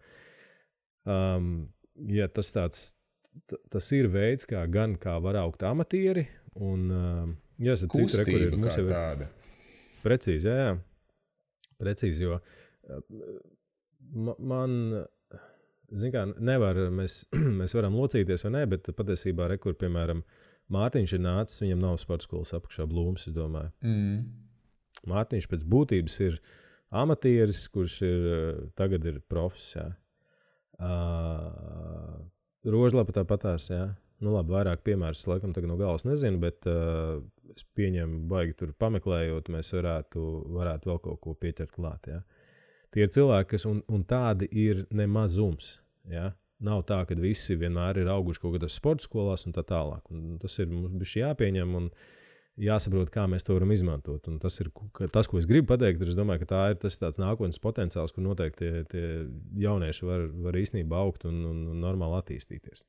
tas ir veids, kā var augt amatieri, un kustība kā tāda. Precīzi, jā. Precīzi, jo man, nevar, mēs varam locīties vai ne, bet patiesībā, piemēram, Mārtiņš ir nācis, viņam nav sporta skolas apakšā Blūms, es domāju. Mārtiņš pēc būtības ir amatieris, kurš tagad ir profs, jā. Rožlapa tāpatās, jā. Nu labi, vairāk piemērus laikam tagad no galvas nezinu, bet es pieņemu baigi tur pameklējot, mēs varētu vēl kaut ko pieķert klāt, jā. Tie ir cilvēki, kas, un tādi ir nemazums, jā. Nav tā, ka visi vienmēr ir auguši kaut kādās sporta skolās un tā tālāk. Un tas ir mums bišķi jāpieņem un jāsaprot, kā mēs to varam izmantot. Un tas ir tas, ko es gribu pateikt, es domāju, ka tas ir tāds nākotnes potenciāls, kur noteikti tie jaunieši var īstenībā augt un normāli attīstīties.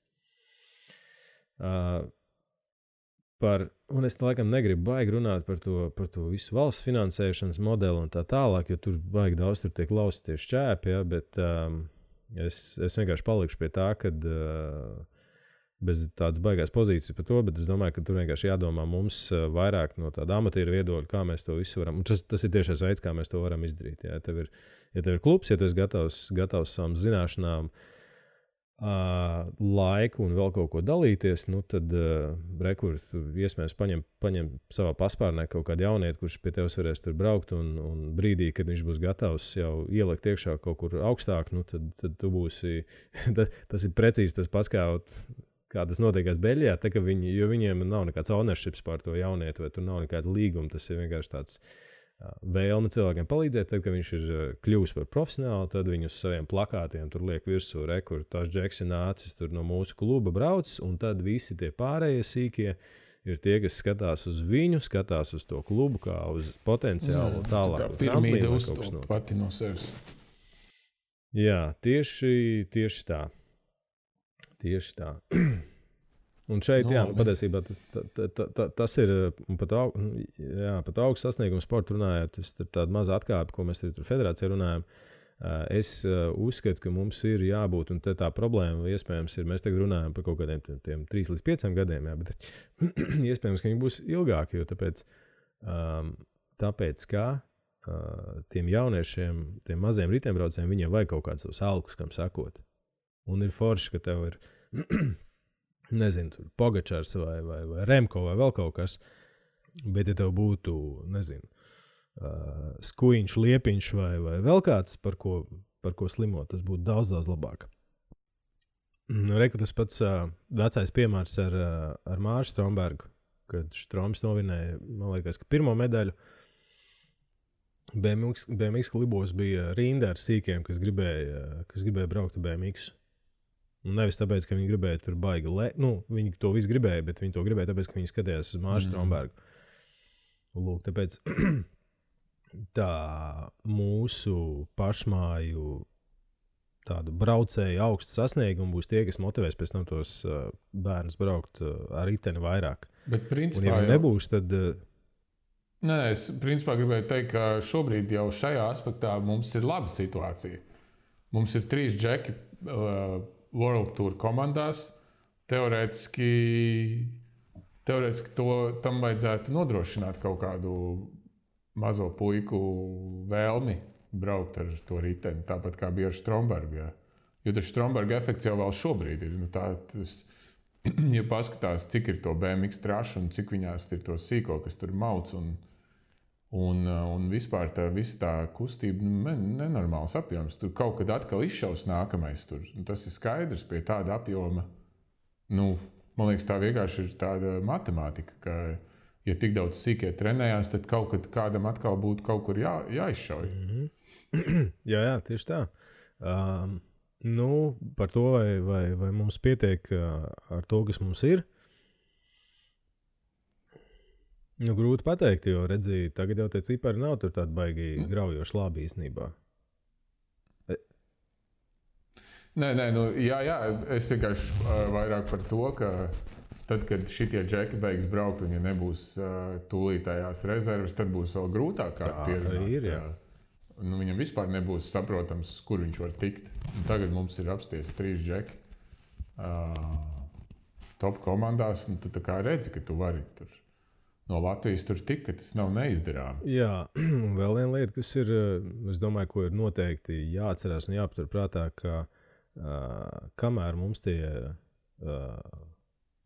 Un es laikam negribu baigi runāt par to visu valsts finansēšanas modeli un tā tālāk, jo tur baigi daudz tur tiek lausti tie šķēpi, ja, bet es vienkārši palikšu pie tā, kad bez tādas baigās pozīcijas par to, bet es domāju, ka tur vienkārši jādomā mums vairāk no tāda amatieru viedokļa, kā mēs to visu varam. Un tas ir tiešais veids, kā mēs to varam izdarīt. Ja tev ir klubs, ja tu esi gatavs savām zināšanām, laiku un vēl kaut ko dalīties, nu tad iespējams paņem savā paspārnē kaut kādu jaunieti, kurš pie tevis varēs tur braukt un brīdī, kad viņš būs gatavs jau ielikt iekšā kaut kur augstāk, nu tad tu būsi, tas ir precīzi tas pats, kā tas notiekās Beļģijā, jo viņiem nav nekāds ownerships pār to jaunieti, vai tur nav nekāda līguma, tas ir vienkārši tāds vēlme cilvēkiem palīdzēt, tad, kad viņš ir kļuvis par profesionālu, tad viņu uz saviem plakātiem tur liek virsū, kur tās Džeks ir nācis tur no mūsu kluba brauc, un tad visi tie pārējie sīkie ir tie, kas skatās uz viņu, skatās uz to klubu, kā uz potenciālu tālāk. Tā piramīda uztūp pati no sevis. Jā, tieši tā. Tieši tā. Un šeit, patiesībā tas ir pat augsts sasniegums sporta runājot. Tas ir tāda maza atkāpe, ko mēs tur federācijā runājam. Es uzskatu, ka mums ir jābūt, un tā problēma iespējams ir, mēs tagad runājam par kaut kādiem 3 līdz 5 gadiem, bet iespējams, ka viņi būs ilgāki, jo tāpēc kā tiem jauniešiem, tiem maziem riteņbraucējiem, viņiem vajag kaut kādus savus alkus, kam sakot. Un ir forši, ka tev ir nezinu, tur Pogačars vai Remko vai vēl kaut kas, bet ja tev būtu, nezinu, Skujiņš, Liepiņš vai vēl kāds, par ko slimot, tas būtu daudz labāk. Reku tas pats vecais piemērs ar Māru Strombergu, kad Stroms novinēja, man liekas, ka pirmo medaļu. BMX klubos bija rinda ar sīkiem, kas gribēja braukt ar BMX. Un nevis tāpēc, ka viņi gribēja tur baigi viņi to visu gribēja, bet viņi to gribēja tāpēc, ka viņi skatījās uz Māru Strombergu. Lūk, tāpēc tā mūsu pašmāju tādu braucēju augstu sasniegumu būs tie, kas motivēs pēc tam tos bērnus braukt ar riteni vairāk. Bet principā un ja nebūs, tad... Nē, es principā gribēju teikt, ka šobrīd jau šajā aspektā mums ir laba situācija. Mums ir 3 džeki World Tour komandās. Teorētiski tam vajadzētu nodrošināt kaut kādu mazo puiku vēlmi braukt ar to riteni, tāpat kā bija ar Strombergu. Ja. Jo tas Stromberga efekts jau vēl šobrīd ir. Ja paskatās, cik ir to BMX trašu un cik viņās ir to sīko, kas tur mauc un vispār visa tā kustība nenormāls apjoms. Tur kaut kad atkal izšaus nākamais. Tas ir skaidrs pie tāda apjoma. Man liekas, tā vienkārši ir tāda matemātika, ka ja tik daudz sīkie trenējās, tad kaut kad kādam atkal būtu kaut kur jāizšauj. Jā, tieši tā. Par to, vai mums pietiek ar to, kas mums ir. Grūti pateikt, jo redzīju, tagad jau tie cipari nav tur tādi baigi graujoši labi īstenībā. Nē, jā, es vienkārši vairāk par to, ka tad, kad šitie džeki beigs braukt un ja nebūs tūlītējās rezerves, tad būs vēl grūtāk pierunāt. Tā ir, jā. Viņam vispār nebūs saprotams, kur viņš var tikt. Un tagad mums ir apsties 3 džeki top komandās, un tu tā kā redzi, ka tu vari tur no Latvijas tur tik, ka tas nav neizdarām. Jā, un vēl viena lieta, kas ir, es domāju, ko ir noteikti jāatcerās un jāpatur prātā, ka kamēr mums tie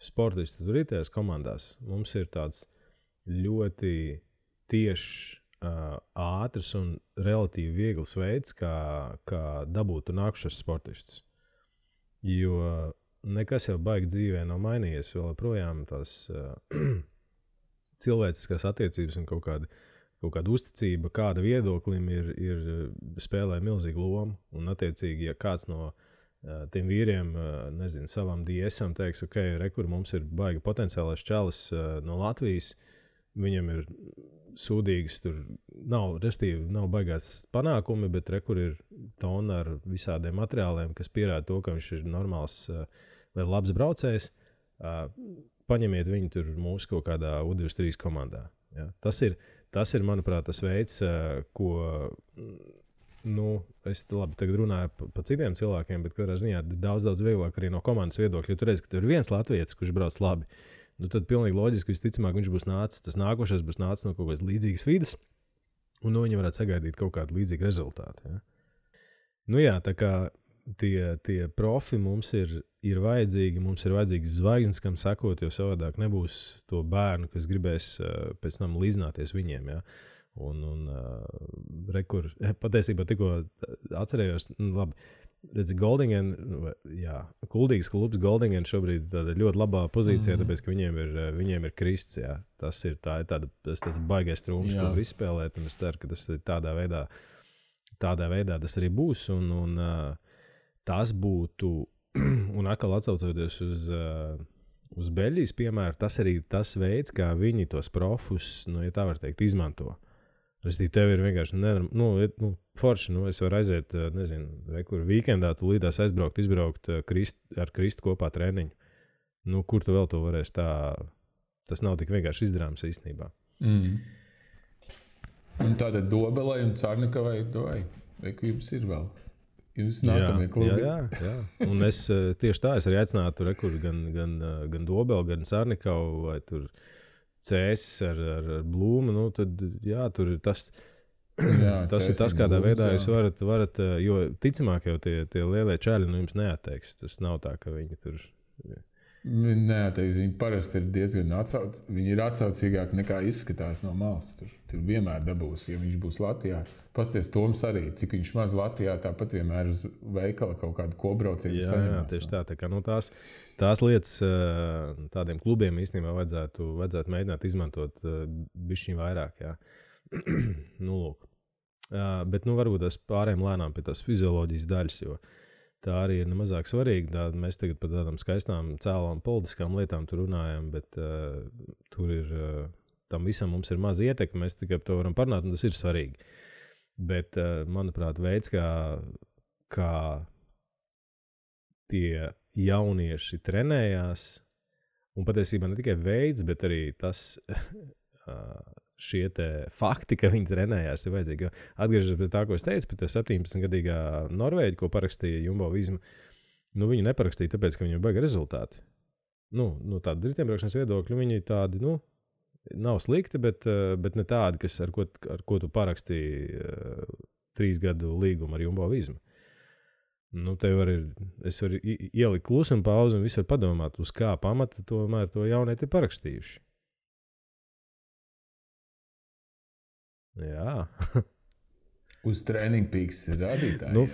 sportisti tur ir tajās komandās, mums ir tāds ļoti tiešs, ātrs un relatīvi viegls veids, kā dabūt un nākušas sportistus. Jo nekas jau baigi dzīvē nav mainījies, vēl projām tās cilvēciskās attiecības un kaut kāda uzticība, kāda viedoklim ir spēlē milzīgu lomu. Un attiecīgi, ja kāds no tiem vīriem, nezinu, savam DSam teiks, ok, rekur mums ir baigi potenciālais čalis no Latvijas, viņam ir sūdīgas, tur nav baigās panākumi, bet rekur ir tona ar visādiem materiāliem, kas pierāda to, ka viņš ir normāls vai labs braucējs. Paņemiet viņu tur mūsu kaut kādā U23 komandā. Ja? Tas ir, manuprāt, tas veids, ko, es labi tagad runāju pa citiem cilvēkiem, bet katrā ziņā daudz vieglāk arī no komandas viedokļa. Ja tu redzi, ka tur ir viens latvietis, kurš brauc labi, tad pilnīgi loģiski, visticamāk, viņš būs nācis, tas nākošais būs nācis no kaut kādas līdzīgas vides, un viņi varētu sagaidīt kaut kādu līdzīgu rezultātu. Ja? Tā kā tie profi mums ir vajadzīgi, mums ir vajadzīgs zvaigznes, kam sakot, jo savādāk nebūs to bērnu, kas gribēs pēc tam līdzināties viņiem. Ja? Un rekur, patiesībā tikko atcerējos, labi, redzi, Goldingen, Kuldīgas klubs Goldingen šobrīd tādā ļoti labā pozīcijā, tāpēc, ka viņiem ir krists, jā. Tas ir tāds baigais trūms, ko var izspēlēt, un es ceru, ka tas ir tādā veidā tas arī būs, un tas būtu, un atkal atsaucoties uz Beļģijas piemēru, tas arī tas veids, kā viņi tos profus, ja tā var teikt, izmanto. Tev ir vienkārši forši, es varu aiziet, nezinu, rekur vīkendā, tu līdās izbraukt ar Kristu kopā treniņu. Nu, kur tu vēl to varēsi tā? Tas nav tik vienkārši izdarāms īstenībā. Un tātad Dobelai un Cārnikavai jums ir vēl. Jūs nākamie klubi. Jā. Un es tieši tā, es arī aicinātu rekur gan Dobelu, gan Cārnikavu, vai tur Cēsis ar Blūmu. Nu, tad, jā, tur ir tas... tas ir tas, kādā veidā jūs varat, jo ticamāk jau tie lielie čaļi jums neatteiks. Tas nav tā, ka viņi tur... Neatteiks, viņi parasti ir diezgan viņi ir atsaucīgāki nekā izskatās no malas. Tur vienmēr dabūs, ja viņš būs Latvijā. Pasties Toms arī, cik viņš maz Latvijā, tāpat vienmēr uz veikala kaut kādu kobraucienu saņemās. Jā, tieši tā kā tās lietas tādiem klubiem īstenībā vajadzētu mēģināt izmantot bišķiņ vairāk, jā. Nu, lūk. Bet varbūt es pārējām lēnām pie tās fizioloģijas daļas, jo tā arī ir nemazāk svarīga. Mēs tagad par tādām skaistām, cēlām politiskām lietām tur runājam, bet tur ir, tam visam mums ir maz ietekme, mēs tikai par to varam parunāt, un tas ir svarīgi. Bet, manuprāt, veids, kā tie jaunieši trenējās, un patiesībā ne tikai veids, bet arī tas... šie te fakti, ka viņi trenējās, ir vajadzīgi. Atgriežoties pie tā, ko es teicu, pie 17-gadīgā Norvēģa, ko parakstīja Jumbo Visma, viņi neparakstīja tāpēc, ka viņiem baigi rezultāti. Tādi riteņbraukšanas viedokļi, viņi tādi, nav slikti, bet ne tādi, ar ko tu parakstīji 3 gadu līgumu ar Jumbo Visma. Es varu ielikt klusumu pauzi un visu var padomāt, uz kā pamata tomēr to jaunieti ir parakstījuši. Jā. Uz Training Peaks rādītāji.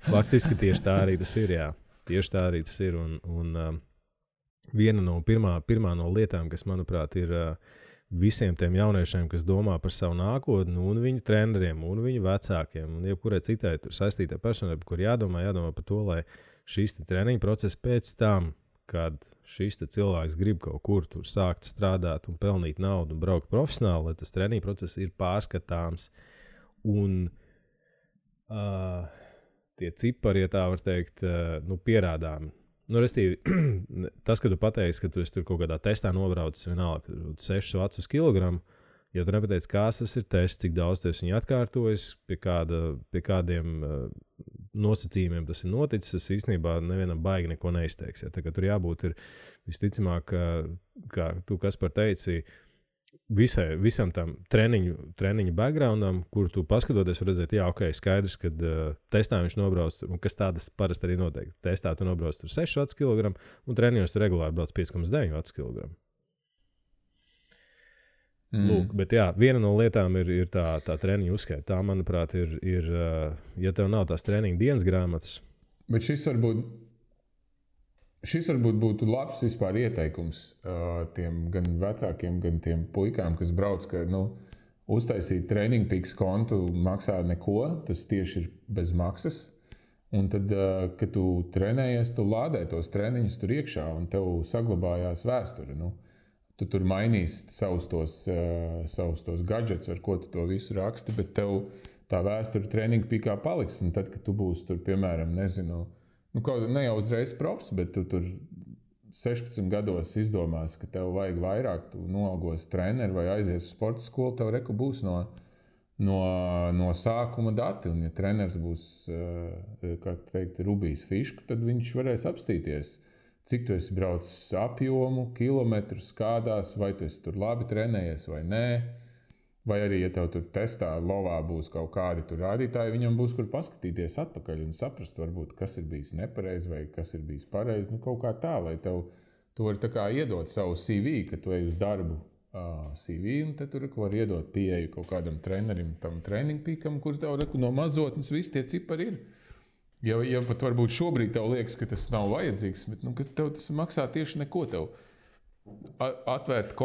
Faktiski tieši tā arī tas ir, jā. Tieši tā arī tas ir. Un viena no pirmā no lietām, kas, manuprāt, ir visiem tiem jauniešiem, kas domā par savu nākotni, un viņu treneriem, un viņu vecākiem, un jebkurai citai tur saistītai personai, par kur jādomā par to, lai šīs treniņu procesi pēc tam, kad šis cilvēks grib kaut kur tur sākt strādāt un pelnīt naudu un braukt profesionāli, lai tas treniņu process ir pārskatāms. Un tie cipari, ja tā var teikt, pierādām. Restīvi, tas, ka tu pateiksi, ka tu esi tur kaut kādā testā nobraucis vienalga 6 vats uz kilogramu, ja tu nepateici, kāds tas ir tests, cik daudz tu esi viņu atkārtojis, pie kādiem nosacījumiem tas ir noticis, tas īstenībā nevienam baigi neko neizteiks. Ja? Tā kā tur jābūt ir visticamāk, kā tu Kaspar teici, visam tam treniņu backgroundam, kur tu paskatoties var redzēt, jā, ok, skaidrs, kad testā viņš nobrauc, un kas tādas parasti arī noteikti. Testā tu nobrauc tur 6 vats kilogramu, un treniņos tu regulāri brauc 5,9 vats kilogramu. Lūk, bet jā, viena no lietām ir tā treniņu uzskaita. Tā, manuprāt, ir ja tev nav tās treniņu dienas grāmatas. Bet šis varbūt būtu labs vispār ieteikums tiem gan vecākiem, gan tiem puikām, kas brauc, ka uztaisīt Training Peaks kontu maksā neko, tas tieši ir bez maksas. Un tad, kad tu trenējies, tu lādē tos treniņus tur iekšā un tev saglabājās vēsture. Tu tur mainīsi savus tos gadgets, ar ko tu to visu raksti, bet tev tā vēsture Training Peakā paliks. Un tad, kad tu būsi tur, piemēram, ne jau uzreiz profs, bet tu tur 16 gados izdomās, ka tev vajag vairāk, tu noalgos treneri vai aizies uz sporta skolu, tev reku būs no sākuma dati. Un ja treneris būs, kā teikt, Rubijs Fiška, tad viņš varēs apstīties, cik tu esi braucis apjomu, kilometrus, kādās, vai tu esi tur labi trenējies vai nē. Vai arī, ja tev tur testā lovā būs kaut kādi tur rādītāji, viņam būs kur paskatīties atpakaļ un saprast, varbūt, kas ir bijis nepareizi vai kas ir bijis pareizi. Kaut kā tā, lai tev tu vari tā kā iedot savu CV, ka tu ej uz darbu CV, un te tur var iedot pieeju kaut kādam trenerim, tam Training Peakam, kur tev no mazotnes visi tie cipari ir. Ja pat varbūt šobrīd tev liekas, ka tas nav vajadzīgs, bet ka tev tas maksā tieši neko. Tev atvērt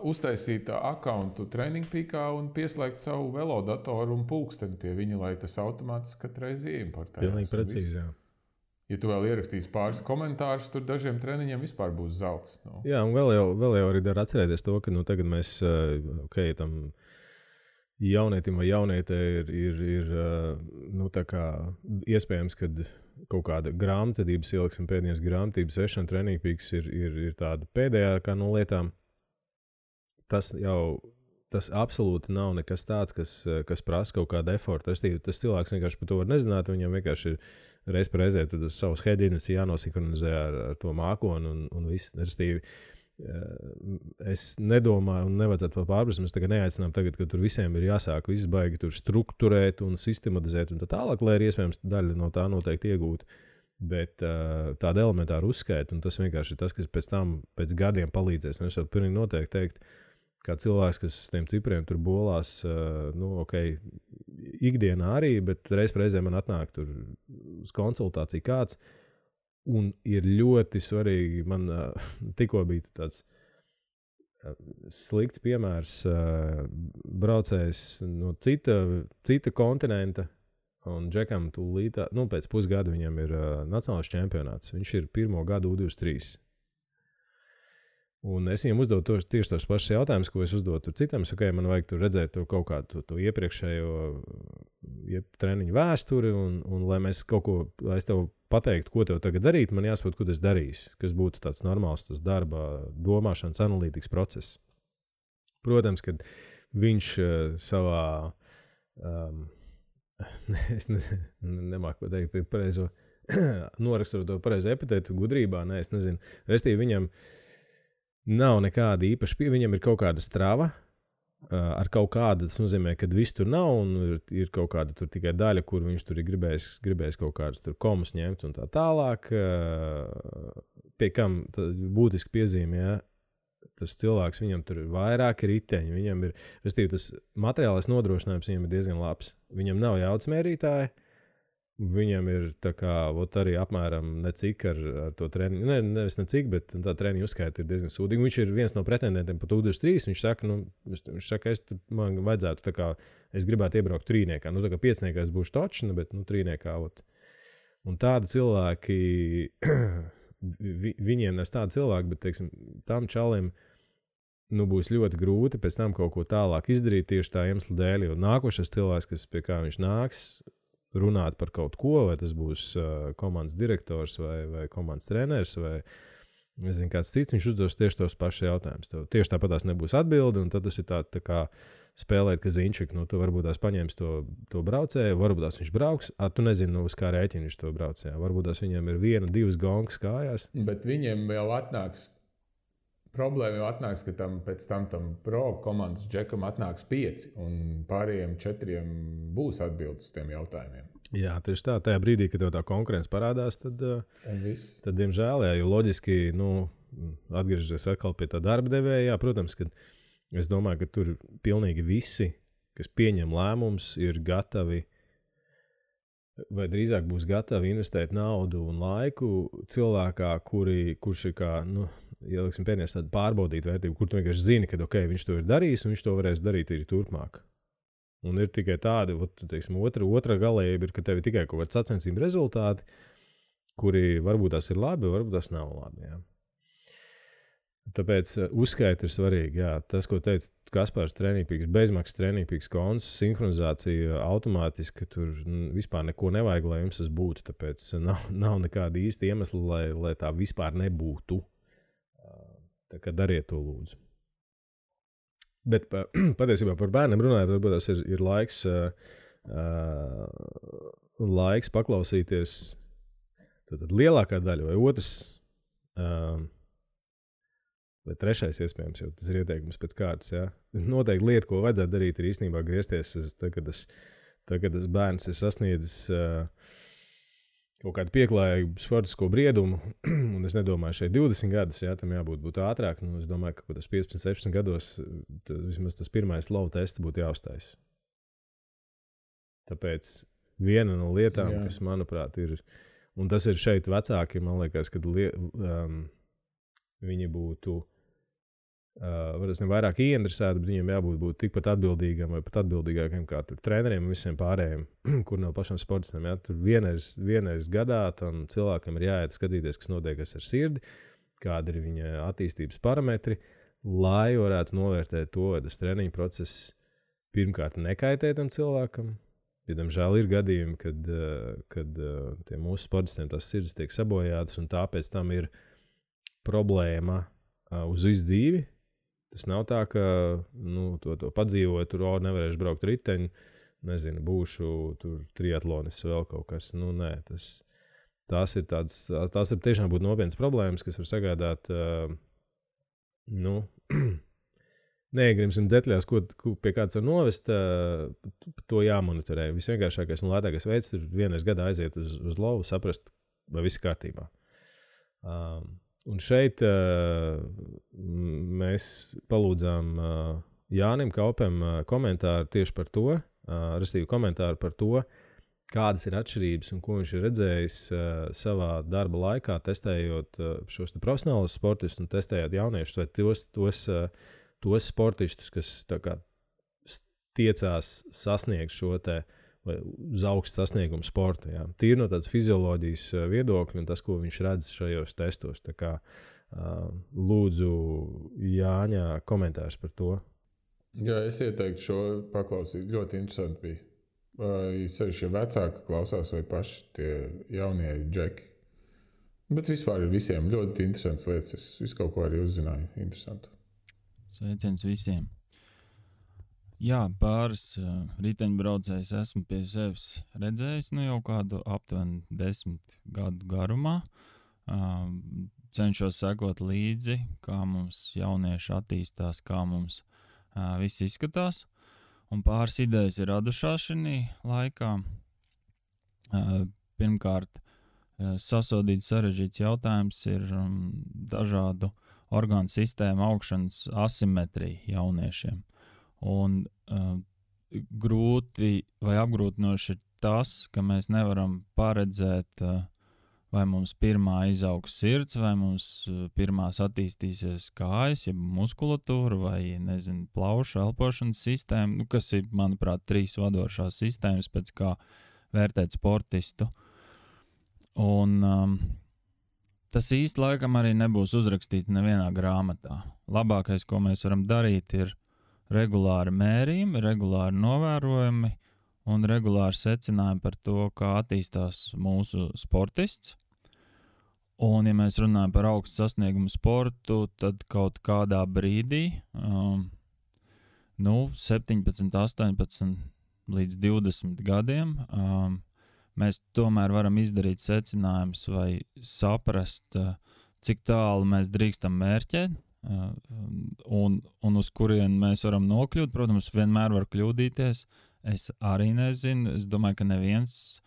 uztaisīt accountu Training Peakā un pieslēgt savu velodatoru un pulksteni pie viņa, lai tas automātiski katreiz ieimportējās. Pilnīgi precīzi, jā. Ja tu vēl ierakstīsi pāris komentārus, tur dažiem treniņiem vispār būs zelts. Jā, un vēl jau arī dar atcerēties to, ka tagad mēs, tam jaunietim vai jaunietē ir nu, tā kā iespējams, ka kaut kāda grāmatvedības ieliksim pēdējās grāmatības vešana trenīgpīks ir tāda pēdējākā no lietām. Tas absolūti nav nekas tāds, kas prasa kaut kādu efortu. Tas cilvēks vienkārši par to var nezināt, viņam vienkārši ir reiz par reizē savus headinus jānosinhronizē ar to mākoni un viss. Es nedomāju, un nevajadzētu to pārprast. Mēs tagad neaicinām, kad tur visiem ir jāsāk viss baigi tur strukturēt un sistematizēt un tā tālāk, lai ir iespējams daļa no tā noteikti iegūt. Bet tāda elementāra uzskaita, un tas vienkārši ir tas, kas pēc tam, pēc gadiem palīdzēs. Un es jau pilnīgi noteikti teikt, kā cilvēks, kas tiem cipriem tur bolās, ikdienā arī, bet reiz par reizē man atnāk tur uz konsultāciju kāds. Un ir ļoti svarīgi, man tikko bija tāds slikts piemērs, braucējs no cita kontinenta, un Džekam tūlīt, pēc pusgada viņam ir nacionālais čempionāts. Viņš ir pirmo gadu U23. Un es viņam uzdodu tieši tos pašus jautājumus, ko es uzdodu citam. Man vajag tur redzēt to kaut kādu to iepriekšējo treniņu vēsturi, un lai mēs kaut ko, lai es tev pateiktu, ko tev tagad darīt, man jāsaprot, ko es darīšu, kas būtu tāds normāls tas darba, domāšanas, analītikas process. Protams, kad viņš savā, es nemāku pateikt pareizo, norakstot to pareizo epitētu gudrībā, es nezinu. Restīvi viņam nav nekāda īpaša viņam ir kaut kāda strava ar kaut kādu, tas nozīmē, ka viss tur nav un ir kaut kāda tur tikai daļa, kur viņš tur ir gribējis kaut kādas tur komus ņemt un tā tālāk. Pie kam būtiski piezīmē, tas cilvēks, viņam tur ir vairāki riteņi, viņam ir, restīvi, tas materiālais nodrošinājums viņam ir diezgan labs. Viņam nav jaudas mērītāji. Viņam ir tā kā arī apmēram necik ar to treniņu, nevis necik, bet tā treniņu uzskaita ir diezgan sūdīga. Viņš ir viens no pretendentiem pa U23. Viņš saka, man vajadzētu tā kā, es gribētu iebraukt trīniekā. Tā kā piecniekā es būšu točna, bet trīniekā. Un tādi cilvēki, viņiem nes tādi cilvēki, bet, teiksim, tam čalim būs ļoti grūti pēc tam kaut ko tālāk izdarīt tieši tā iemesla dēļ, jo nākošais cilvēks, pie kā viņš nāks, runāt par kaut ko, vai tas būs komandas direktors vai komandas treneris vai nezinu, kāds cits, viņš uzdos tieši tos pašus jautājumus. Tev tieši tāpat tās nebūs atbildi, un tad tas ir tā kā spēlēt, ka zinčik, tu varbūt tās paņems to braucēju, varbūt tās viņš brauks, tu nezini, uz kā rēķina viņš to braucēju. Varbūt tās viņiem ir 1-2 gongas kājās. Bet viņiem jau atnāks, problēma jau atnāks, ka pēc tam pro komandas Džekam atnāks 5, un pārējiem 4 būs atbildes uz tiem jautājumiem. Jā, tieši tā. Tajā brīdī, kad tev tā konkurence parādās, tad diemžēl, jo loģiski, atgriežoties atkal pie tā darba devēja, protams, ka es domāju, ka tur pilnīgi visi, kas pieņem lēmumus, ir gatavi, vai drīzāk būs gatavi investēt naudu un laiku cilvēkā, kurš ir kā, ieliksim pēdējās tādu pārbaudīt vērtību, kur tu vienkārši zini, ka viņš to ir darījis un viņš to varēs darīt arī turpmāk. Un ir tikai tādi, teiksim, otra galējība ir, ka tev ir tikai kaut kāds sacensību rezultāti, kuri varbūt tās ir labi, varbūt tās nav labi. Jā. Tāpēc uzskaita ir svarīgi. Jā. Tas, ko teica Kaspars, trenīgpīks, bezmaksas trenīgpīks konts, sinhronizācija automātiski, tur vispār neko nevajag, lai jums tas būtu. Tāpēc nav nekāda īsta iemesla, lai tā vispār nebūtu. Tā kā dariet to lūdzu. Bet patiesībā par bērniem runājot, varbūt tas ir laiks paklausīties tad lielākā daļa vai otrs vai trešais iespējams, jo tas ir ieteikums pēc kārtas. Jā. Noteikti lieta, ko vajadzētu darīt, ir īstenībā griezties, kad tas bērns ir sasniedzis kaut kādu pieklājīgu sportisko briedumu, un es nedomāju šeit 20 gadus, jā, tam jābūt ātrāk. Es domāju, ka tas 15-16 gados vismaz tas pirmais lova tests būtu jāuztais. Tāpēc viena no lietām, kas, manuprāt, ir, un tas ir šeit vecāki, man liekas, kad viņi būtu vairāk ieinteresēti, bet viņiem jābūt tikpat atbildīgam vai pat atbildīgākiem kā tur treneriem un visiem pārējiem, kur nav pašam sportistiem. Ja? Tur vienreiz gadā tam cilvēkam ir jāiet skatīties, kas notiek ar sirdi, kādi ir viņa attīstības parametri, lai varētu novērtēt to, vai tas treniņu process pirmkārt nekaitē tam cilvēkam. Jo, diemžēl, ir gadījumi, kad tie mūsu sportistiem tās sirds tiek sabojātas, un tāpēc tam ir problēma uz visu dzīvi. Tas nav tā, ka to padzīvoju, tur nevarēšu braukt riteņu, nezinu, būšu tur triatlonis vēl kaut kas. Nē, tās ir tiešām būt nopietnas problēmas, kas var sagādāt, neiegribsim detaļās, pie kāds var novest, to jāmonitorē. Visvienkāršākais un lētākais veids ir vienreiz gadā aiziet uz lovu, saprast, vai viss kārtībā. Un šeit mēs palūdzām Jānim Kaupem komentāru tieši par to, respektīvi komentāru par to, kādas ir atšķirības un ko viņš ir redzējis savā darba laikā, testējot šos profesionālus sportistus un testējot jauniešus vai tos sportistus, kas tā kā tiecās sasniegt šo te vai uz augstu sasniegumu sportu. Jā. Tīri no tādas fizioloģijas viedokļa un tas, ko viņš redz šajos testos. Tā kā lūdzu Jāņa komentārs par to. Jā, es ieteiktu šo paklausīt. Ļoti interesanti bija. Vai sevišķi vecāki klausās vai paši tie jaunie džeki. Bet vispār ir visiem ļoti interesants lietas. Es visu kaut ko arī uzzināju. Interesanti. Sveiciens visiem. Jā, pāris riteņbraucējus esmu pie sevis redzējis jau kādu aptuveni 10 gadu garumā. Cenšos sekot līdzi, kā mums jaunieši attīstās, kā mums viss izskatās. Un pāris idejas ir radušās šī laikā. Pirmkārt, sasodīts sarežģīts jautājums ir dažādu orgānu sistēmu augšanas asimetrija jauniešiem. Un grūti vai apgrūtinoši ir tas, ka mēs nevaram paredzēt, vai mums pirmā izaugs sirds, vai mums pirmās attīstīsies kājas, ja muskulatūra, vai, nezinu, plaušu elpošanas sistēma, kas ir, manuprāt, 3 vadošās sistēmas, pēc kā vērtēt sportistu. Un tas īsti laikam arī nebūs uzrakstīts nevienā grāmatā. Labākais, ko mēs varam darīt, ir regulāri mērījumi, regulāri novērojumi un regulāri secinājumi par to, kā attīstās mūsu sportists. Un, ja mēs runājam par augstu sasniegumu sportu, tad kaut kādā brīdī, 17, 18 līdz 20 gadiem, mēs tomēr varam izdarīt secinājumus vai saprast, cik tālu mēs drīkstam mērķēt. Un uz kurien mēs varam nokļūt. Protams, vienmēr var kļūdīties. Es arī nezinu. Es domāju, ka neviens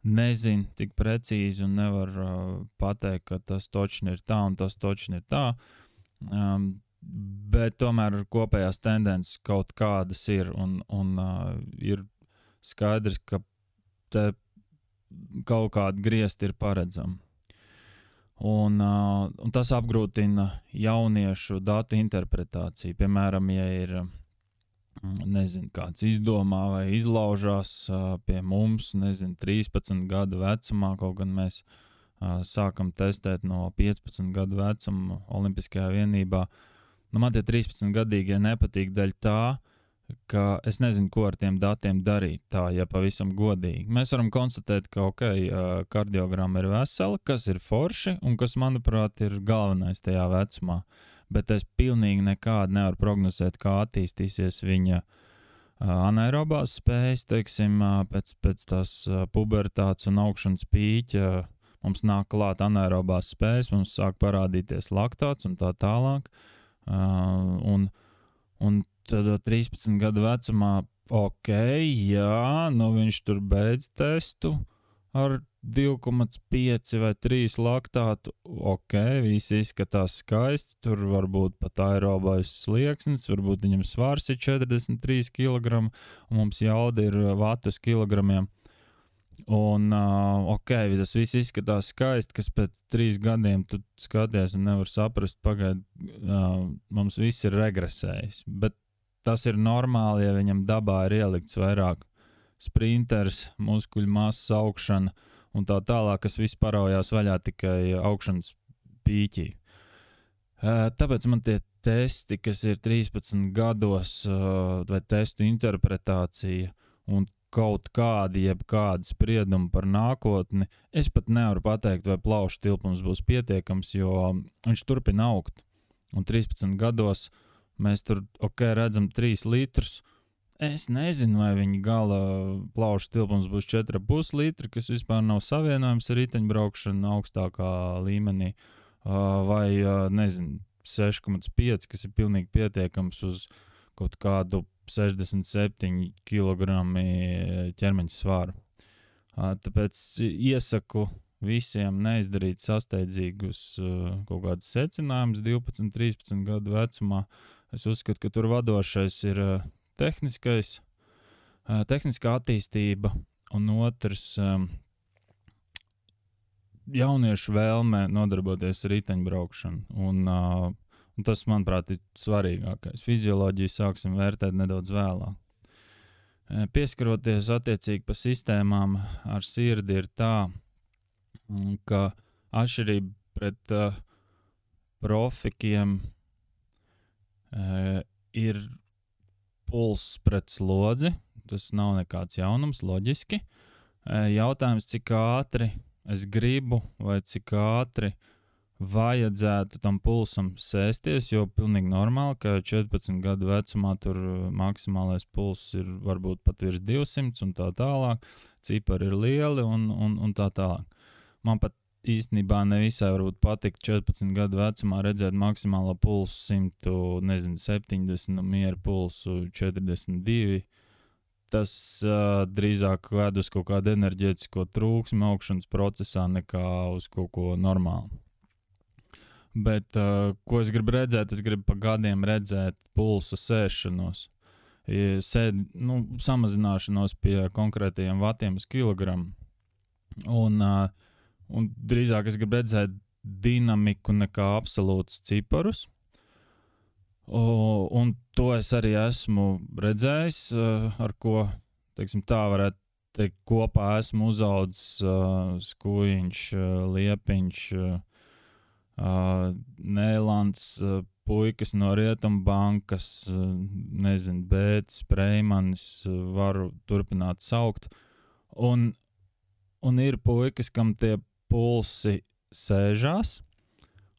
nezina tik precīzi un nevar pateikt, ka tas točni ir tā un tas točni ir tā. Bet tomēr kopējās tendences kaut kādas ir un ir skaidrs, ka te kaut kādi griezti ir paredzami. Un tas apgrūtina jauniešu datu interpretāciju. Piemēram, ja ir, kāds izdomā vai izlaužās pie mums, 13 gadu vecumā, kaut gan mēs sākam testēt no 15 gadu vecuma Olimpiskajā vienībā. Man tie 13-gadīgie nepatīk daļa tā, ka es nezinu, ko ar tiem datiem darīt, tā, ja pavisam godīgi. Mēs varam konstatēt, ka, kardiogramma ir vesela, kas ir forši un kas, manuprāt, ir galvenais tajā vecumā. Bet es pilnīgi nekādu nevaru prognozēt, kā attīstīsies viņa anaerobās spējas, teiksim, pēc tās pubertātes un augšanas pīķa. Mums nāk klāt anaerobās spējas, mums sāk parādīties laktāts un tā tālāk. Un tad 13 gadu vecumā, viņš tur beidz testu ar 2,5 vai 3 laktātu. Viss izskatās skaisti, tur varbūt pat aerobais slieksnis, varbūt viņam svars ir 43 kg, un mums jauda ir vatus kilogramiem. Un, tas viss izskatās skaisti, kas pēc 3 gadiem tu skaties un nevar saprast, mums viss ir regresējis. Bet tas ir normāli, ja viņam dabā ir ielikts vairāk sprinters, muskuļu masas augšana un tā tālāk, kas viss paraujās vaļā tikai augšanas pīķī. Tāpēc man tie testi, kas ir 13 gados, vai testu interpretācija un kaut kādi, jebkādi spriedumi par nākotni, es pat nevaru pateikt, vai plaušu tilpums būs pietiekams, jo viņš turpina augt. Un 13 gados mēs tur, redzam 3 litrus. Es nezinu, vai viņa gala plaušu tilpums būs 4,5 litri, kas vispār nav savienojams ar riteņbraukšanu augstākā līmenī, vai, nezinu, 6,5, kas ir pilnīgi pietiekams uz kaut kādu 67 kg ķermeņa svaru. Tāpēc iesaku visiem neizdarīt sasteidzīgus kaut kādus secinājumus 12, 13 gadu vecumā. Es uzskatu, ka tur vadošais ir tehniskā attīstība un otrs jauniešu vēlme nodarboties ar riteņbraukšanu. Un tas, manuprāt, ir svarīgākais. Fizioloģiju sāksim vērtēt nedaudz vēlāk. Pieskaroties attiecīgi pa sistēmām ar sirdi ir tā, ka atšķirība pret profikiem ir puls pret slodzi. Tas nav nekāds jaunums, loģiski. Jautājums, cik ātri es gribu vai cik ātri vajadzētu tam pulsam sēsties, jo pilnīgi normāli, ka 14 gadu vecumā tur maksimālais pulss ir varbūt pat virs 200 un tā tālāk, cipari ir lieli un tā tālāk. Man pat īstenībā nevisai varbūt patikt 14 gadu vecumā redzēt maksimālo pulsu 170 un mieru pulsu 42. Tas drīzāk ved uz kaut kādu enerģētisko trūksmi augšanas procesā nekā uz kaut ko normālu. Bet, ko es gribu redzēt? Es gribu pa gadiem redzēt pulsa sēšanos. Samazināšanos pie konkrētajiem vatiem uz kilogramu. Un drīzāk es gribu redzēt dinamiku nekā absolūtus ciparus. Un to es arī esmu redzējis, ar ko, teiksim, tā varētu teikt, kopā esmu uzaudzis Skujiņš, Liepiņš, Nēlands, puikas no Rietumbankas, nezinu, Bētis, Preimanis, varu turpināt saukt. Un ir puikas, kam tie pulsi sēžās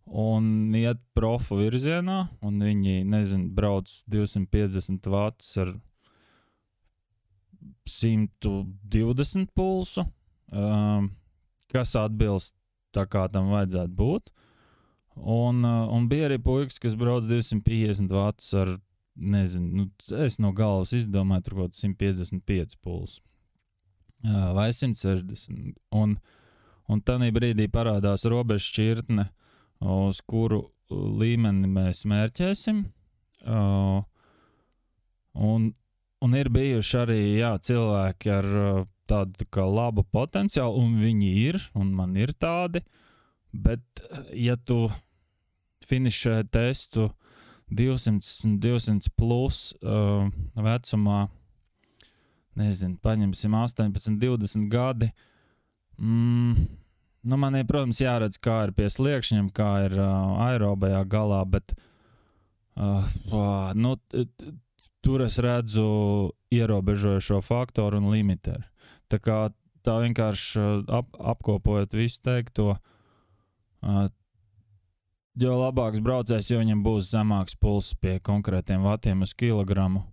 un iet profu virzienā, un viņi, nezinu, brauc 250 vatus ar 120 pulsu, kas atbilst tā kā tam vajadzētu būt. Un bija arī puikas, kas brauc 250 vatus ar, nezinu, es no galvas izdomāju tur kaut 155 pulsu. Vai 160. Un tanī brīdī parādās robeža šķirtne, uz kuru līmeni mēs mērķēsim. Un ir bijuši arī, cilvēki ar tādu kā labu potenciālu, un viņi ir, un man ir tādi. Bet, ja tu finišē testu 200 plus vecumā, nezinu, paņemsim 18, 20 gadi, man ir, protams, jāredz, kā ir pie sliekšņiem, kā ir aerobajā galā, bet tur es redzu ierobežojošo faktoru un limiteru. Tā vienkārši apkopojot visu teikto, jo labāks braucējs, jo viņam būs zemāks pulss pie konkrētiem vatiem uz kilogramu,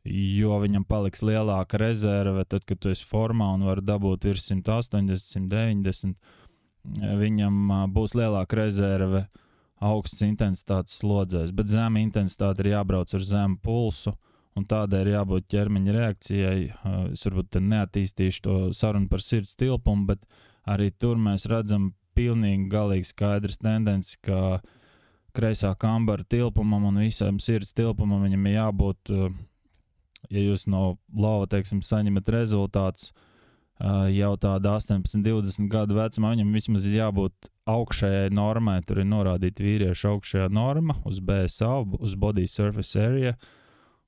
jo viņam paliks lielāka rezerve, tad, kad tu esi formā un var dabūt virs 180, 190, viņam būs lielāka rezerve augsts intensitātes slodzēs, bet zema intensitāte ir jābrauc ar zemu pulsu, un tādēļ ir jābūt ķermeņa reakcijai. Es varbūt te neattīstīšu to sarunu par sirds tilpumu, bet arī tur mēs redzam pilnīgi galīgi skaidrs tendences, ka kreisā kambara tilpumam un visam sirds tilpumam viņam ir jābūt, ja jūs no lova, teiksim, saņemat rezultātus jau tāda 18, 20 gadu vecumā, viņam vismaz ir jābūt augšējai normai, tur ir norādīta vīriešu augšējā norma uz BSA, uz Body Surface Area,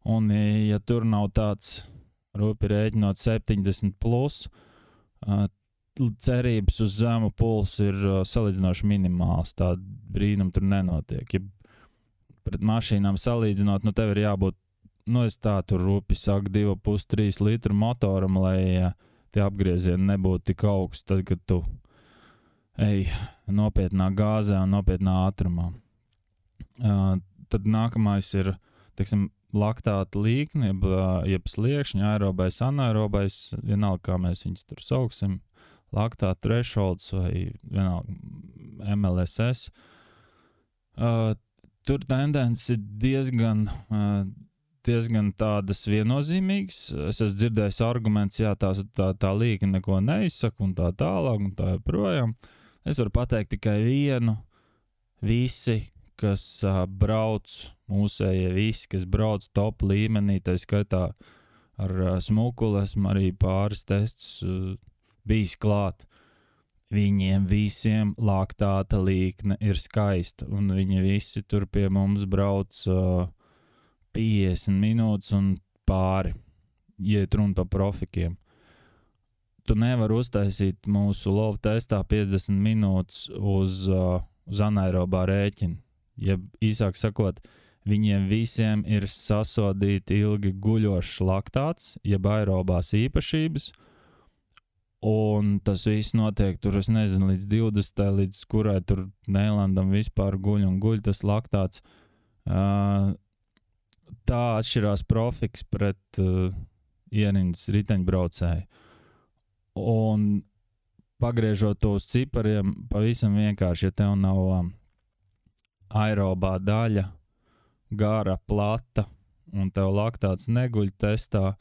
un ja tur nav tāds, rūpi rēķinot 70 plus, cerības uz zemu pulsu ir salīdzinoši minimāls, tāda brīnuma tur nenotiek. Ja pret mašīnām salīdzinot, nu tev ir jābūt, nu es tā tur rūpi saku 2,5-3 litru motoram, lai tie apgriezieni nebūtu tik augsts, tad, kad tu ej nopietnā gāzē un nopietnā ātrumā. Tad nākamais ir, teiksim, laktāta līkne, jeb sliekšņa, aerobais, anaerobais, vienalga, kā mēs viņus tur sauksim, laktāta thresholds vai vienalga MLSS. Tur tendence ir diezgan tādas viennozīmīgas. Es esmu dzirdējis arguments, jā, tā līkne neko neizsaka un tā tālāk un tā joprojām. Es varu pateikt tikai vienu. Visi, kas brauc, mūsējie visi, kas brauc top līmenī, tā skaitā ar smukuli, esmu arī pāris testus bijis klāt. Viņiem visiem laktāta līkne ir skaista, un viņi visi tur pie mums brauc 50 minūtes un pāri, ja runa par profikiem. Tu nevari uztaisīt mūsu lovu testā 50 minūtes uz anaerobā rēķina. Ja īsāk sakot, viņiem visiem ir sasodīti ilgi guļošs laktāts, jeb aerobās īpašības, un tas viss notiek tur, es nezinu, līdz 20. līdz kurai tur Neilandam vispār guļ tas laktāts. Tā atšķirās profiks pret ierindas riteņbraucēju. Un pagriežot to uz cipariem, pavisam vienkārši, ja tev nav aerobā daļa, gara, plata, un tev laktāts neguļ testā,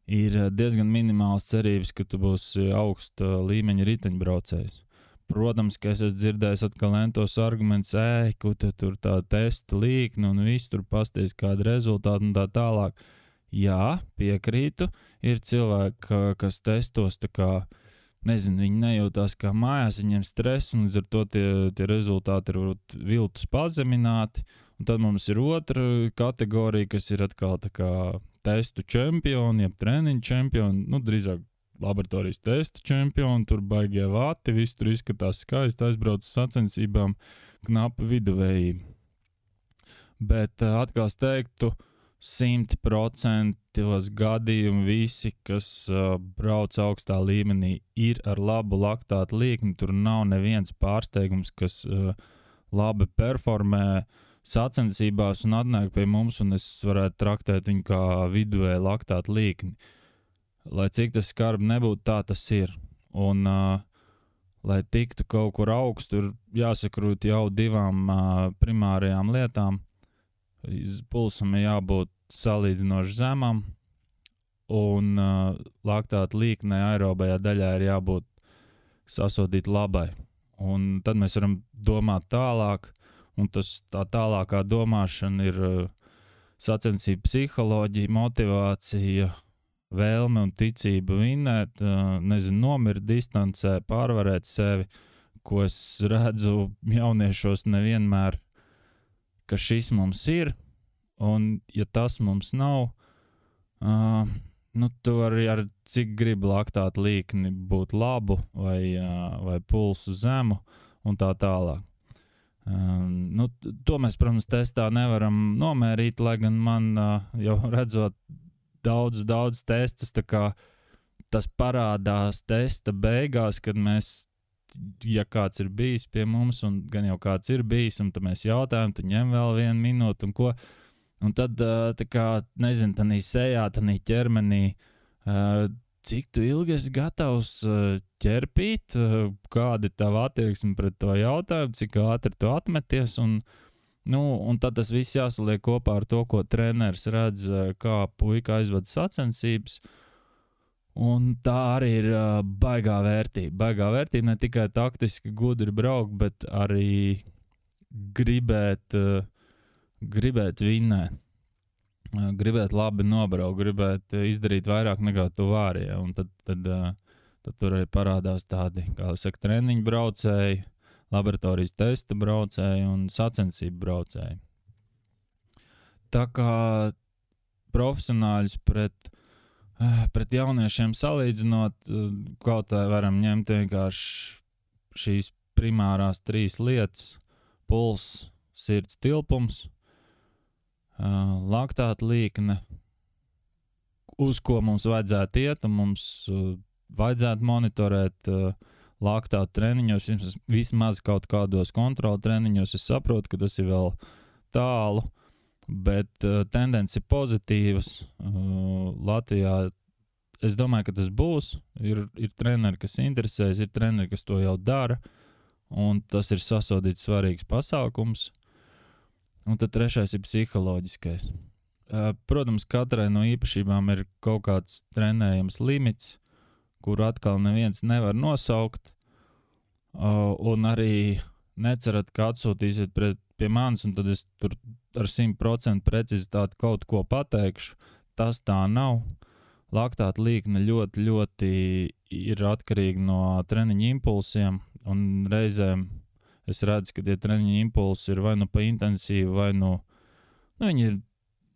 ir diezgan minimāls cerības, ka tu būsi augsta līmeņa riteņbraucējs. Protams, ka es esmu dzirdējis atkal entos argumentus, ko tu tur tā testa līkne un viss tur pasties kādu rezultātu un tā tālāk. Jā, piekrītu, ir cilvēki, kas testos tā kā, nezinu, viņi nejūtās kā mājās, viņiem stress, un līdz ar to tie rezultāti ir viltus pazemināti. Un tad mums ir otra kategorija, kas ir atkal tā kā testu čempioni, jeb treniņu čempioni, nu, drīzāk laboratorijas testu čempioni, tur baigie vati, viss tur izskatās skaisti, aizbrauc sacensībām, knapa viduvējība. Bet atkal es teiktu, 100% gadījumu visi, kas brauc augstā līmenī, ir ar labu laktāta līkni. Tur nav neviens pārsteigums, kas labi performē sacensībās un atnāk pie mums, un es varētu traktēt viņu kā viduvēju laktāta līkni. Lai cik tas skarbi nebūtu, tā tas ir. Un, lai tiktu kaut kur augstu, tur jāsakrūt jau divām primārajām lietām. Pulsam ir jābūt salīdzinoši zemam, un laktāta līknē aerobajā daļā ir jābūt sasodīt labai. Un tad mēs varam domāt tālāk, un tā tālākā domāšana ir sacensība psiholoģija, motivācija, vēlme un ticība vinnēt, nomirt distancē, pārvarēt sevi, ko es redzu jauniešos nevienmēr, ka šis mums ir, un ja tas mums nav, tu vari ar cik gribi laktāta līkni būt labu vai pulsu zemu un tā tālāk. To mēs, protams, testā nevaram nomērīt, lai gan man jau redzot daudz testus, tā kā tas parādās testa beigās, kad mēs, ja kāds ir bijis pie mums, un gan jau kāds ir bijis, un tad mēs jautājam, tu ņem vēl 1 minūti un ko, un tad, tā kā, nezinu, tanī sejā, tanī ķermenī, cik tu ilgi esi gatavs ķerpīt, kāda ir tava attieksme pret to jautājumu, cik ātri tu atmeties, un tad tas viss jāsaliek kopā ar to, ko treneris redz, kā puika aizvada sacensības. Un tā arī ir baigā vērtība. Baigā vērtība ne tikai taktiski gudri braukt, bet arī gribēt vinnēt. Gribēt labi nobraukt, gribēt izdarīt vairāk nekā tu vari. Ja? Un tad tur arī parādās tādi, kā saka, treniņu braucēji, laboratorijas testa braucēji un sacensību braucēji. Tā kā profesionāļus pret jauniešiem salīdzinot, kaut kā varam ņemt vienkārši šīs primārās 3 lietas – puls, sirds tilpums, laktāta līkne, uz ko mums vajadzētu iet, un mums vajadzētu monitorēt laktātu treniņos, vismaz kaut kādos kontrolu treniņos. Es saprotu, ka tas ir vēl tālu, bet tendence ir pozitīvas. Latvijā es domāju, ka tas būs. Ir treneri, kas interesēs, ir treneri, kas to jau dara, un tas ir sasodīts svarīgs pasākums. Un tad trešais ir psiholoģiskais. Protams, katrai no īpašībām ir kaut kāds trenējams limits, kuru atkal neviens nevar nosaukt, un arī necerat, ka atsūtīsiet pie manis, un tad es tur ar 100% precizitāti kaut ko pateikšu. Tas tā nav. Laktāta līkne ļoti, ļoti ir atkarīga no treniņa impulsiem, un reizēm es redzu, ka tie treniņa impulsi ir vai nu pa intensīvu, vai nu viņi ir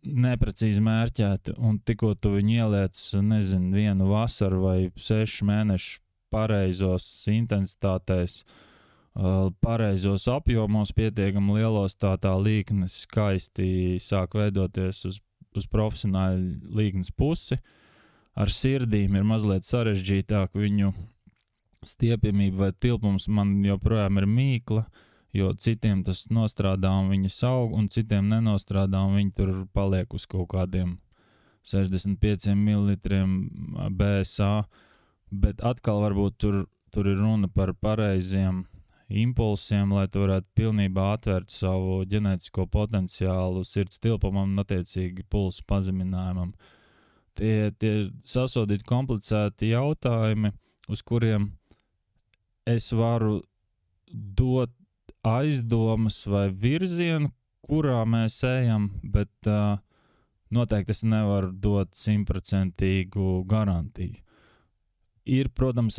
neprecīzi mērķēti, un tikko tu viņu ieliec, nezinu, vienu vasaru vai 6 mēnešu pareizos intensitātēs, pareizos apjomos, pietiekami lielos, tā līkne skaisti sāk veidoties uz profesionāļu līknes pusi. Ar sirdīm ir mazliet sarežģītāk, viņu stiepjamība vai tilpums man joprojām ir mīkla, jo citiem tas nostrādā un viņi saug, un citiem nenostrādā un viņi tur paliek uz kaut kādiem 65 ml BSA, bet atkal varbūt tur ir runa par pareiziem impulsiem, lai tu varētu pilnībā atvērt savu ģenētisko potenciālu sirds tilpumam un attiecīgi pulsu pazeminājumam. Tie sasodīti komplicēti jautājumi, uz kuriem es varu dot aizdomas vai virzienu, kurā mēs ejam, bet noteikti es nevaru dot 100% garantiju. Ir, protams,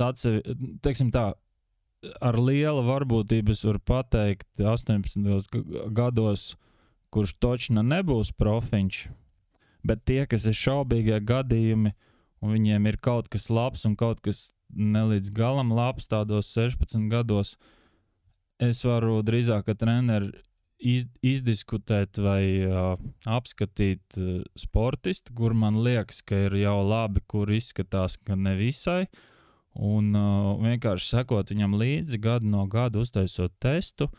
teiksim tā, ar liela varbūtību es varu pateikt 18 gados, kurš točna nebūs profiņš, bet tie, kas ir šaubīgie gadījumi, un viņiem ir kaut kas labs un kaut kas nelīdz galam labs tādos 16 gados, es varu drīzāk ar treneri izdiskutēt vai apskatīt sportistu, kur man liekas, ka ir jau labi, kur izskatās, ka nevisai, un vienkārši sekot viņam līdzi gadu no gada, uztaisot testu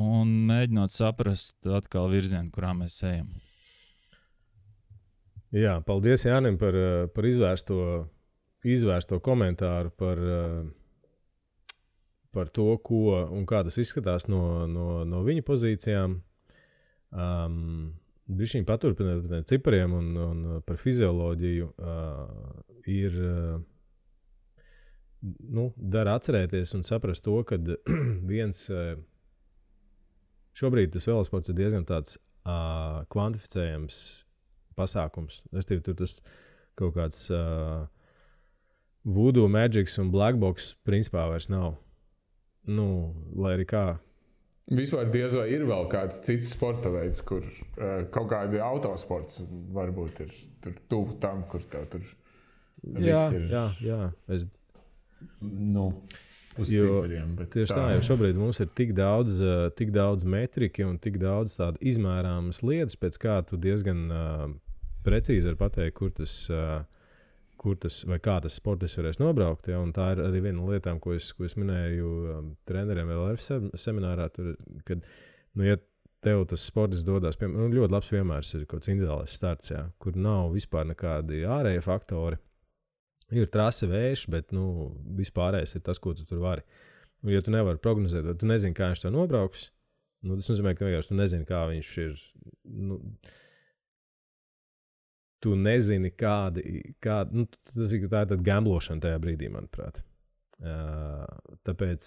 un mēģinot saprast atkal virzienu, kurā mēs ejam. Jā, paldies Jānim par izvērsto komentāru par to, ko un kā tas izskatās no viņa pozīcijām. Bišķiņ paturpināt cipariem un par fizioloģiju ir, dara atcerēties un saprast to, ka šobrīd tas velosports ir diezgan tāds kvantificējams pasākums. Restīvi, tur tas kaut kāds voodoo, magics un black box principā vairs nav. Lai arī kā. Vispār diez vai ir vēl kāds cits sporta veids, kur kaut kādi autosports varbūt ir tur tuvu tam, kur tev tur viss ir. Jā. Uz cipariem. Tieši tā, jo šobrīd mums ir tik daudz metriki un tik daudz tādu izmērāmas lietas, pēc kā tu diezgan precīzi var pateikt, kur tas vai kā tas sportists varēs nobraukt. Ja? Un tā ir arī viena no lietām, ko es minēju treneriem LRF seminārā, kad, ja tev tas sportists dodās, ļoti labs piemērs ir kaut kāds individuālais starts, ja? Kur nav vispār nekādi ārēji faktori. Ir trase vējš, bet vispārējais ir tas, ko tu tur vari. Un, ja tu nevari prognozēt, tu nezini, kā viņš to nobrauks, tas nozīmē, ka vienkārši tu nezini, kā viņš ir. Tu nezini, tā ir tāda gamblošana tajā brīdī, manuprāt. Tāpēc,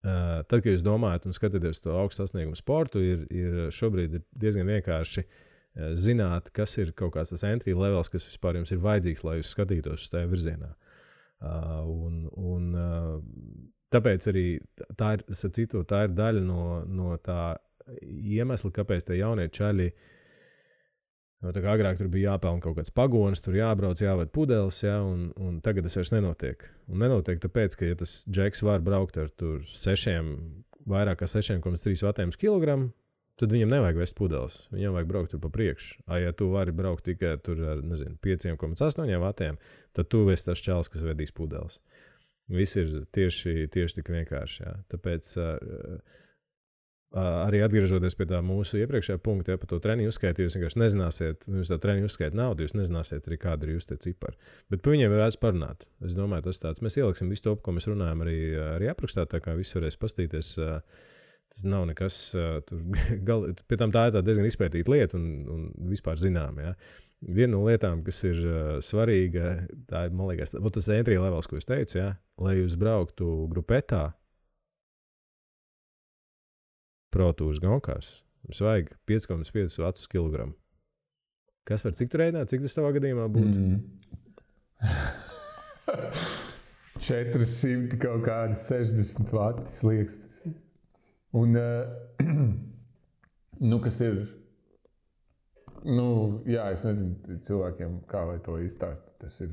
tad, kad jūs domājat un skatāties to augstu sasniegumu sportu, ir šobrīd diezgan vienkārši zināt, kas ir kaut kāds tas entry levels, kas vispār jums ir vajadzīgs, lai jūs skatītos uz tajā virzienā. Tāpēc arī tā ir daļa no tā iemesla, kāpēc tie jaunie čaļi tā kā agrāk tur bija jāpelna kaut kāds pagonis, tur jābrauc, jāved pudeles, ja, un tagad tas vairs nenotiek. Un nenotiek tāpēc, ka ja tas džeks var braukt ar tur 6 vairāk kā 6,3 vatiem uz kilogramu, tad viņam nevajag vest pudeles. Viņam vajag braukt tur pa priekšu. Ja tu vari braukt tikai tur ar, 5,8 vatiem, tad tu esi tas čalis, kas vedīs pudeles. Viss ir tieši tik vienkārši. Jā. Tāpēc arī atgriežoties pie tā mūsu iepriekšējā punkta, par to treniņu uzskaitu, jūs vienkārši nezināsiet, jūs tā treniņu uzskaitu naudu, jūs nezināsiet arī, kāda ir jūs tie cipari. Bet par viņiem varēs parunāt. Es domāju, tas tāds. Mēs ieliksim visu to, ko mēs runājam arī aprakstā, tā kā viss varēs pastīties. Tas nav nekas, pie tam tā ir diezgan izpētīta lieta un vispār zinām. Ja. Viena no lietām, kas ir svarīga, tā ir, man liekas, tas entry levels, ko es teicu, ja, lai jūs brauktu grupetā, protūras gonkās, jums vajag 5,5 vatus kilogramu. Kas var cik tu rēdināt, cik tas tavā gadījumā būtu? 400 kaut kādi 60 vati sliekstas. Un, kas ir, jā, es nezinu cilvēkiem, kā lai to izstāst. Tas ir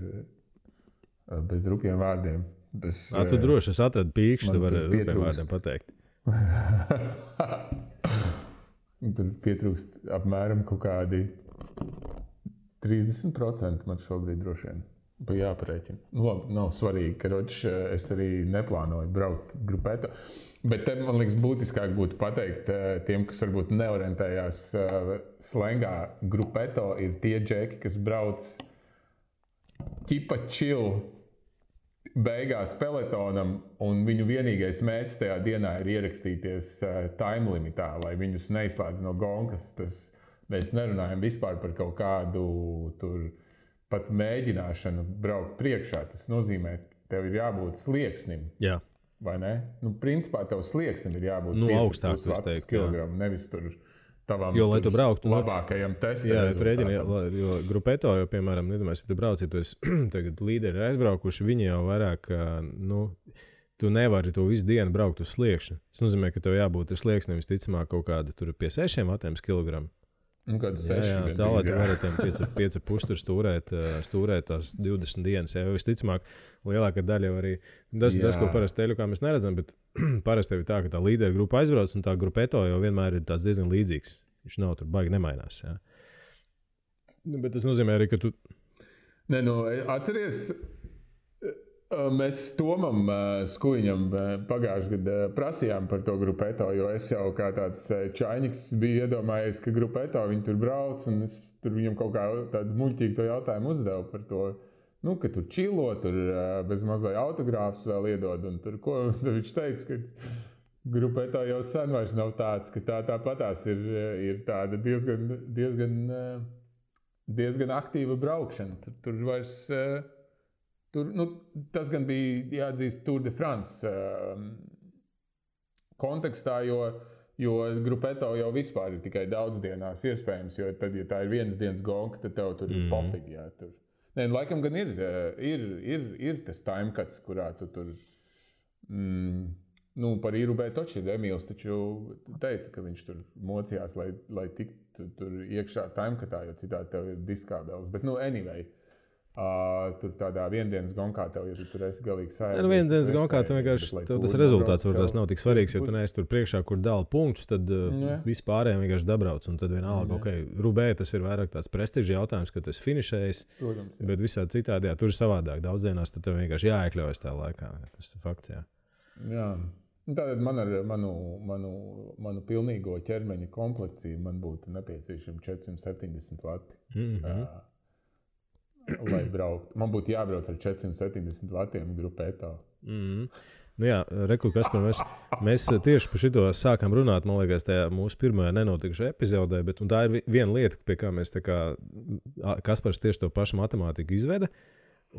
bez rupjiem vārdiem. Tu droši atradi pīkšķi, tu vari rupjiem vārdiem pateikt. Tur pietrūkst apmēram kaut kādi 30% man šobrīd droši vien. Jāparēķina. Labi, nav svarīgi, ka es arī neplānoju braukt grupētā. Bet te, man liekas, būtiskāk būtu pateikt tiem, kas varbūt neorientējās slengā. Grupeto ir tie džeki, kas brauc ķipa chill beigās peletonam, un viņu vienīgais mērķis tajā dienā ir ierakstīties time limitā, lai viņus neizslēdz no gonkas. Mēs nerunājam vispār par kaut kādu tur pat mēģināšanu braukt priekšā. Tas nozīmē, tev ir jābūt slieksnim. Jā. Vai ne? Principā tev slieksnim ir jābūt augstāk, es teiktu, kilogramu, nevis tur tavam lai tu brauktu labākajam testa rezultātam. Jo grupeto, jo, piemēram, nedomājies, ja tu brauc, ja tu esi tagad līderi aizbraukuši, viņi jau vairāk, tu nevari to visu dienu braukt uz sliekšņu. Tas nozīmē, ka tev jābūt ar slieksnim visticamāk kaut kāda tur pie 6 vatiem kilogramu. Kāda 6? Tā, lai tu varētu 5,5 tur stūrēt tās 20 dienas. Jā, visticamāk, lielākā daļa jau arī, tas, ko parasti teļu, kā mēs neredzam, bet parasti tev ir tā, ka tā līdera grupa aizbrauc, un tā grupeto jau vienmēr ir tāds diezgan līdzīgs. Viņš nav tur baigi nemainās. Jā. Bet tas nozīmē arī, ka tu... Atceries, mēs Tomam Skuiņam pagājušajā gadā prasījām par to grupeto, jo es jau kā tāds čainiks biju iedomājies, ka grupeto viņi tur brauc, un es tur viņam kaut kā tādu muļķīgu to jautājumu uzdevu par to, ka tur čilo, tur bez mazai autogrāfus vēl iedod, un tur ko viņš teica, ka grupeto jau sen vairs nav tāds, ka tāpatās ir tāda diezgan aktīva braukšana. Tur vairs... tas gan bija jāatzīst Tour de France kontekstā, jo grupeto jau vispār ir tikai daudzdienās iespējams, jo tad, ja tā ir vienas dienas gonka, tad tev tur ir pofīgi. Jā, tur. Laikam gan ir tas timecuts, kurā tu tur par Irubē toči Emīls taču teica, ka viņš tur mocījās, lai tiktu tur iekšā timecutā, jo citādi tev ir diskābeles. Bet anyway, tur tādā viendienas gonkā tev, ja tu tur esi galīgi sajūta. Viendienas gonkā tu vienkārši, tev tas rezultāts varbūt nav tik svarīgs, jo tu neesi tur priekšā, kur dala punktus, tad vispārējiem vienkārši dabrauc, un tad vienalga, Rubē tas ir vairāk tāds prestižs jautājums, ka tu esi finišējis, bet visādi citādi, tur ir savādāk. Daudzdienās tad tev vienkārši jāiekļaujas tā laikā. Tas ir fakts, jā. Jā. Tātad man ar manu pilnīgo ķermeņa komplekciju man būtu nepieciešami 470 vati. Lai braukt. Man būtu jābrauc ar 470 vatiem grupētā. Reku, Kaspar, mēs tieši par šito sākām runāt, man liekas, tajā mūsu pirmajā nenotikušajā epizodē, bet tā ir viena lieta, pie kā mēs Kaspars tieši to pašu matemātiku izveda,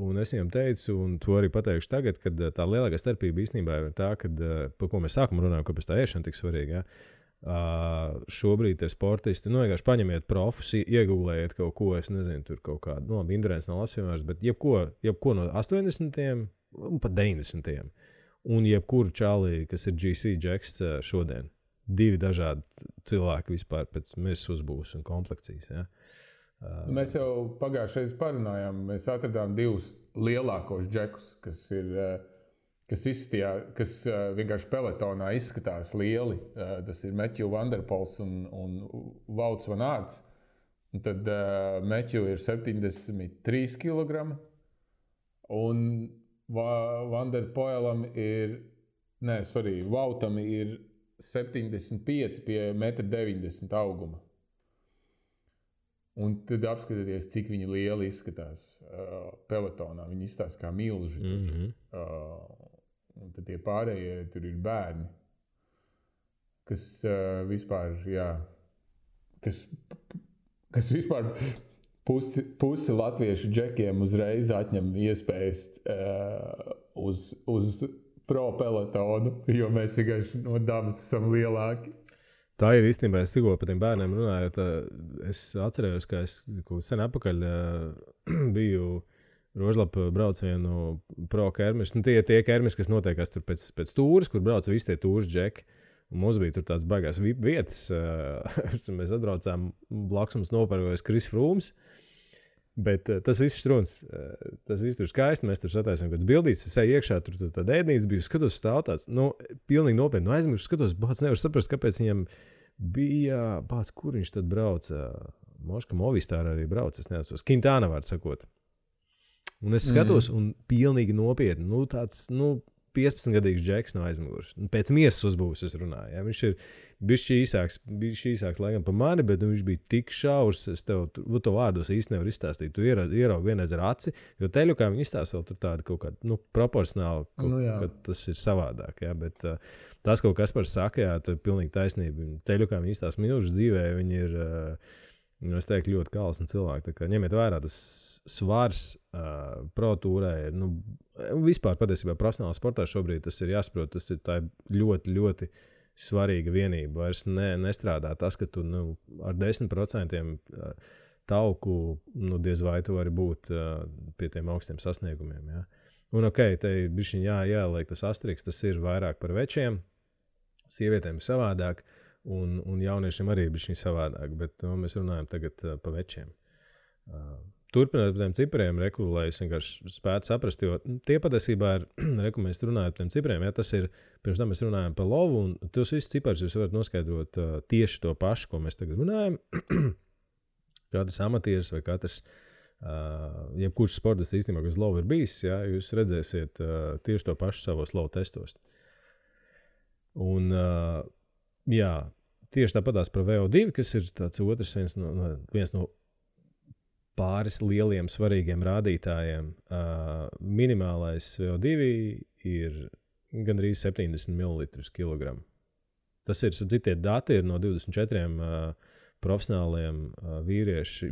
un es viņam teicu, un to arī pateikšu tagad, kad tā lielākā starpība īstenībā ir tā, kad, par ko mēs sākam runājam, kāpēc tā ēšana tik svarīga, šobrīd tie sportisti, vienkārši paņemiet profus, iegūlējiet kaut ko, es nezinu, tur kaut kādu, Indrēns nav labs piemērs, bet jebko no 80. un pat 90. Un jebkuru čālī, kas ir GC Jacks šodien. 2 dažādi cilvēki vispār pēc mirs uzbūves un komplekcijas, ja. Mēs jau pagājušajā parunājām, mēs atradām 2 lielākos džekus, kas ir kas vienkārši peletonā izskatās lieli. Tas ir Matthew Van Der Poels un Wouts van Aerts. Un tad Matthew ir 73 kg. Un Van Der Poelam Woutam ir 75 pie 1,90 m auguma. Un tad apskatieties, cik viņi lieli izskatās peletonā. Viņi izskatās kā milži. Un tad tie pārējie tur ir bērni, kas vispār, kas vispār pusi latviešu džekiem uzreiz atņem iespējas uz pro peletonu, jo mēs vienkārši no dabas esam lielāki. Tā ir īstenībā, es tikko par tiem bērniem runāju, es atcerējos, ka es sen atpakaļ biju Rožlapa braucienu pro kermis. Tie kermis, kas notiekās tur pēc tūras, kur brauc visi tie tūras džeki. Un mums bija tur tāds baigās vietas. Mēs atbraucām, blakus mums nopērkojas Kris Frūms. Bet tas viss struns. Tas viss tur skaisti. Mēs tur sataisām kāds bildīts. Es eju iekšā, tur tāda ēdnīca bija. Skatos stāv tāds, pilnīgi nopietni. Aizmiršu, skatos, bāc, nevaru saprast, kāpēc viņam bija, bāc, kur viņš tad brauca. Moška Movistāra arī brauca, es neatceros. Quintana vārds sakot. Un es skatos, un pilnīgi nopietni, tāds, 15-gadīgs džeks no aizmugures. Pēc miesas uzbūves es runāju. Ja? Viņš ir bišķi īsāks laikam pa mani, bet viņš bija tik šaurs, es tev vārdos īsti nevaru izstāstīt. Tu ieraugi vienreiz ar aci, jo teļukā viņi izstāsta vēl tur tādu kaut kādu, proporcionāli, ka tas ir savādāk. Ja? Bet tas kaut kas par saka, jā, tā ir pilnīgi taisnība. Teļukā viņi izstāsta minūšu dzīvē, viņi ir... Es teiktu, ļoti kalsni cilvēki. Ņemiet vērā, tas svars pro tūrē ir, vispār patiesībā profesionālā sportā šobrīd tas ir jāsaprot, tas ir tā ļoti, ļoti svarīga vienība. Vairs nestrādā tas, ka tu ar 10% tauku, diez vai tu vari būt pie tiem augstiem sasniegumiem. Ja? Un te bišķiņ jāliek tas astriks, tas ir vairāk par večiem, sievietēm ir savādāk. Un jauniešiem arī bija šī savādāk, bet mēs runājam tagad pa večiem. Turpināt par tiem cipriem, lai es vienkārši spētu saprast, jo tie patiesībā ir, mēs runājam par tiem cipriem, ja tas ir, pirms tam mēs runājam par lovu, un tos visus ciparus jūs varat noskaidrot tieši to pašu, ko mēs tagad runājam. Katrs amatieris vai katrs, jebkurš sportists īstenībā, kas lovu ir bijis, ja, jūs redzēsiet tieši to pašu savos lovu testos. Un, jā, tieši tāpatās par VO2, kas ir tāds otrs viens no pāris lieliem svarīgiem rādītājiem. Minimālais VO2 ir gandrīz 70 ml kilogramu. Tas ir, tie dati ir no 24 profesionāliem vīriešu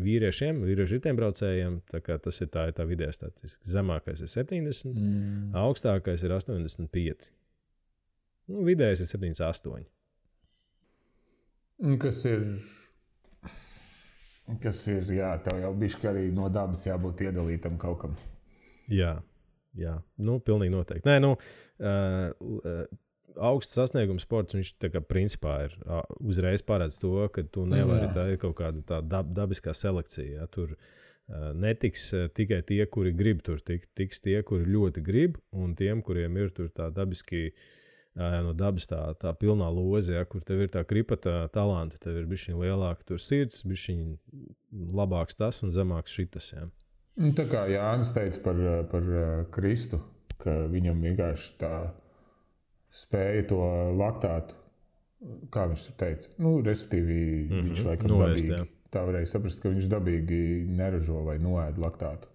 riteņbraucējiem, tā kā tas ir tā vidējā statistika. Zemākais ir 70, augstākais ir 85. Vidējais ir 78. Kas ir, jā, tev jau bišķi arī no dabas jābūt iedalītam kaut kam. Jā, pilnīgi noteikti. Nē, augsts sasniegums sports, viņš tā kā principā ir uzreiz paredz to, ka tu nevari, tā ir kaut kāda tā dabiskā selekcija. Ja? Tur netiks tikai tie, kuri grib tur tiks tie, kuri ļoti grib, un tiem, kuriem ir tur tā dabiski no dabas tā pilnā loze, ja, kur tev ir tā kripata talanti, tev ir bišķiņ lielāka tur sirds, bišķiņ labāks tas un zemāks šitas. Ja. Tā kā Jānis teica par Kristu, ka viņam vienkārši tā spēja to laktātu, kā viņš tur teica, respektīvi viņš laikam dabīgi, tā varēja saprast, ka viņš dabīgi neražo vai noēd laktātu.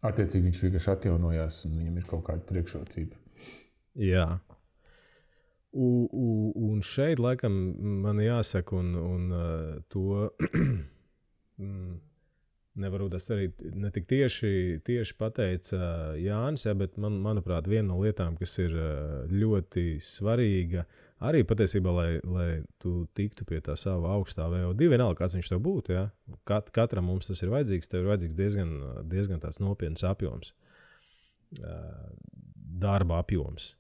Attiecīgi viņš vienkārši atjaunojās un viņam ir kaut kāda priekšrocība. Jā. Un šeit, laikam, man jāsaka, un to nevaru tas arī ne tik tieši pateica Jānis, ja, bet manuprāt, viena no lietām, kas ir ļoti svarīga, arī patiesībā, lai tu tiktu pie tā sava augstā VO2, vienalga, kāds viņš tev būtu. Ja. Katram mums tas ir vajadzīgs, tev ir vajadzīgs diezgan tāds nopietns apjoms, darba apjoms.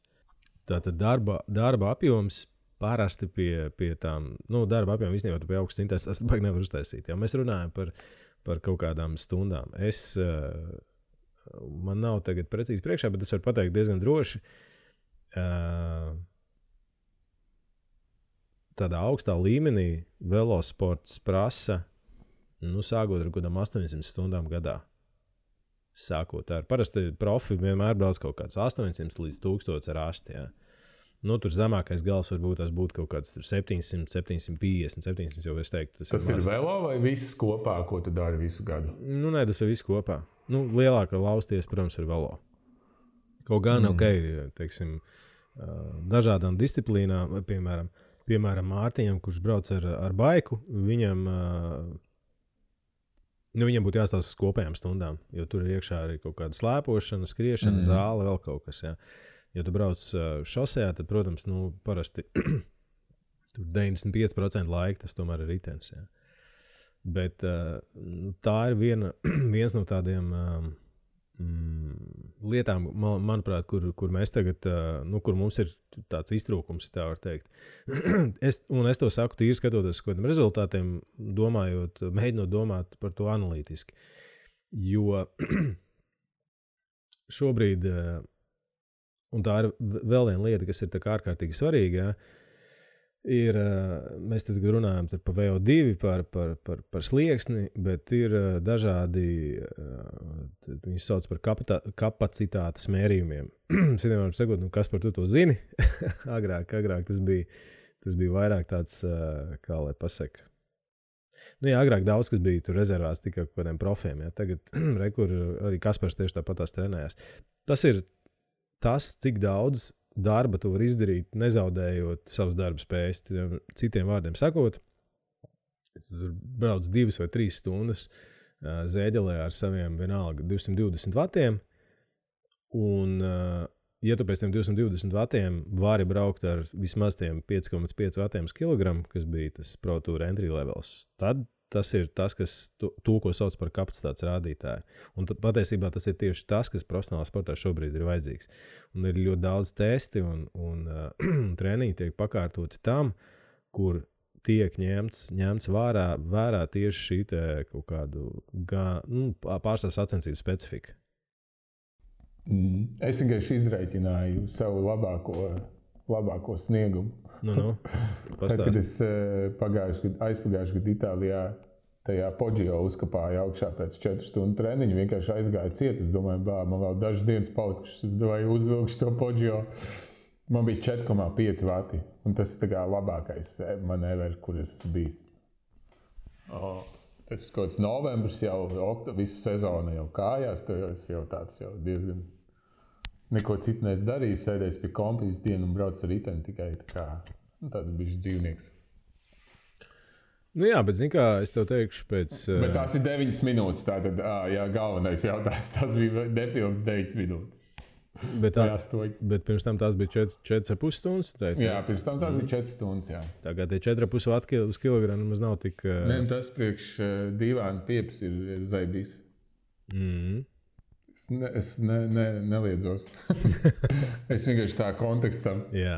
Tātad darba apjoms parasti pie tām, darba apjoms īstenībā tu pie augstas intensitātes, tas baigi nevar uztaisīt. Ja mēs runājam par kaut kādām stundām. Es man nav tagad precīzi priekšā, bet es varu pateikt diezgan droši. Tādā augstā līmenī velosports prasa, sākot ar kādām 800 stundām gadā. Sākot ar parasti profi vienmēr brauc kaut kāds 800 līdz 1000 ar asti. Ja. Tur zemākais gals varbūt tas būtu kaut kāds 700, 750, 700 jau es teiktu. Tas ir velo vai viss kopā, ko tu dari visu gadu? Nē, tas ir viss kopā. Lielākā lausties, protams, ir velo. Kaut gan, teiksim, dažādām disciplīnām, vai piemēram Mārtiņam, kurš brauc ar baiku, viņam būtu jāstāsta uz kopējām stundām, jo tur ir iekšā arī kaut kāda slēpošana, skriešana, zāle, vēl kaut kas, jā. Ja tu brauc šosejā, tad, protams, parasti tur 95% laika tas tomēr ir ritenis. Ja. Bet tā ir viens no tādiem lietām, manuprāt, kur mēs tagad, kur mums ir tāds iztrūkums, tā var teikt. Es to saku tīri skatoties uz kādiem rezultātiem, mēģinot domāt par to analītiski. Jo šobrīd... Un tā ir vēl viena lieta, kas ir tā kā ārkārtīgi svarīga. Ir, mēs tad runājam par VO2, par slieksni, bet ir dažādi, viņi sauc par kapacitātes mērījumiem. Es vienmēr sakot, kas par to zini? agrāk tas bija vairāk tāds, kā lai pasaka. Agrāk daudz, kas bija tur rezervās tikai kādiem profiem. Ja. Tagad, kur arī Kaspars tieši tāpatās trenējās. Tas ir tas, cik daudz darba tu vari izdarīt, nezaudējot savas darba spējas. Citiem vārdiem sakot, tu brauc 2 vai 3 stundas zēģelē ar saviem vienalga 220 vatiem, un ja tu pēc tiem 220 vatiem vari braukt ar vismaz tiem 5,5 vatiem uz kilogramu, kas bija tas Pro Tour entry levels, tad tas ir tas, kas to, ko sauc par kapacitātes rādītāju. Un patiesībā tas ir tieši tas, kas profesionālā sportā šobrīd ir vajadzīgs. Un ir ļoti daudz testi un treniņi tiek pakārtoti tam, kur tiek ņemts vērā tieši šī te kaut kādu pārstāv sacensību specifika. Es vienkārši izreikināju savu labāko sniegumu. Tad, kad es aizpagājuši gadu Itālijā tajā Poggio uzkapāju augšā pēc 4 stundu treniņu, vienkārši aizgāju ciet. Es domāju, man vēl dažas dienas palikušas, es domāju, uzvilkšu to Poggio. Man bija 4,5 vati, un tas ir tā kā labākais manevers, kur es esmu bijis. Tas ir kaut kāds novembris jau, visa sezona jau kājās, tas jau tāds jau diezgan... Neko citu neesmu darījis, sēdējis pie kompa visu dienu un brauc ar riteni tikai tāds bišķi dzīvnieks. Jā, bet zini kā, es tev teikšu pēc... Bet tās ir 9 minūtes, tātad, galvenais jautājums, tas bija nepilns 9 minūtes. Bet pirms tam tās bija 4,5 stundas, tu teici? Jā, pirms tam tās bija 4 stundas, jā. Tagad tie 4,5 vati uz kilogramu maz nav tik... Nē, tas priekš dīvaini pieps ir zaibīs. Es neliedzos. Es vienkārši tā kontekstam. Jā.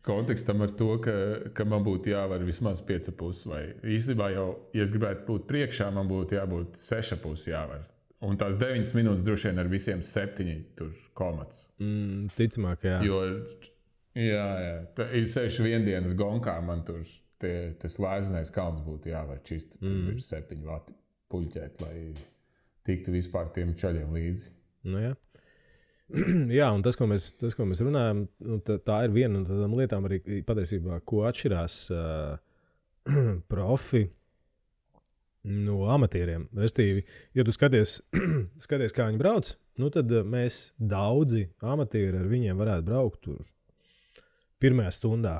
Kontekstam ar to, ka man būtu jāvar vismaz 5,5 vai īstenībā jau, ja es gribētu būt priekšā, man būtu jābūt 6,5 jāvar. Un tās 9 minūtes droši vien ar visiem 7 tur komats. Ticamāk, jā. Jo, jā. Ir 6 viendienas gonkā, man tur tas lēzinais kalns būtu jāvar čist. Tur ir 7 vati puļķēt, lai tiktu vispār tiem čaļiem līdzi. Jā. Jā, un tas, ko mēs runājam, tā ir viena no tādām lietām arī patiesībā, ko atšķirās profi no amatieriem. Restīvi, ja tu skaties, kā viņi brauc, tad mēs daudzi amatieri ar viņiem varētu braukt tur pirmajā stundā.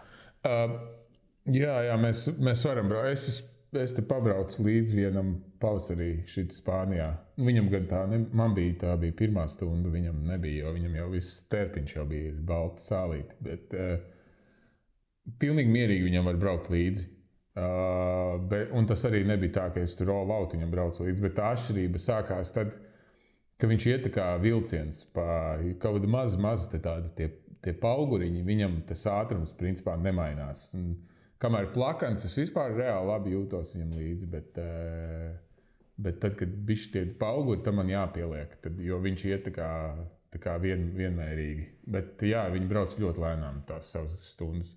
Jā, mēs varam braukt. Es te pabraucu līdz vienam pavasarī šeit Spānijā. Viņam gan tā bija pirmā stunda, viņam nebija, jo viņam jau viss terpiņš jau bija baltu sālīti. Bet pilnīgi mierīgi viņam var braukt līdzi. Un tas arī nebija tā, ka es tur all out viņam braucu līdzi, bet tā atšķirība sākās tad, ka viņš iet tā kā vilciens pa kaut kādu mazu tie pauguriņi, viņam tas ātrums principā nemainās. Kamēr plakans, es vispār reāli labi jūtos viņam līdzi, Bet tad, kad bišķi tie pauguri, tam man jāpieliek, jo viņš iet tā kā vienmērīgi. Bet jā, viņi brauc ļoti lēnām tās savas stundas.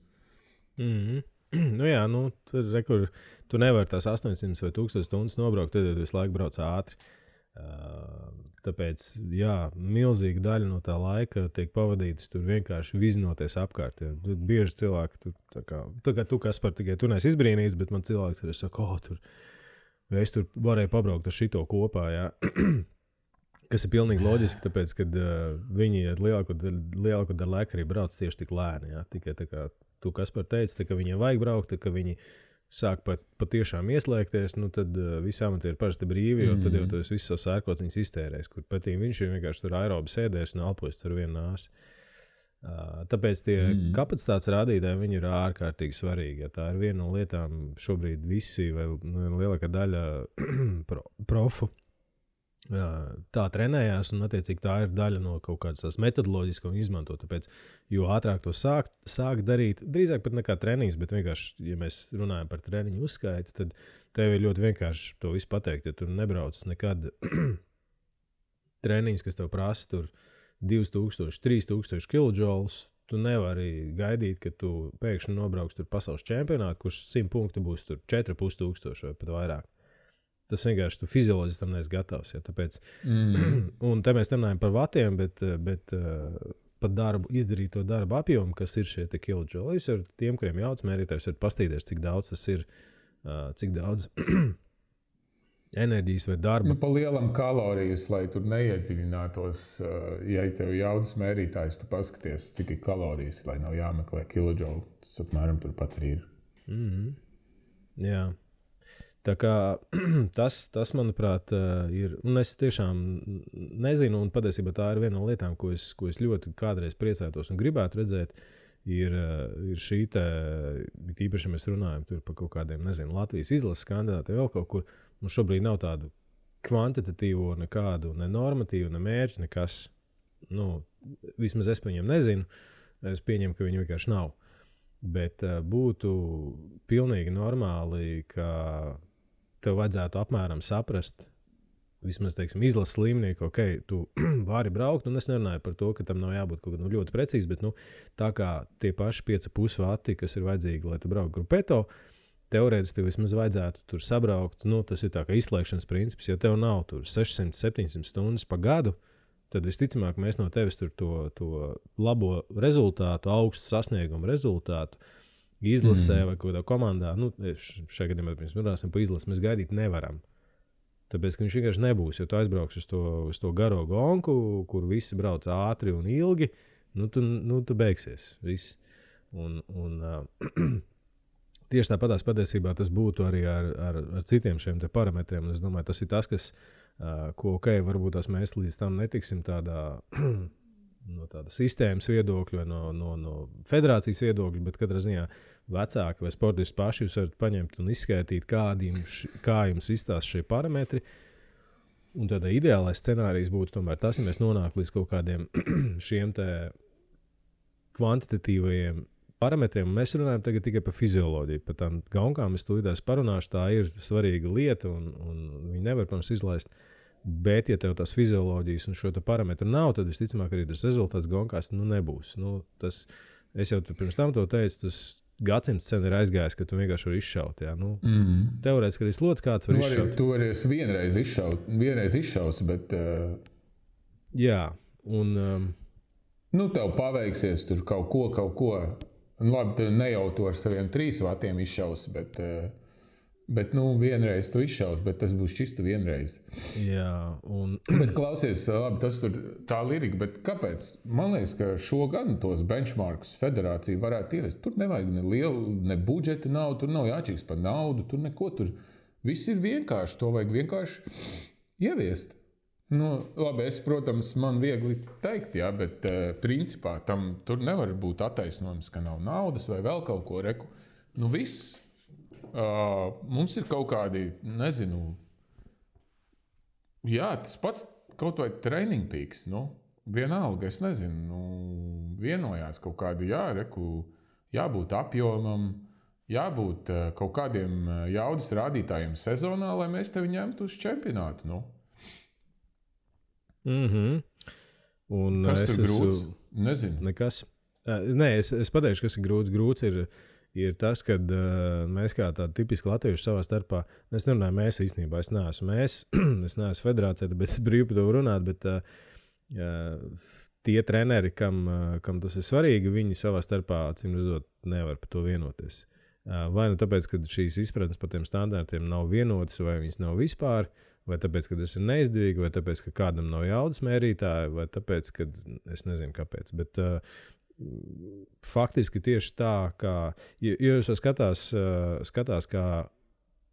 Nu jā, tur tu nevari tās 800 vai 1000 stundas nobraukt, tad visu laiku brauc ātri. Tāpēc, jā, milzīga daļa no tā laika tiek pavadītas tur vienkārši vizinoties apkārt. Ja. Bieži cilvēki, tā kā tu, Kaspar, tikai tu neesi izbrīnījis, bet man cilvēks arī saka, es tur varēju pabraukt ar šito kopā, jā. Kas ir pilnīgi loģiski, tāpēc, kad viņi lielāko daļu laika arī brauc tieši tik lēni, jā. Tikai tā kā tu, Kaspar, teici, ka viņiem vajag braukt, ka viņi sāk patiešām ieslēgties, tad visi amatieri parasti brīvi, jo tad jau tas viss savs ērkociņas iztērēs, kur patīk viņš vienkārši tur aerobi sēdēs un elpojas ar vienu nāsi. Tāpēc tie kapacitātes rādītāji, viņi ir ārkārtīgi svarīgi. Ja tā ir viena no lietām šobrīd visi, vai lielākā daļa profu tā trenējās, un attiecīgi tā ir daļa no kaut kādas tās metodoloģijas, ko viņi izmanto. Tāpēc, jo ātrāk to sāk darīt, drīzāk pat nekā treniņus, bet vienkārši, ja mēs runājam par treniņu uzskaiti, tad tev ir ļoti vienkārši to visu pateikt, ja tu nebrauc nekad treniņus, kas tev prasa tur 2000, 3000 kilojoules, tu nevari gaidīt, ka tu pēkšņi nobrauks tur pasaules čempionātu, kurš 100 punkti būs tur 4500 vai pat vairāk. Tas vienkārši tu fizioloģiski tam neesi gatavs. Ja, tāpēc, un te mēs runājam par vatiem, bet par darbu, izdarīto darbu apjomu, kas ir šie kilojoules, ar tiem, kuriem jauc mērītājs, var pastīties, cik daudz tas ir, cik daudz enerģijas vai darba. Pa lielam kalorijas, lai tur neiedziļinātos, ja tev jaudas mērītājs, tu paskaties, cik ir kalorijas, lai nav jāmeklē kilojoule. Tas apmēram turpat arī ir. Jā. Tā kā tas, manuprāt, ir, un es tiešām nezinu, un patiesībā tā ir viena no lietām, ko es ļoti kādreiz priecātos un gribētu redzēt, ir šī te, īpaši, ja mēs runājam tur par kaut kādiem, nezinu, Latvijas izlases kandidātiem, vēl kaut kur, mums šobrīd nav tādu kvantitatīvo nekādu, ne normatīvu, ne mērķi, nekas, vismaz es par viņiem nezinu, es pieņemu, ka viņi vienkārši nav. Bet būtu pilnīgi normāli, ka tev vajadzētu apmēram saprast, vismaz, teiksim, izlases līmenī, ka, tu vari braukt, un es nerunāju par to, ka tam nav jābūt kaut kā ļoti precīzi, bet, tā kā tie paši 5,5 vati, kas ir vajadzīgi, lai tu brauktu grupeto, teorētiski tev vismaz vajadzētu tur sabraukt, tas ir tā kā izslēgšanas princips, ja tev nav tur 600-700 stundas pa gadu, tad visticamāk mēs no tevis tur to labo rezultātu, augstu sasniegumu rezultātu izlasē vai kādā komandā, šajā gadījumā mēs runāsim par izlasi, mēs gaidīt nevaram. Tāpēc, ka viņš vienkārši nebūs, jo tu aizbrauks uz to garo gonku, kur visi brauc ātri un ilgi, tu beigsies viss. Un tieši tāpatās patiesībā tas būtu arī ar citiem šiem te parametriem, un es domāju, tas ir tas, kas ko, varbūt mēs līdz tam netiksim no tāda sistēmas viedokļa vai no federācijas viedokļa, bet katrā ziņā vecāki vai sportisti paši jūs varat paņemt un izskaidīt, kā jums izstāsta šie parametri. Un tādā ideālais scenārijs būtu tomēr tas, ja mēs nonāktu līdz kaut kādiem šiem te kvantitatīvajiem parametriem. Mēs runājam tagad tikai par fizioloģiju. Par tām gaunkām es tūlītās parunāšu, tā ir svarīga lieta un viņi nevar, protams, izlaist. Bet, ja tev tās fizioloģijas un šo parametru nav, tad visticamāk arī tas rezultāts gaunkās nebūs. Es jau pirms tam to teicu, tas gadsimts sen ir aizgājis, ka tu vienkārši vari izšaut. Jā. Teorētiski arī slots kāds var izšaut. Tu arī vienreiz izšaus, bet... Jā, un... tev paveiksies tur kaut ko. Labi, tu ne jau to ar saviem 3 vatiem izšaus, bet vienreiz tu izšaus, bet tas būs čisti vienreiz. Jā, Bet klausies, labi, tas tur tā lirika, bet kāpēc? Man liekas, ka šogad tos benchmarkus federācija varētu ievest. Tur nevajag ne budžeta naudu, tur nav jāčīgs par naudu, tur neko tur. Viss ir vienkārši, to vajag vienkārši ieviest. Labi, protams, man viegli teikt, jā, bet principā tam tur nevar būt attaisnojums, ka nav naudas vai vēl kaut ko reku. Viss. Mums ir kaut kādi, nezinu, jā, tas pats kaut vai training peaks, vienalga, es nezinu, vienojās kaut kādi, jā, reku, jābūt apjomam, jābūt kaut kādiem jaudas rādītājiem sezonā, lai mēs tevi ņemtu uz čempionātu. Nu. Un kas tur grūts? Nezinu. Nekas. Nē, es pateikšu, kas ir grūts. Grūts ir tas, ka mēs kā tādi tipiski latvieši savā starpā, es nerunāju mēs īstenībā, es neesmu es neesmu federācija, tāpēc es brīvi par to runāt, bet tie treneri, kam tas ir svarīgi, viņi savā starpā, acīm redzot, nevar par to vienoties. Vai nu tāpēc, ka šīs izpratnes par tiem standartiem nav vienotas, vai viņas nav vispār, vai tāpēc, ka tas ir neizdevīgi, vai tāpēc, ka kādam nav jaudas mērītāja, vai tāpēc, ka es nezinu kāpēc. Bet faktiski tieši tā, kā jūs skatās kā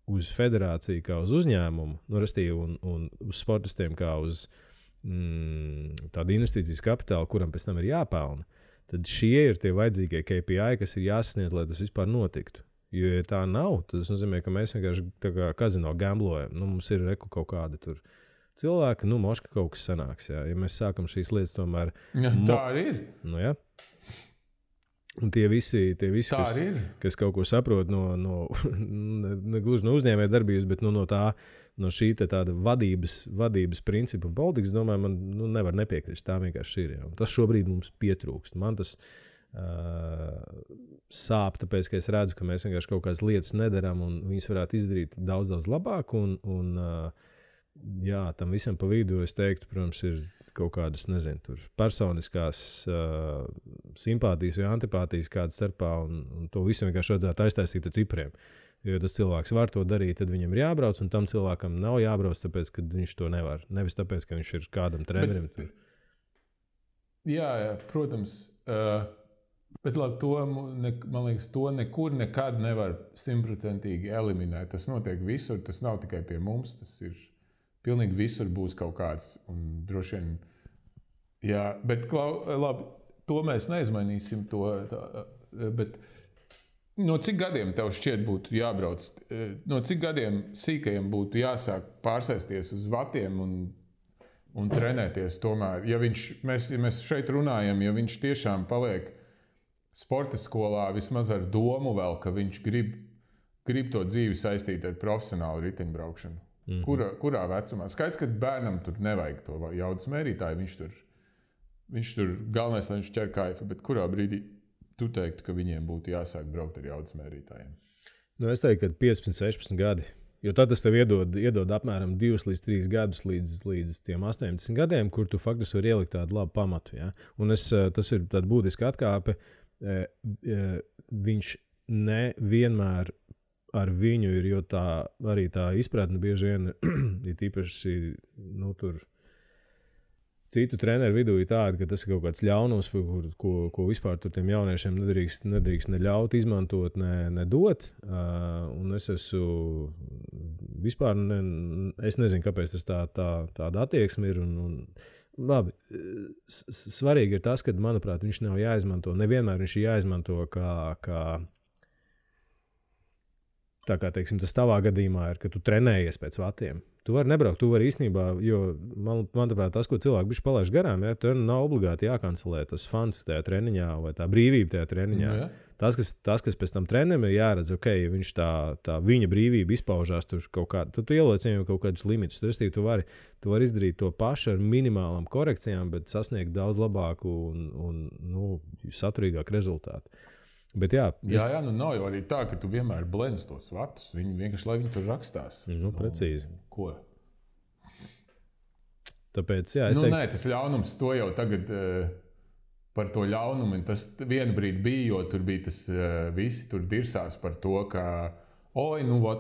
uz federāciju, kā uz uzņēmumu, un uz sportistiem kā uz tādu investīcijas kapitālu, kuram pēc tam ir jāpelna, tad šie ir tie vajadzīgie KPI, kas ir jāsasniedz, lai tas vispār notiktu. Jo, ja tā nav, tad tas nozīmē, ka mēs vienkārši tā kā kazino gamblojam. Mums ir kaut kādi tur cilvēki, moška kaut kas sanāks. Jā. Ja mēs sākam šīs lietas tomēr... Ja, tā arī ir. Jā. Un tie visi kas kaut ko saprot ne gluži no uzņēmēja darbības, bet no šī tāda vadības principa un politikas, domāju, man nevar nepiekrist. Tā vienkārši ir. Jā. Un tas šobrīd mums pietrūkst. Man tas sāp, tāpēc, ka es redzu, ka mēs vienkārši kaut kādas lietas nedaram un viņas varētu izdarīt daudz labāk. Jā, tam visam pa vidu, es teiktu, protams, ir kaut kādas, nezinu, tur personiskās simpātijas vai antipātijas kādas starpā, un to visu vienkārši vajadzētu aiztaisīt ar cipriem. Jo tas cilvēks var to darīt, tad viņam ir jābrauc, un tam cilvēkam nav jābrauc, tāpēc, ka viņš to nevar. Nevis tāpēc, ka viņš ir kādam trenerim. Jā, protams. Bet labi, man liekas, to nekur nekad nevar 100% eliminēt. Tas notiek visur, tas nav tikai pie mums, tas ir pilnīgi visur būs kaut kāds. Un droši vien, jā, bet labi, to mēs neizmainīsim. Bet no cik gadiem tev šķiet būtu jābrauc? No cik gadiem sīkajiem būtu jāsāk pārsēsties uz vatiem un trenēties tomēr? Ja mēs šeit runājam, ja viņš tiešām paliek sporta skolā vismaz ar domu vēl, ka viņš grib to dzīvi saistīt ar profesionālu riteņbraukšanu. Kurā vecumā? Skaidrs, ka bērnam tur nevajag to jaudas mērītāju. Viņš tur galvenais, lai viņš ķer kaifu, bet kurā brīdī tu teiktu, ka viņiem būtu jāsāk braukt ar jaudas mērītājiem? Es teiktu, ka 15, 16 gadi. Jo tad tas tev iedod apmēram 2 līdz 3 gadus līdz tiem 18 gadiem, kur tu faktiski vari ielikt tādu labu pamatu. Ja? Un tas ir tāda būtiska atkāpe. Viņš nevienmēr ar viņu ir, jo arī tā izpratne bieži vien ir īpaši tur citu treneru vidū ir tāda, ka tas ir kaut kāds ļaunums, ko vispār tur tiem jauniešiem nedrīkst ne ļaut izmantot, ne dot. Un es esmu vispār, es nezinu, kāpēc tas tāda attieksme ir. Labi, svarīgi ir tas, ka, manuprāt, viņš nav jāizmanto. Nevienmēr viņš ir jāizmanto tā kā, teiksim, tas tavā gadījumā ir, ka tu trenējies pēc vatiem. Tu vari nebraukt, tu vari īstenībā, jo, manuprāt, tas, ko cilvēki bišķi palaiž garām, ja, tur nav obligāti jākancelē tas fans tajā treniņā vai tā brīvība tajā treniņā. Ja. Tas, kas pēc tam trenerim ir jāredz, ja viņš tā viņa brīvība izpaužās tur kaut kādā, tad tu ieliec viņam kaut kādus limitus. Tu vari izdarīt to pašu ar minimālām korekcijām, bet sasniegt daudz labāku un saturīgāku rezultātu. Bet jā, nav jau arī tā, ka tu vienmēr blendz tos vatus. Viņi vienkārši, lai viņi tur rakstās. Precīzi. Ko? Tāpēc, jā, es teiktu... Nē, tas ļaunums, to jau tagad par to ļaunumu. Tas vienu brīdi bija, jo tur bija tas visi tur dirsās par to, ka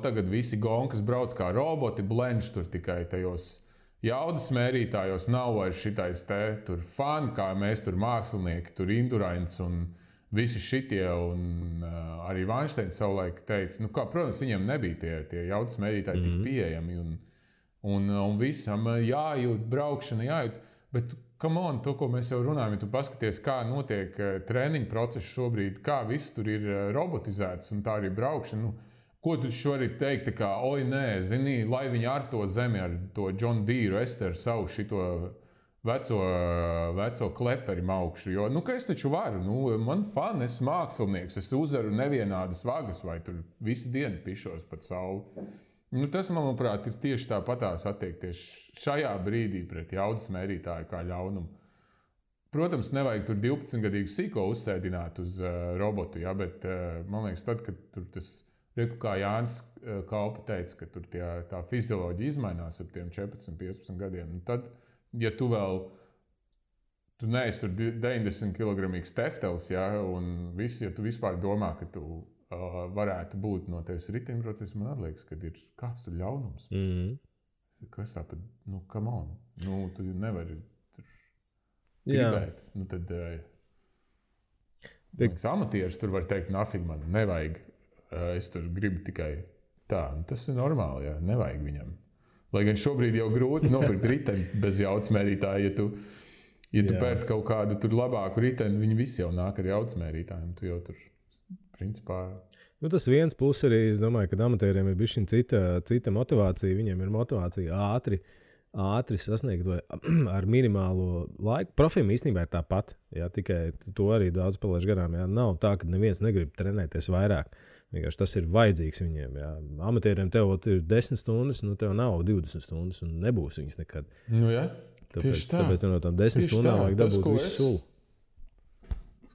tagad visi gonkas brauc kā roboti, blendž tur tikai tajos jaudas mērītājos. Nav vairs šitais tur fani, kā mēs tur mākslinieki, tur Indurains un visi šitie, un arī Vainsteins savulaik teica, protams, viņiem nebija tie jaudas mērītāji tik pieejami, un visam jājūt, braukšana jājūt, bet, come on, to, ko mēs jau runājam, ja tu paskaties, kā notiek treniņu process šobrīd, kā viss tur ir robotizēts, un tā arī braukšana, ko tu šorīt teikt, kā, nē, zini, lai viņi ar to zemi, ar to John Deere, Ester, savu šito veco kleperi maukšu. Jo, ka es taču varu, man fani, esmu mākslinieks, es uzaru nevienādas vagas, vai tur visu dienu pišos pat sauli. Tas, manuprāt, ir tieši tāpatās attiekties šajā brīdī pret jaudas mērītāju kā ļaunumu. Protams, nevajag tur 12-gadīgu sīko uzsēdināt uz robotu, ja, bet man liekas, tad, kad tur tas, kā Jānis Kaupa teica, ka tur tā fizioloģija izmainās ap tiem 14-15 gadiem, tad, ja tu neesi tur 90 kilogramīgs teftels, ja, un viss, ja tu vispār domā, ka tu varētu būt no tevis riteņprocesa, man liekas, ka ir kāds tur ļaunums. Kas tāpat, come on, tu nevari gribēt. Tad amatieris tur var teikt, nafig man, nevajag. Es tur gribu tikai tā. Tas ir normāli, jā, nevajag viņam. Lai gan šobrīd jau grūti nopirkt riteni bez jaudas mērītāja. Ja tu pēc kaut kādu tur labāku riteni, viņi visi jau nāk ar jaudas mērītājiem. Tu jau tur, principā... Tas viens puses arī, es domāju, ka amatieriem ir bišķiņ cita motivācija. Viņiem ir motivācija ātri sasniegt vai ar minimālo laiku. Profim īstenībā ir tāpat, jā, tikai to arī daudz palaiž garām. Jā. Nav tā, ka neviens negrib trenēties vairāk. Vienkārši tas ir vajadzīgs viņiem. Jā. Amatieriem tev ir 10 stundas, tev nav 20 stundas un nebūs viņas nekad. Jā, tāpēc no tām 10 stundām vajag dabūt visu sulu.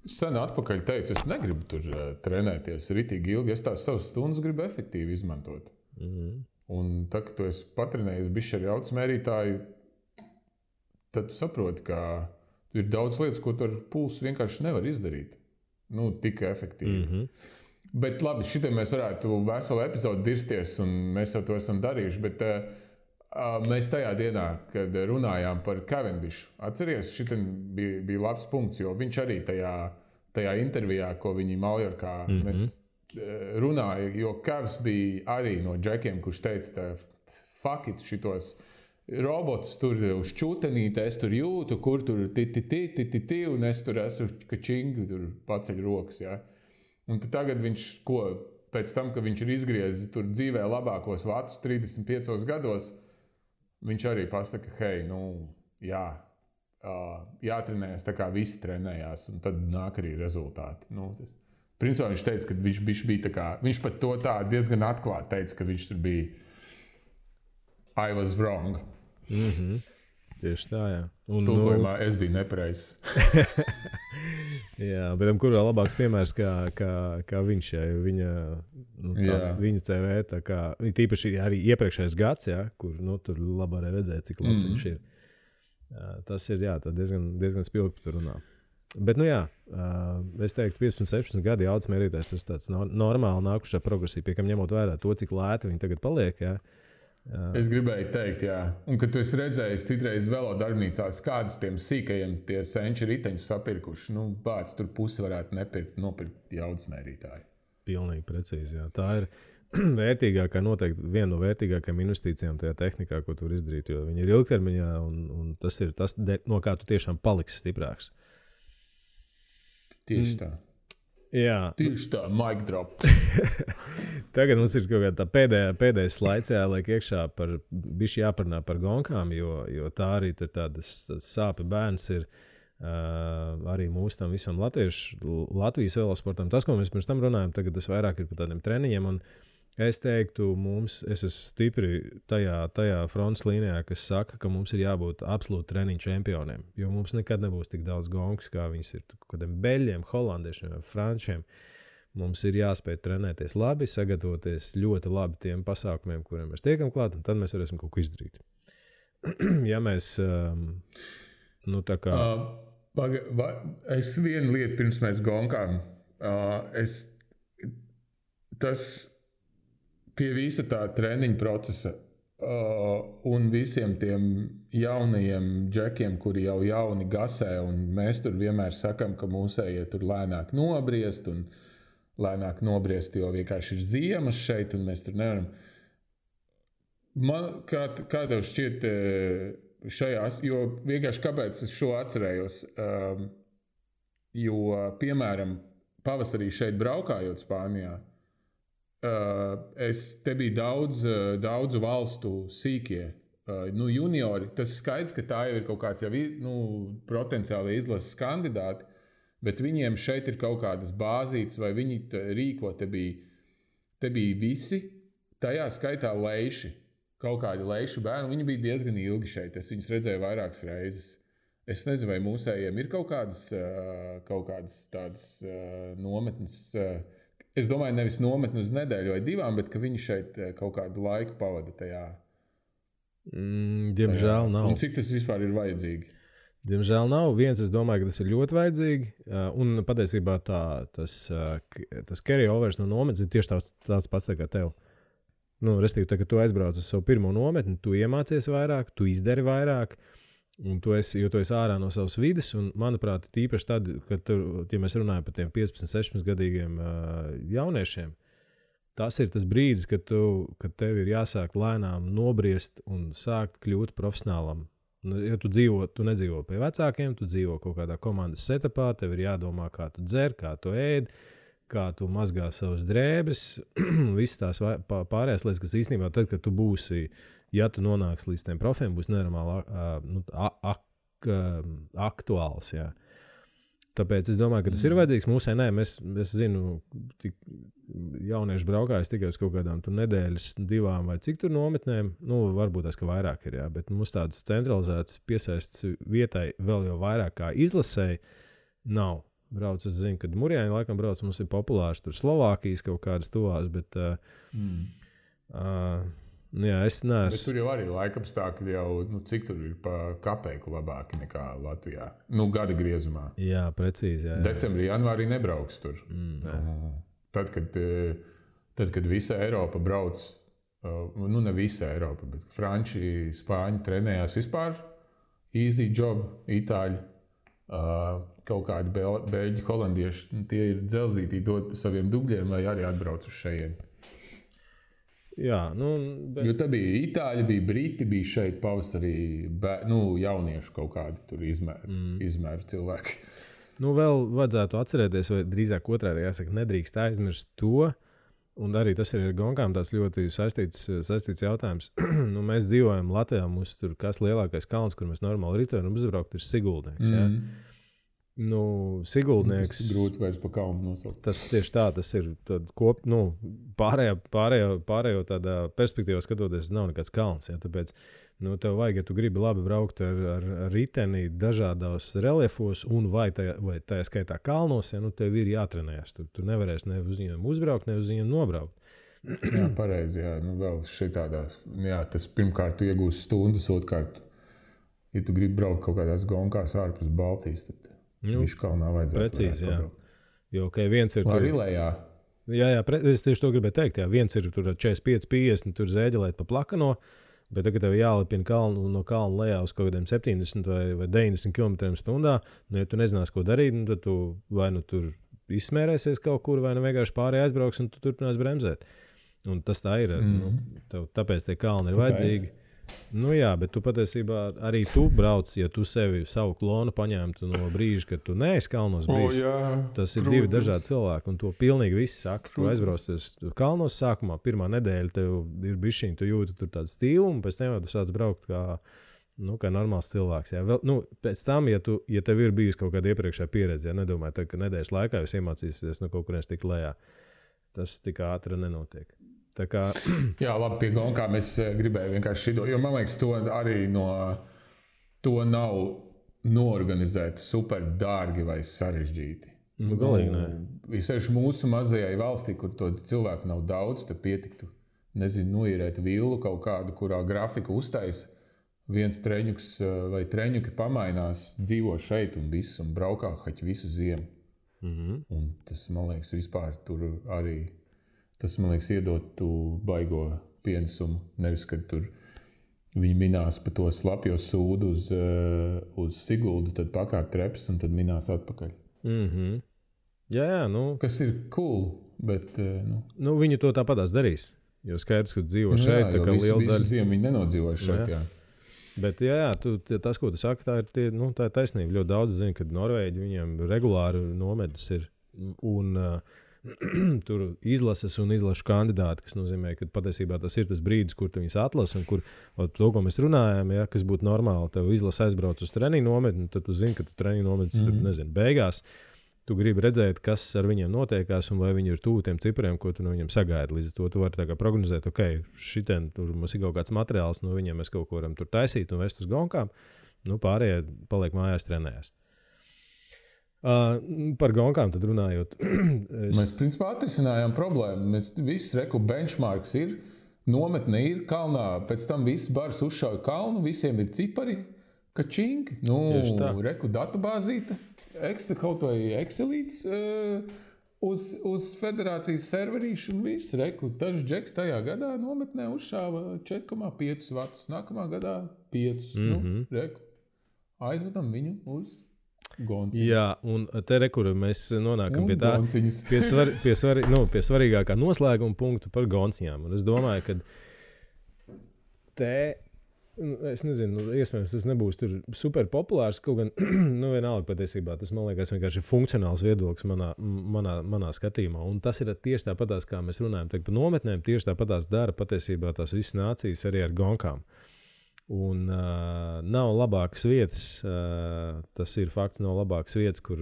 Sen atpakaļ teicu, es negribu tur trenēties ritīgi ilgi. Es tās savas stundas gribu efektīvi izmantot. Un tā, ka tu esi patrenējies bišķi ar jaudas mērītāju, tad tu saproti, ka ir daudz lietas, ko tu ar pulsu vienkārši nevar izdarīt. Tik efektīvi. Bet labi, šitai mēs varētu veselu epizodu dirsties, un mēs jau to esam darījuši, bet mēs tajā dienā, kad runājām par Cavendishu, atceries, šitai bija labs punkts, jo viņš arī tajā intervijā, ko viņi Maljorkā mēs runāja, jo Kavs bija arī no džekiem, kurš teica, fuck it, šitos robotus tur uz čūtenīti, es tur jūtu, kur tur ti, un es tur esmu kačingi, tur paceļ rokas, ja. Un tagad viņš, pēc tam, ka viņš ir izgriezis tur dzīvē labākos vatus 35 gados, viņš arī pasaka, hei, jātrenējas tā kā visi trenējās, un tad nāk arī rezultāti. Principā viņš teica, ka viņš bija tā kā, viņš pat to tā diezgan atklāti teica, ka viņš tur bija I was wrong. Tieši tā, jā. Tulkojumā es biju nepareizs. Jā, bet kur vēl labāks piemērs kā viņš, jā, viņa CV, tā kā, tīpaši arī iepriekšējais gads, jā, kur, tur labi arī redzēt, cik labs viņš ir. Tas ir, jā, tā diezgan spilgti tur runā. Bet, es teiktu, 15-16 gadi jaudas mērītājs, tas tāds normāli nākušā progresija, pie kam ņemot vērā to, cik lēti viņi tagad paliek, jā. Es gribēju teikt, jā. Un, kad tu esi redzējis citreiz velo darbnīcās, kādus tiem sīkajiem tie senči riteņus sapirkuši, bāc, tur pusi varētu nopirkt jaudas mērītāju. Pilnīgi precīzi, jā. Tā ir vērtīgākā, noteikti viena no vērtīgākajām investīcijām tajā tehnikā, ko tu vari izdarīt, jo viņi ir ilgtermiņā, un tas ir tas, no kā tu tiešām paliksi stiprāks. Tieši tā. Jā. Tieši tā, mic drop. Tagad mums ir kaut kāda pēdējais slaids jāliek iekšā bišķi jāparunā par gonkām, jo tā arī ir tādas sāpju bērns ir arī mūsu tam visam Latvijas velosportam. Tas, ko mēs pirms tam runājam, tagad tas vairāk ir par tādiem treniņiem, un es teiktu, es esmu stipri tajā frontes līnijā, kas saka, ka mums ir jābūt absolūti treniņu čempioniem, jo mums nekad nebūs tik daudz gonkas, kā viņas ir kādiem beļģiem, holandiešiem vai frančiem. Mums ir jāspēj trenēties labi, sagatavoties ļoti labi tiem pasākumiem, kuriem mēs tiekam klāt, un tad mēs varēsim kaut ko izdarīt. Ja mēs, tā kā... Es vienu lietu pirms mēs gonkām, tas... Pie visa tā treniņa procesa un visiem tiem jaunajiem džekiem, kuri jau jauni gasē, un mēs tur vienmēr sakam, ka mūsējie tur lēnāk nobriest, un lēnāk nobriest, jo vienkārši ir ziemas šeit, un mēs tur nevaram. Kā tev šķiet šajās, jo vienkārši kāpēc es šo atcerējos, jo, piemēram, pavasarī šeit braukājot Spānijā, te bija daudzu valstu sīkie juniori. Tas skaidrs, ka tā jau ir kaut kāds jau potenciāli izlases kandidāti, bet viņiem šeit ir kaut kādas bāzītes, vai viņi rīko. Te bija visi, tajā skaitā leiši, kaut kādi leišu bērni. Viņi bija diezgan ilgi šeit. Es viņus redzēju vairākas reizes. Es nezinu, vai mūsējiem ir kaut kādas tādas nometnes. Es domāju, nevis nometni uz nedēļu vai divām, bet ka viņi šeit kaut kādu laiku pavada tajā. Diemžēl nav. Un cik tas vispār ir vajadzīgi? Diemžēl nav. Viens, es domāju, ka tas ir ļoti vajadzīgi. Un patiesībā tas carry-overs no nometnes ir tieši tāds pats kā tev. Restīvi, kad tu aizbrauc uz savu pirmo nometni, tu iemācies vairāk, tu izdari vairāk, un tu esi ārā no savas vides. Un, manuprāt, tīpaši tad, kad ja mēs runājam par tiem 15, 16 gadīgiem jauniešiem, tas ir tas brīdis, kad tev ir jāsāk lēnām nobriest un sākt kļūt profesionālam. Ja tu nedzīvo pie vecākiem, tu dzīvo kaut kādā komandas setupā, tev ir jādomā, kā tu dzer, kā tu ēd, kā tu mazgā savas drēbes, visas tās pārējās lietas, kas īstenībā tad, kad tu būsi, ja tu nonāksi līdz tiem profiem, būs nenormāli aktuāls, jā. Tāpēc es domāju, ka tas ir vajadzīgs. Mūsē nē, es zinu, jaunieši braukājas tikai uz kaut kādām nedēļas, 2 vai cik tur nometnēm. Varbūt tas, ka vairāk ir, jā, bet mums tādas centralizētas piesaists vietai vēl jau vairāk kā izlasēji nav. Brauc, es zinu, kad Murjāņi laikam brauc, mums ir populārs tur Slovākijas kaut kādas tuvās, bet jā, es neesmu. Bet tur jau arī laikapstākļi jau, cik tur ir pa kapeiku labāki nekā Latvijā. Gada griezumā. Jā, precīzi. Jā. Decembrī, janvārī nebrauks tur. Tad, kad visa Eiropa brauc, ne visa Eiropa, bet franči, spāņi trenējās vispār, easy job, itāļi, kaut kādi beļģi, holandieši, tie ir dzelzītī dot saviem dubļiem, lai arī atbrauc uz šejieni. Jā, Jo tā bija itāļi, bija briti, bija šeit pavasarī jauniešu kaut kādi tur izmēru cilvēki. Vēl vajadzētu atcerēties, vai drīzāk otrādi jāsaka, nedrīkst aizmirst to, un arī tas ir ar gonkām tāds ļoti saistīts jautājums. Mēs dzīvojam Latvijā, mums tur kas lielākais kalns, kur mēs normāli ritoram uzbraukt, ir Siguldnieks, jā. Siguldnieks. Tas grūti vairs pa kalnu nosaukt. Tas tieši tā, tas ir pārējo tādā perspektīvā skatoties, nav nekāds kalns. Ja? Tāpēc tev vajag, ja tu gribi labi braukt ar riteni dažādos reliefos un vai tajā skaitā kalnos, ja? Tev ir jātrenējas. Tu nevarēsi ne uz viņiem uzbraukt, ne uz viņiem nobraukt. Jā, pareizi. Jā. Vēl šitādās. Jā, tas pirmkārt tu iegūsi stundas, otrkārt, ja tu gribi braukt kaut kādās gonkās ārpus Baltijas, tad Viškalnā vajadzētu. Precīzi, jā. Jo, viens ir tur. Rilējā. Jā, es tieši to gribēju teikt. Jā. Viens ir tur 45-50, tur zēģelēt pa plakano, bet tagad tev jālipina no kalna lejā uz kaut kādiem 70 vai 90 km/h. Ja tu nezinās, ko darīt, tad tu vai tur izsmērēsies kaut kur, vai vienkārši pārējai aizbrauks un tu turpinās bremzēt. Un tas tā ir. Tāpēc tie kalni ir vajadzīgi. Jā, bet tu patiesībā arī tu brauc, ja tu savu klonu paņemtu no brīža, kad tu neesi kalnos bijis. Tas ir divi dažādi cilvēki, un to pilnīgi visi saka. Tu aizbraucies kalnos sākumā, pirmā nedēļa tev ir bišķiņ, tu jūti tur tādu stilu, un pēc tam tu sāc braukt kā normāls cilvēks. Jā. Pēc tam, ja tev ir bijusi kaut kāda iepriekšējā pieredze, ja nedomāju, ka nedēļas laikā jūs iemācīsieties no kaut kurienes tik lejā, tas tik ātri nenotiek. Jā, labi, pie gonkām es gribēju vienkārši šito, jo man liekas, to nav noorganizēt super dārgi vai sarežģīti. Galīgi nē. Visēši mūsu mazajai valstī, kur to cilvēku nav daudz, tad pietiktu, noīrēt villu kaut kādu, kurā grafiku uztais, viens treņuks vai treņuki pamainās, dzīvo šeit un viss, un braukā haķi visu ziemu. Un tas, man liekas, vispār tur arī... Tas, man liekas, iedot tu baigo pienesumu. Nevis, kad tur viņi minās pa to slapjo sūdu uz Siguldu, tad pakāp treps un tad minās atpakaļ. Jā, Kas ir cool, bet... Viņi to tāpatās darīs. Jo skaidrs, ka dzīvo šeit, tā kā liela daļa... Visu ziemu viņi nenodzīvoja šeit, jā. Bet tas, ko tu saki, tā ir taisnība. Ļoti daudz zina, ka Norvēģi viņiem regulāri nometnes ir. Un tur izlases un izlašu kandidāti, kas nozīmē, ka patiesībā tas ir tas brīdis, kur tu viņus atlasi un kur to, ko mēs runājam, ja, kas būtu normāli, tev izlase aizbrauc uz treniņu nometni, tad tu zini, ka tu treniņu nometnes tur, nezinu, beigās. Tu gribi redzēt, kas ar viņiem notiekās un vai viņi ir tuvu tiem cipriem, ko tu no viņiem sagaidi. Līdz to tu vari tā kā prognozēt, šitien tur mums ir kaut kāds materiāls, no viņiem mēs kaut ko varam tur taisīt un vest uz gonkām. Pārējie paliek mājās trenējās. Par gonkām tad runājot. Mēs principā atrisinājām problēmu. Mēs visi benchmarks ir, nometne ir kalnā, pēc tam viss bars uzšauja kalnu, visiem ir cipari, kačing, databāzīte, kaut vai Excelīts uz federācijas serverīšu un viss. Dažs džeks tajā gadā nometnē uzšāva 4,5 vatus, nākamā gadā 5. Aizvedam viņu uz Gonciņu. Jā, un te kur mēs nonākam pie svarīgākā noslēguma punktu par gonciņām. Un es domāju, ka es nezinu, iespējams, tas nebūs tur super populārs, kaut gan, vienalga patiesībā, tas, man liekas, vienkārši funkcionāls viedoklis manā skatījumā. Un tas ir tieši tāpatās, kā mēs runājam par nometnēm, tieši tāpatās dara patiesībā tās visas nācijas arī ar gonkām. Un nav labākas vietas, tas ir fakts, nav labākas vietas, kur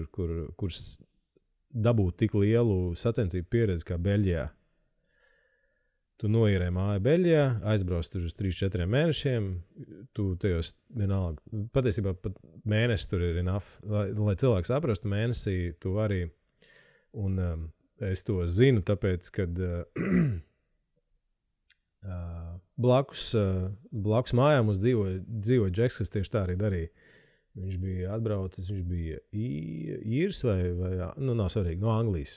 dabūt tik lielu sacensību pieredzi kā Beļģijā. Tu noierē māju Beļģijā, aizbrauc tur uz 3-4 mēnešiem, tu tajos vienalga, patiesībā pat mēnesis tur ir enough, lai cilvēks saprastu mēnesī, tu arī, un es to zinu, tāpēc, kad blakus mājām mums dzīvoja džeks, kas tieši tā arī darīja. Viņš bija atbraucis, viņš bija īrs vai nav svarīgi, no Anglijas.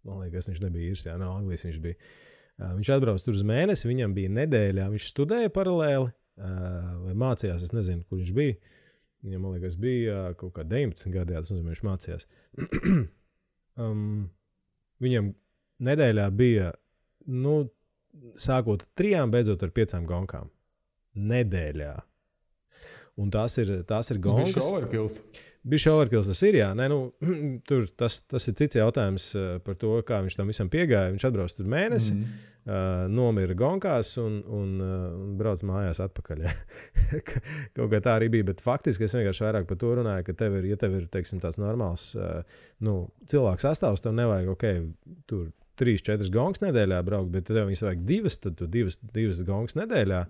Man liekas, viņš nebija īrs, no Anglijas viņš bija. Viņš atbrauc tur uz mēnesi, viņam bija nedēļā, viņš studēja paralēli vai mācījās, es nezinu, kur viņš bija. Viņam, man liekas, bija kaut kā 19 gadījā, tas nozīmē, viņš mācījās. Viņam nedēļā bija, sākot 3, beidzot ar 5 gonkām. Nedēļā. Un tās ir gonkas. Bišķi overkills. Bišķi overkills tas ir, jā. Tur tas ir cits jautājums par to, kā viņš tam visam piegāja. Viņš atbrauc tur mēnesi, nomira gonkās un brauc mājās atpakaļ. Kaut kā tā arī bija, bet faktiski es vienkārši vairāk par to runāju, ka ja tev ir, teiksim, tāds normāls cilvēks sastāvs, tev nevajag, tur 3-4 gongas nedēļā braukt, bet tev viņas vajag 2, tad tu 2 gongas nedēļā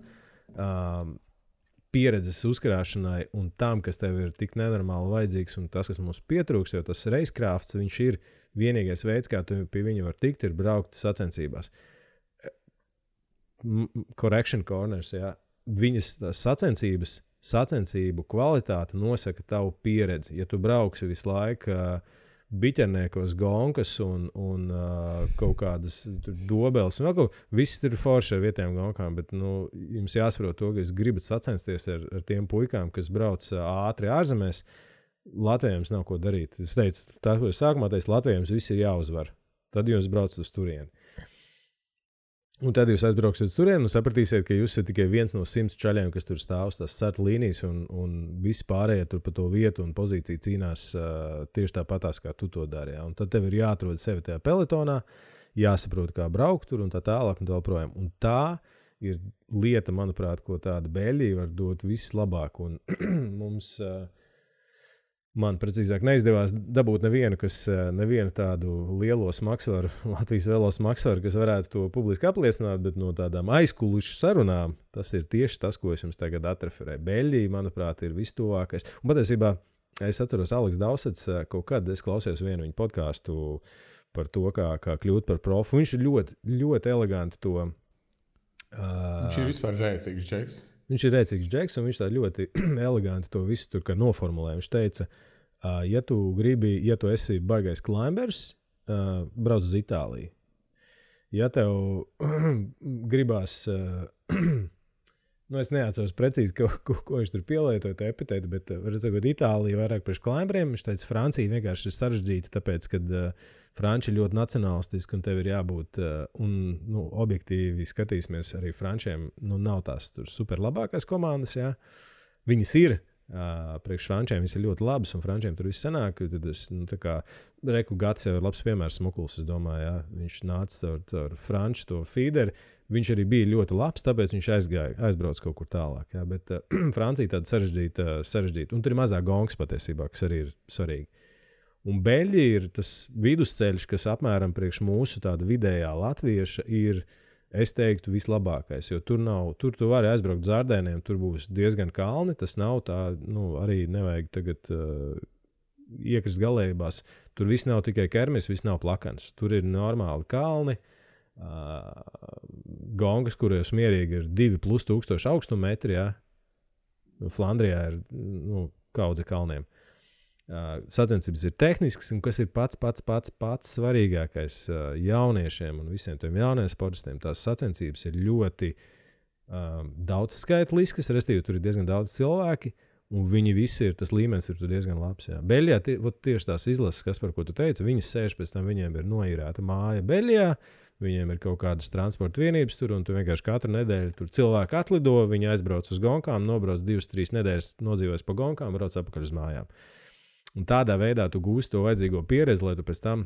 pieredzes uzkrāšanai un tam, kas tev ir tik nenormāli vajadzīgs un tas, kas mums pietrūks, jo tas racecrafts, viņš ir vienīgais veids, kā tu pie viņa var tikt, ir braukt sacensībās. Correction corners, jā. Viņas sacensību kvalitāte nosaka tavu pieredzi. Ja tu brauksi visu laiku biķerniekos gonkas un kaut kādas dobeles. Viss tur forši ar vietējām gonkām, bet jums jāsaprot to, ka jūs gribat sacensties ar tiem puikām, kas brauc ātri ārzemēs. Latvijams nav ko darīt. Es teicu, tā, ko es sākumā teicu, Latvijams viss ir jāuzvar. Tad jūs braucat uz turieni. Un tad jūs aizbrauksiet uz turieni un sapratīsiet, ka jūs esat tikai viens no 100 čaļiem, kas tur stāv uz tās starta līnijas un visi pārējie tur pa to vietu un pozīciju cīnās tieši tāpatās, kā tu to dari. Ja? Un tad tev ir jāatrod sevi tajā peletonā, jāsaprot, kā braukt tur un tā tālāk un tā projām. Un tā ir lieta, manuprāt, ko tāda Beļģija var dot vislabāk. Un mums, man precīzāk neizdevās dabūt nevienu tādu lielo smagsvaru, Latvijas velo smagsvaru, kas varētu to publiski apliecināt, bet no tādām aizkulišu sarunām tas ir tieši tas, ko es jums tagad atreferēju. Beļģija, manuprāt, ir vistuvākais. Un patiesībā es atceros Aleks Dausets, kaut kad es klausījos vienu viņa podcastu par to, kā kļūt par profu. Viņš ir ļoti, ļoti eleganti to. Viņš ir vispār rēcīgs džeks. Viņš ir rēcīgs džeks, un viņš tā ļoti eleganti to visu tur kā noformulē. Viņš teica, ja tu esi baigais climbers, brauc uz Itāliju. Ja tev gribās, es neatceros precīzi, ko viņš tur pielietoja, to epitētu, bet redzot, Itālija vairāk priekš climberiem. Viņš teica, Francija vienkārši ir sarežģīta, tāpēc, kad Franči ir ļoti nacionālistiski, un tev ir jābūt, objektīvi skatīsimies arī Frančiem, nav tās tur super labākās komandas, jā. Viņas ir, priekš frančiem viss ir ļoti labs, un frančiem tur viss sanāk. Tad es, Reku Gats jau ir labs piemērs Smukuls, es domāju, jā. Viņš nāca caur franču to feederi. Viņš arī bija ļoti labs, tāpēc viņš aizbrauc kaut kur tālāk. Jā. Bet Francija tāda sarežģīta. Un tur ir mazāk gongs patiesībā, kas arī ir svarīgi. Un Beļģija ir tas vidusceļš, kas apmēram priekš mūsu tāda vidējā latvieša ir, es teiktu, vislabākais. Jo tur tu vari aizbraukt uz Ardēniem, tur būs diezgan kalni. Tas nav tā, arī nevajag tagad iekrist galējībās. Tur viss nav tikai kermis, viss nav plakans. Tur ir normāli kalni. Gongas, kuros mierīgi ir 2,000 augstumetri, ja? Flandrijā ir kaudze kalniem. Sacensības ir tehnisks, un kas ir pats svarīgākais jauniešiem un visiem tiem jauniem sportistiem, tās sacensības ir ļoti daudzskaitliskas, respektīvi tur ir diezgan daudz cilvēki, un viņi visi ir, tas līmenis ir diezgan labs. Jā. Beļģijā tieši tās izlases, kas par ko tu teici, viņas sēž pēc tam, viņiem ir noīrēta māja Beļģijā, viņiem ir kaut kādas transporta vienības tur, un tu vienkārši katru nedēļu tur cilvēki atlido, viņi aizbrauc uz gonkām, nobrauc 2-3 nedēļas, nodzīvojas pa gonkām, brauc atpakaļ uz mājām. Un tādā veidā tu gūsi to vajadzīgo pieredzi, lai tu pēc tam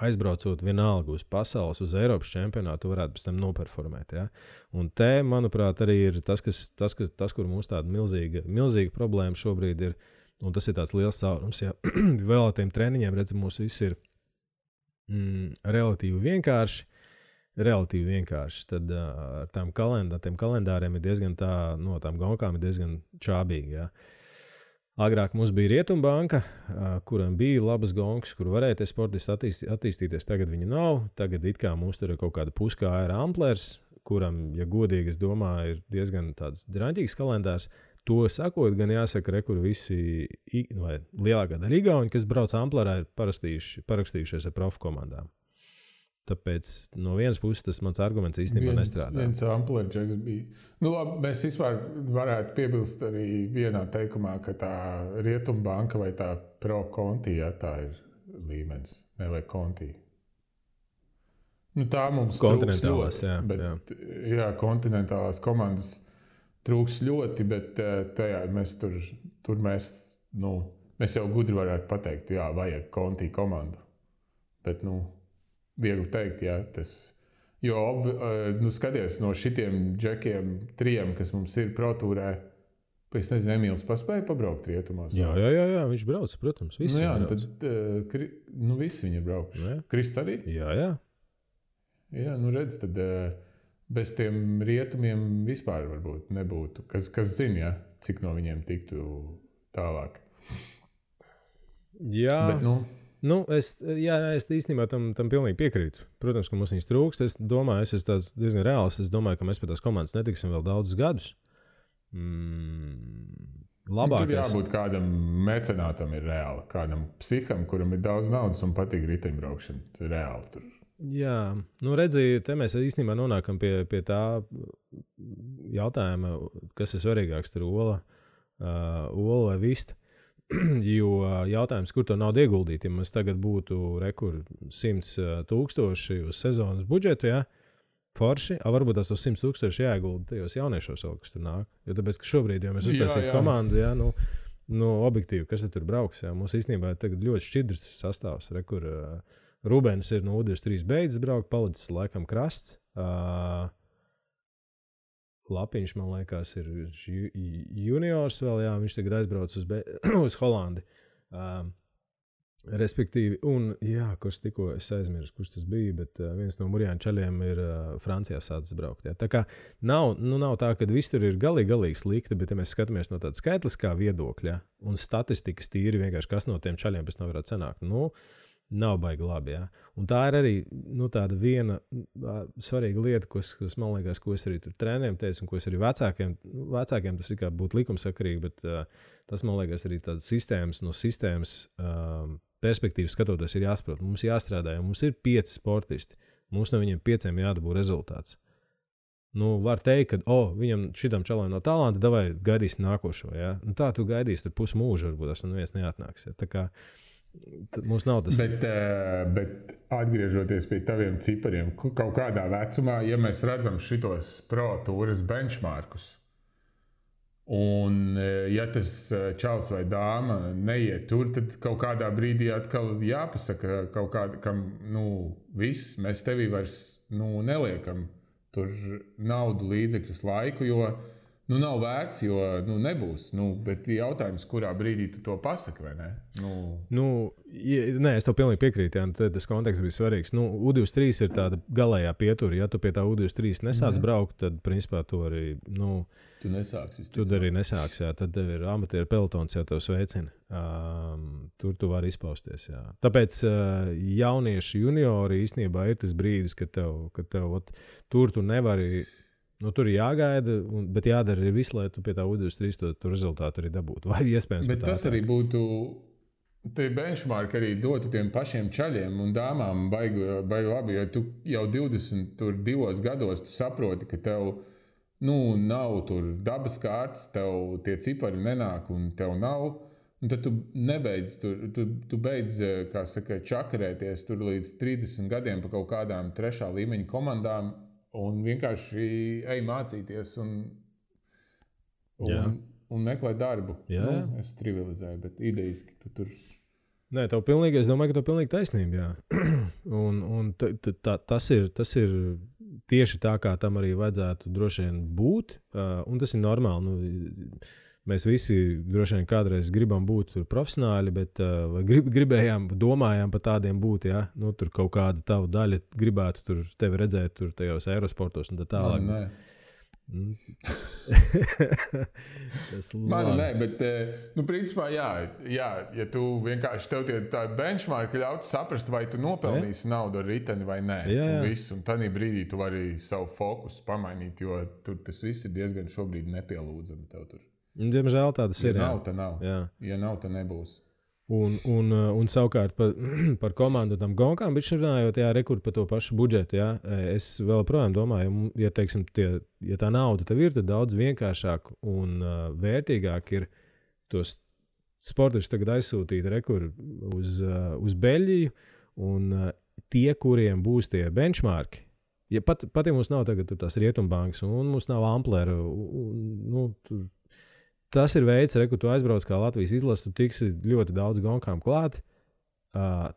aizbraucot vienalga uz pasaules, uz Eiropas čempionātu, tu varētu pēc tam noperformēt. Ja? Un te, manuprāt, arī ir tas, kur mums tāda milzīga problēma šobrīd ir, un tas ir tāds liels caurums. Ja? Vēl ar tiem treniņiem, redz, mums viss ir relatīvi vienkārši. Tad ar tiem kalendāriem ir diezgan tām gonkām ir diezgan čābīgi. Ja? Agrāk mums bija Rietumbanka, kuram bija labas gonkas, kur varēja tie sportisti attīstīties. Tagad viņi nav. Tagad it kā mums tur ir kaut kāda puskāra amplers, kuram, ja godīgi, es domāju, ir diezgan tāds draņķīgs kalendārs. To sakot, gan jāsaka, kur visi, vai lielākā daļa igauni, kas brauc amplerā, ir parakstījušies ar profu komandām. Tāpēc no vienas puses tas mans arguments īstenībā nestrādā. Viens amplerģeks bija. Labi, mēs vispār varētu piebilst arī vienā teikumā, ka tā Rietumbanka vai tā Pro Conti, ja, tā ir līmenis, ne vai Conti. Tā mums kontinentālās, trūks ļoti, bet, jā, kontinentālās komandas trūks ļoti, bet tajā mēs mēs jau gudri varētu pateikt, jā, vajag Conti komandu. Bet, viegli teikt, jā, tas, jo, skaties, no šitiem džekiem, 3, kas mums ir protūrē, es nezinu, Emīls paspēja pabraukt rietumos. Jā, viņš brauc, protams, visi brauc. Tad, visi viņi ir braukuši. Krists arī? Jā. Jā, redz, tad bez tiem rietumiem vispār varbūt nebūtu. Kas zina, ja, cik no viņiem tiktu tālāk. Jā, bet, es īstenībā tam pilnīgi piekrītu. Protams, ka mums viņas trūkst. Es domāju, es esmu diezgan reāls. Es domāju, ka mēs pie tās komandas netiksim vēl daudzus gadus. Labākais. Tur jābūt kādam mecenātam ir reāli. Kādam psiham, kuram ir daudz naudas un patīk riteņbraukšana. Ir reāli tur. Jā, redziet, te mēs īstenībā nonākam pie tā jautājuma, kas ir svarīgāks, tur ola vai vista. Jo jautājums, kur to naudu ieguldīt, ja mums tagad būtu 100,000 uz sezonas budžetu, ja? Forši, varbūt tās 100,000 jāiegulda tajos jauniešos, kas tur nāk. Jo tāpēc, ka šobrīd, ja mēs uztaisītu komandu, ja, objektīvi, kas tur brauks, ja? Mums īstenībā tagad ļoti šķidrs sastāvs, kur Rubens ir no U23 beidzis braukt, palicis laikam krasts. Lapiņš, man liekas, ir juniors vēl, jā, viņš tagad aizbrauc uz Holandi. Respektīvi, un, jā, kurš tikko es aizmirsu, kurš tas bija, bet viens no Murjāņu čaļiem ir Francijā sācis braukt. Jā. Tā kā nav tā, ka viss tur ir galīgi slikti, bet ja mēs skatāmies no tāda skaitliskā viedokļa un statistikas tīri vienkārši, kas no tiem čaļiem pēc tam varētu sanākt. Nav baigi labi, jā. Un tā ir arī tāda viena svarīga lieta, kas man liekas, ko es arī tur treneriem teicu, un ko es arī vecākiem tas ir kā būtu likumsakarīgi, bet tas, man liekas, arī tādas sistēmas perspektīvas skatoties ir jāsaprot. Mums jāstrādā, jo mums ir 5 sportisti. Mums no viņiem 5 jādabū rezultāts. Var teikt, ka, viņam šitam čalam no talanta, davai gaidīsim nākošo, jā. Tā tu gaidīsi tur pusmūžu, varbūt tas neviens neatnāks, jā. Tā kā mums nav tas. Bet atgriežoties pie taviem cipariem, kaut kādā vecumā, ja mēs redzam šitos pro tūras benchmarkus, Un, ja tas čals vai dāma neiet tur, tad kaut kādā brīdī atkal jāpasaka kaut kāda, kam, viss, mēs tevī vairs, neliekam tur naudu, līdzekļus, laiku, jo, nav vērts, jo, nebūs. Bet jautājums, kurā brīdī tu to pasaki, vai ne? Nē, es tev pilnīgi piekrītu, jā, tas konteksts bija svarīgs. U23 ir tāda galējā pietura. Ja tu pie tā U23 nesāc braukt, tad, principā, tu arī, tu nesāksi. Tu arī nesāks, jā. Tad tev ir amatieru pelotons, jau tev sveicina. Tur tu vari izpausties, jā. Tāpēc jaunieši juniori īstenībā ir tas brīdis, kad tev tur tu nevari... tur ir jāgaida, bet jādara arī viss, lai tu pie tā U23 to rezultātu arī dabūtu. Vai iespējams, bet tas arī būtu, tie benchmark arī dotu tiem pašiem čaļiem un dāmām baigi labi, jo tu jau 22 gados tu saproti, ka tev, nav tur dabas kārtas, tev tie cipari nenāk un tev nav, un tad tu nebeidz, tu beidz, kā saka, čakarēties tur līdz 30 gadiem pa kaut kādām 3. līmeņa komandām, un vienkārši ej mācīties un meklē darbu. Jā. Es trivializēju, bet idejiski tu tur... Nē, es domāju, ka tev pilnīgi taisnība, jā. Un tas ir tieši tā, kā tam arī vajadzētu droši vien būt, un tas ir normāli. Mēs visi droši vien kādreiz gribam būt profesionāļi, bet domājām par tādiem būt, ja? Tur kaut kāda tava daļa gribētu tur tevi redzēt tur tajos aerosportos un tā tālāk. Nē, bet, principā, jā, ja tu vienkārši tev tā benchmark ļautu saprast, vai tu nopelnīsi naudu ar riteni vai nē, un tādā brīdī tu vari savu fokusu pamainīt, jo tur tas viss ir diezgan šobrīd nepielūdzami tev tur. Diemžēl tādas ir. Ja nav, tad nav. Jā. Ja nav, tad nebūs. Un savukārt par komandu tam gonkām, bet runājot, rekord par to pašu budžetu, jā, es vēl projām domāju, ja, teiksim, ja tā nauda tev ir, tad daudz vienkāršāk un vērtīgāk ir tos sportistus tagad aizsūtīt rekord uz Beļģiju, un tie, kuriem būs tie benchmarki, ja pat ja mums nav tagad tās Rietumbankas, un mums nav Amplera, tas ir veids, ka tu aizbrauc kā Latvijas izlase, tu tiksi ļoti daudz gonkām klāt.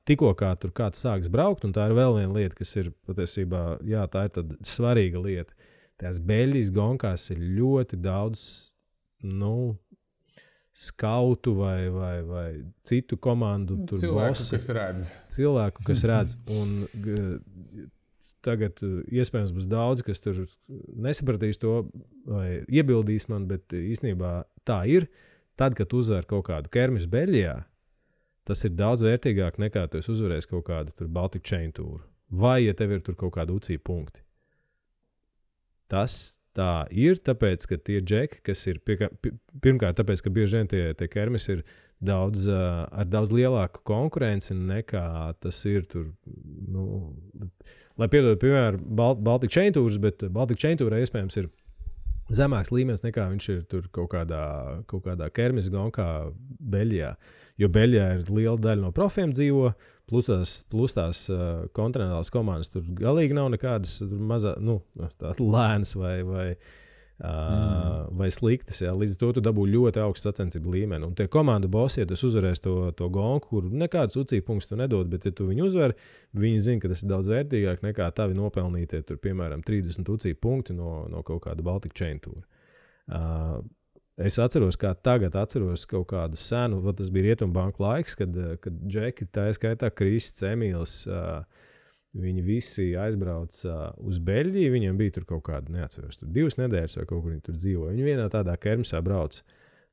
Tikko kā tur kāds sāks braukt, un tā ir vēl viena lieta, kas ir patiesībā, jā, tā ir tāda svarīga lieta. Tās Beļģijas gonkās ir ļoti daudz, skautu vai citu komandu tur cilvēku, kas redz. Un tagad iespējams būs daudz, kas tur nesapratīs to vai iebildīs man, bet īstenībā tā ir. Tad, kad uzvar kaut kādu kermisu Beļģijā, tas ir daudz vērtīgāk nekā tu uzvarēsi kaut kādu tur Baltic Chain tūru. Vai, ja tev ir tur kaut kādi UCI punkti. Tas tā ir, tāpēc, ka tie džeki, kas ir pirmkārt, tāpēc, ka bieži vien tie kermisi ir ar daudz lielāku konkurenci nekā tas ir tur, lai piedod, piemēram, Baltic Chain tūrs, bet Baltic Chain tūrā iespējams ir zemāks līmenis nekā viņš ir tur kaut kādā kermis gonkā Beļģijā. Jo Beļģijā ir liela daļa no profiem dzīvo, plus tās kontinentālās komandas tur galīgi nav nekādas lēnas vai sliktas. Jā. Līdz to tu dabū ļoti augstu sacensību līmeni. Un tie komandu bosi, ja tu uzvarēsi to gonku, kur nekādas UCI punktus tu nedod, bet ja tu viņu uzvari, viņi zina, ka tas ir daudz vērtīgāk nekā tavi nopelnītie tur, piemēram, 30 UCI punkti no kaut kāda Baltic Chain tūra. Es atceros, kā tagad atceros kaut kādu senu, tas bija Rietumbanku laiks, kad džeki, tā skaitā Krists, Emīls, viņi visi aizbrauca uz Beļģiju, viņiem bija tur kaut kāda, neatceros, tur 2 nedēļas vai kaut kur viņi tur dzīvoja. Viņi vienā tādā kermisā brauc.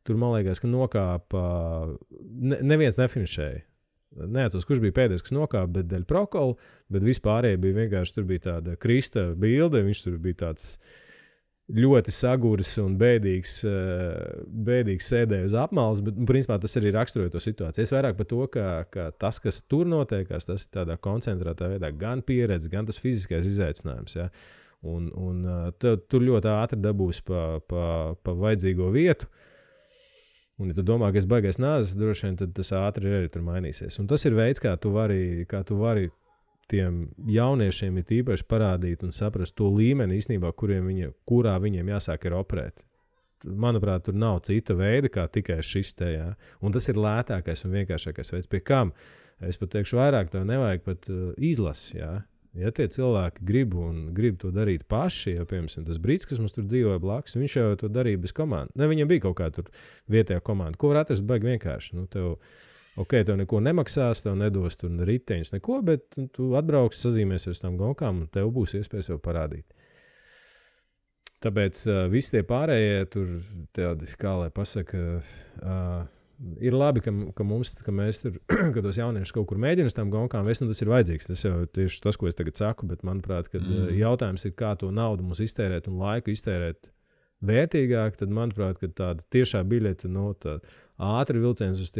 Tur, man liekas, ka nokāpa, neviens nefinišēja. Neatceros, kurš bija pēdējais, kas nokāpa, bet dēļ prokola, bet vispārējie bija vienkārši, tur bija tāda Krista bilde, viņš tur bija tāds ļoti saguris un bēdīgs sēdēja uz apmales, bet, principā, tas arī raksturoja to situāciju. Es vairāk par to, ka tas, kas tur notiekās, tas ir tādā koncentrētā veidā gan pieredze, gan tas fiziskais izaicinājums. Ja? Un tur ļoti ātri dabūs pa vajadzīgo vietu. Un, ja tu domā, ka es baigais nāzes, droši vien, tad tas ātri arī tur mainīsies. Un tas ir veids, kā tu vari tiem jauniešiem ir īpaši parādīt un saprast to līmeni īstenībā, kurā viņiem jāsāk ir operēt. manuprāt, tur nav cita veida, kā tikai šis te. Jā. Un tas ir lētākais un vienkāršākais veids. Pie kam? Es pat teikšu vairāk, tev nevajag pat izlasi. Jā. Ja tie cilvēki grib to darīt paši, jau piemēram tas brīdis, kas mums tur dzīvoja blakus, viņš jau to darīja bez komandas. Ne, viņam bija kaut kāda tur vietējā komanda. Ko var atrast baigi vienkārši? Nu, tev neko nemaksās, tev nedos tur riteņus, neko, bet tu atbrauksi, sazīmēsies uz tām gonkām un tev būs iespēja sev parādīt. Tāpēc visi tie pārējie tur, tādi, kā lai pasaka, ir labi, ka mēs tur, ka tos jauniešus kaut kur mēģina uz tām gonkām vest, tas ir vajadzīgs. Tas jau tieši tas, ko es tagad saku, bet manuprāt, kad jautājums ir, kā to naudu mums iztērēt un laiku iztērēt vērtīgāk, tad manuprāt, ka tāda tiešā biļete, ātri vilciens uz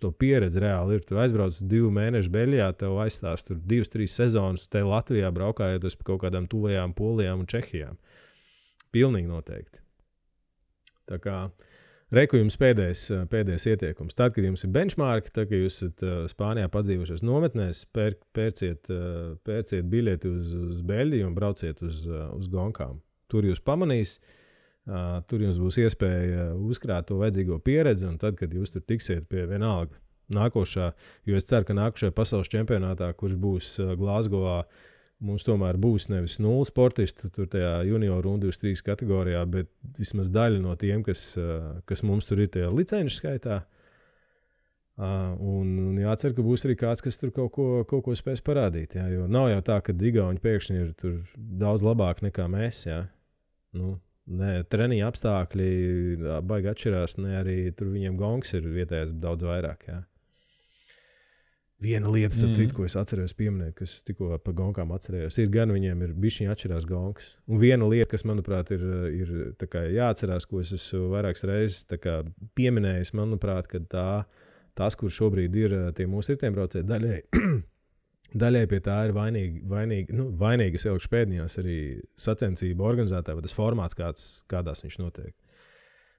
to pieredzi reāli ir. Tu aizbrauc 2 mēnešu Beļģijā, tev aizstās tur 2-3 sezonas, te Latvijā braukājot uz kaut kādām tuvajām Polijām un Čehijām. Pilnīgi noteikti. Tā kā reku jums pēdējais ieteikums. Tad, kad jums ir benchmarki, tad, kad jūs esat Spānijā padzīvojušies nometnēs, pērciet biļeti uz Beļģiju un brauciet uz gonkām. Tur jūs pamanīs, tur jums būs iespēja uzkrāt to vajadzīgo pieredzi, un tad, kad jūs tur tiksiet pie vienalga nākošā, jo es ceru, ka nākošajā pasaules čempionātā, kurš būs Glāzgovā, mums tomēr būs nevis 0 sportistu tur tajā junioru un 23 kategorijā, bet vismaz daļa no tiem, kas mums tur ir tajā licenšu skaitā. Un jācer, ka būs arī kāds, kas tur kaut ko spēs parādīt. Jā, jo nav jau tā, ka Igauni pēkšņi ir tur daudz labāk nekā mēs. Jā. Nu, ne treniņa apstākļi baigi atšķirās, ne arī tur viņiem gongs ir vietējais daudz vairāk. Jā. Viena lieta, ko es atceros pieminēt, kas tikko pa gonkām atcerējos, ir gan viņiem ir bišķiņi atšķirās gongs. Un viena lieta, kas, manuprāt, ir tā kā jāatcerās, ko es esmu vairākas reizes tā kā pieminējis, manuprāt, ka tas, kur šobrīd ir tie mūsu riteņbraucēji, daļai pie tā ir vainīgas ilgšu pēdējās arī sacensību organizētāji, vai tas formāts, kādās viņš notiek.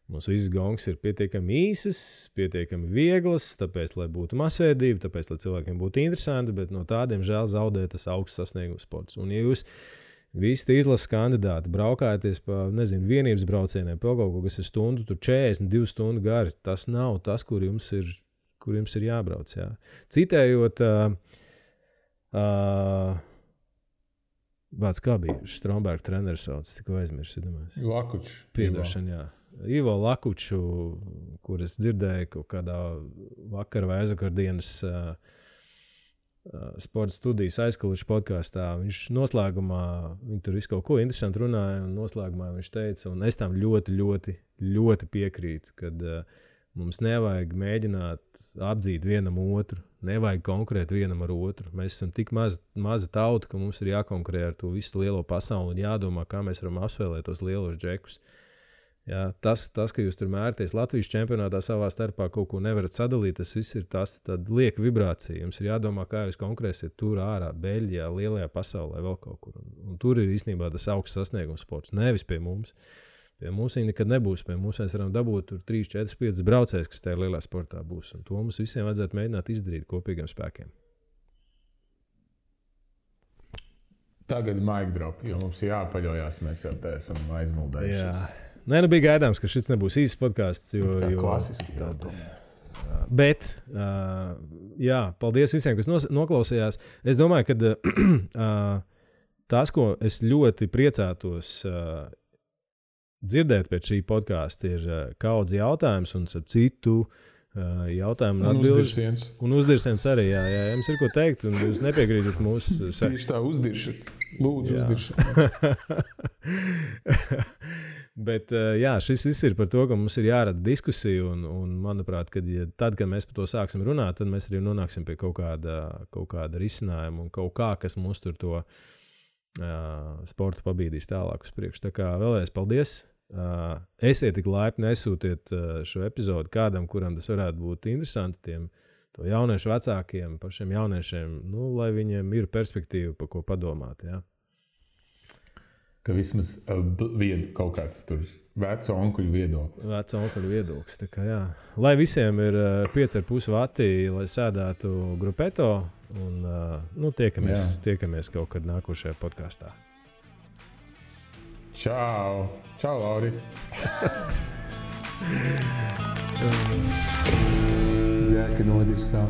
Mums visas gongs ir pietiekami īsas, pietiekami vieglas, tāpēc, lai būtu masveidība, tāpēc, lai cilvēkiem būtu interesanti, bet no tādiem žēl zaudē tas augsts sasniegums sports. Un ja jūs visi tie izlases kandidāti braukājaties pa, vienības braucieniem, pa kaut ko, kas ir stundu, tur 42 stundu gari, tas nav tas, kur jums ir jābrauc. Jā. Citējot, kā bija Stromberga treneris sauc, tikko aizmirsu, domāju. Lakučs. Piedošana, jā. Ivo Lakuču, kur es dzirdēju kaut kādā vakar vai aizvakardienas sporta studijas aizkalušu podkāstā. Viņš noslēgumā, viņi tur visu kaut ko interesanti runāja, un noslēgumā viņš teica, un es tam ļoti, ļoti, ļoti piekrītu, kad mums nevajag mēģināt apdzīt vienam otru, nevajag konkurēt vienam ar otru. Mēs esam tik maza tauta, ka mums ir jākonkurē ar to visu lielo pasauli un jādomā, kā mēs varam apspēlēt tos lielos džekus. Jā, tas, ka jūs tur mērties Latvijas čempionātā savā starpā kaut ko nevarat sadalīt, tas viss ir tāda lieka vibrācija. Jums ir jādomā, kā jūs konkurēsiet tur ārā, Beļģijā, lielajā pasaulē, vēl kaut kur. Un tur ir īstenībā tas augsts sasniegums sports, nevis pie mums. Pie mums viņi nekad nebūs. Pie mums mēs varam dabūt tur 3, 4, 5 braucējus, kas tajā lielā sportā būs. Un to mums visiem vajadzētu mēģināt izdarīt kopīgiem spēkiem. Tagad mic drop, jo mums jāpaļojās, mēs jau te esam aizmuldējušies. Nē, bija gaidāms, ka šis nebūs īsts podkāsts. Klasiski jau tomēr. Bet, paldies visiem, kas noklausījās. Es domāju, ka tas, ko es ļoti priecātos dzirdēt pēc šī podkāsta, ir kaudz jautājums un citu jautājumu un atbildes. Un uzdirsiens arī, jā. Jums ir ko teikt, un jūs nepiekrītat mūsu... Tieši tā, uzdirši. Lūdzu, uzdirši. Bet šis viss ir par to, ka mums ir jārada diskusija, un manuprāt, tad, kad mēs par to sāksim runāt, tad mēs arī nonāksim pie kaut kāda risinājuma un kaut kā, kas mums tur to sportu pabīdīs tālāk uz priekšu. Tā kā vēlreiz paldies. Esiet tik laipni, nesūtiet šo epizodu kādam, kuram tas varētu būt interesanti, tiem to jauniešu vecākiem, pašiem jauniešiem, lai viņiem ir perspektīva, pa ko padomāt, jā. Ka vismaz kaut kāds tur veco onkuļu viedoklis. Veco onkuļu viedoklis, tā kā jā. Lai visiem ir 5,5 vati, lai sēdētu grupeto, un tiekamies kaut kad nākošajā podkāstā. Čau! Čau, Lauri! Džeka nodirsā.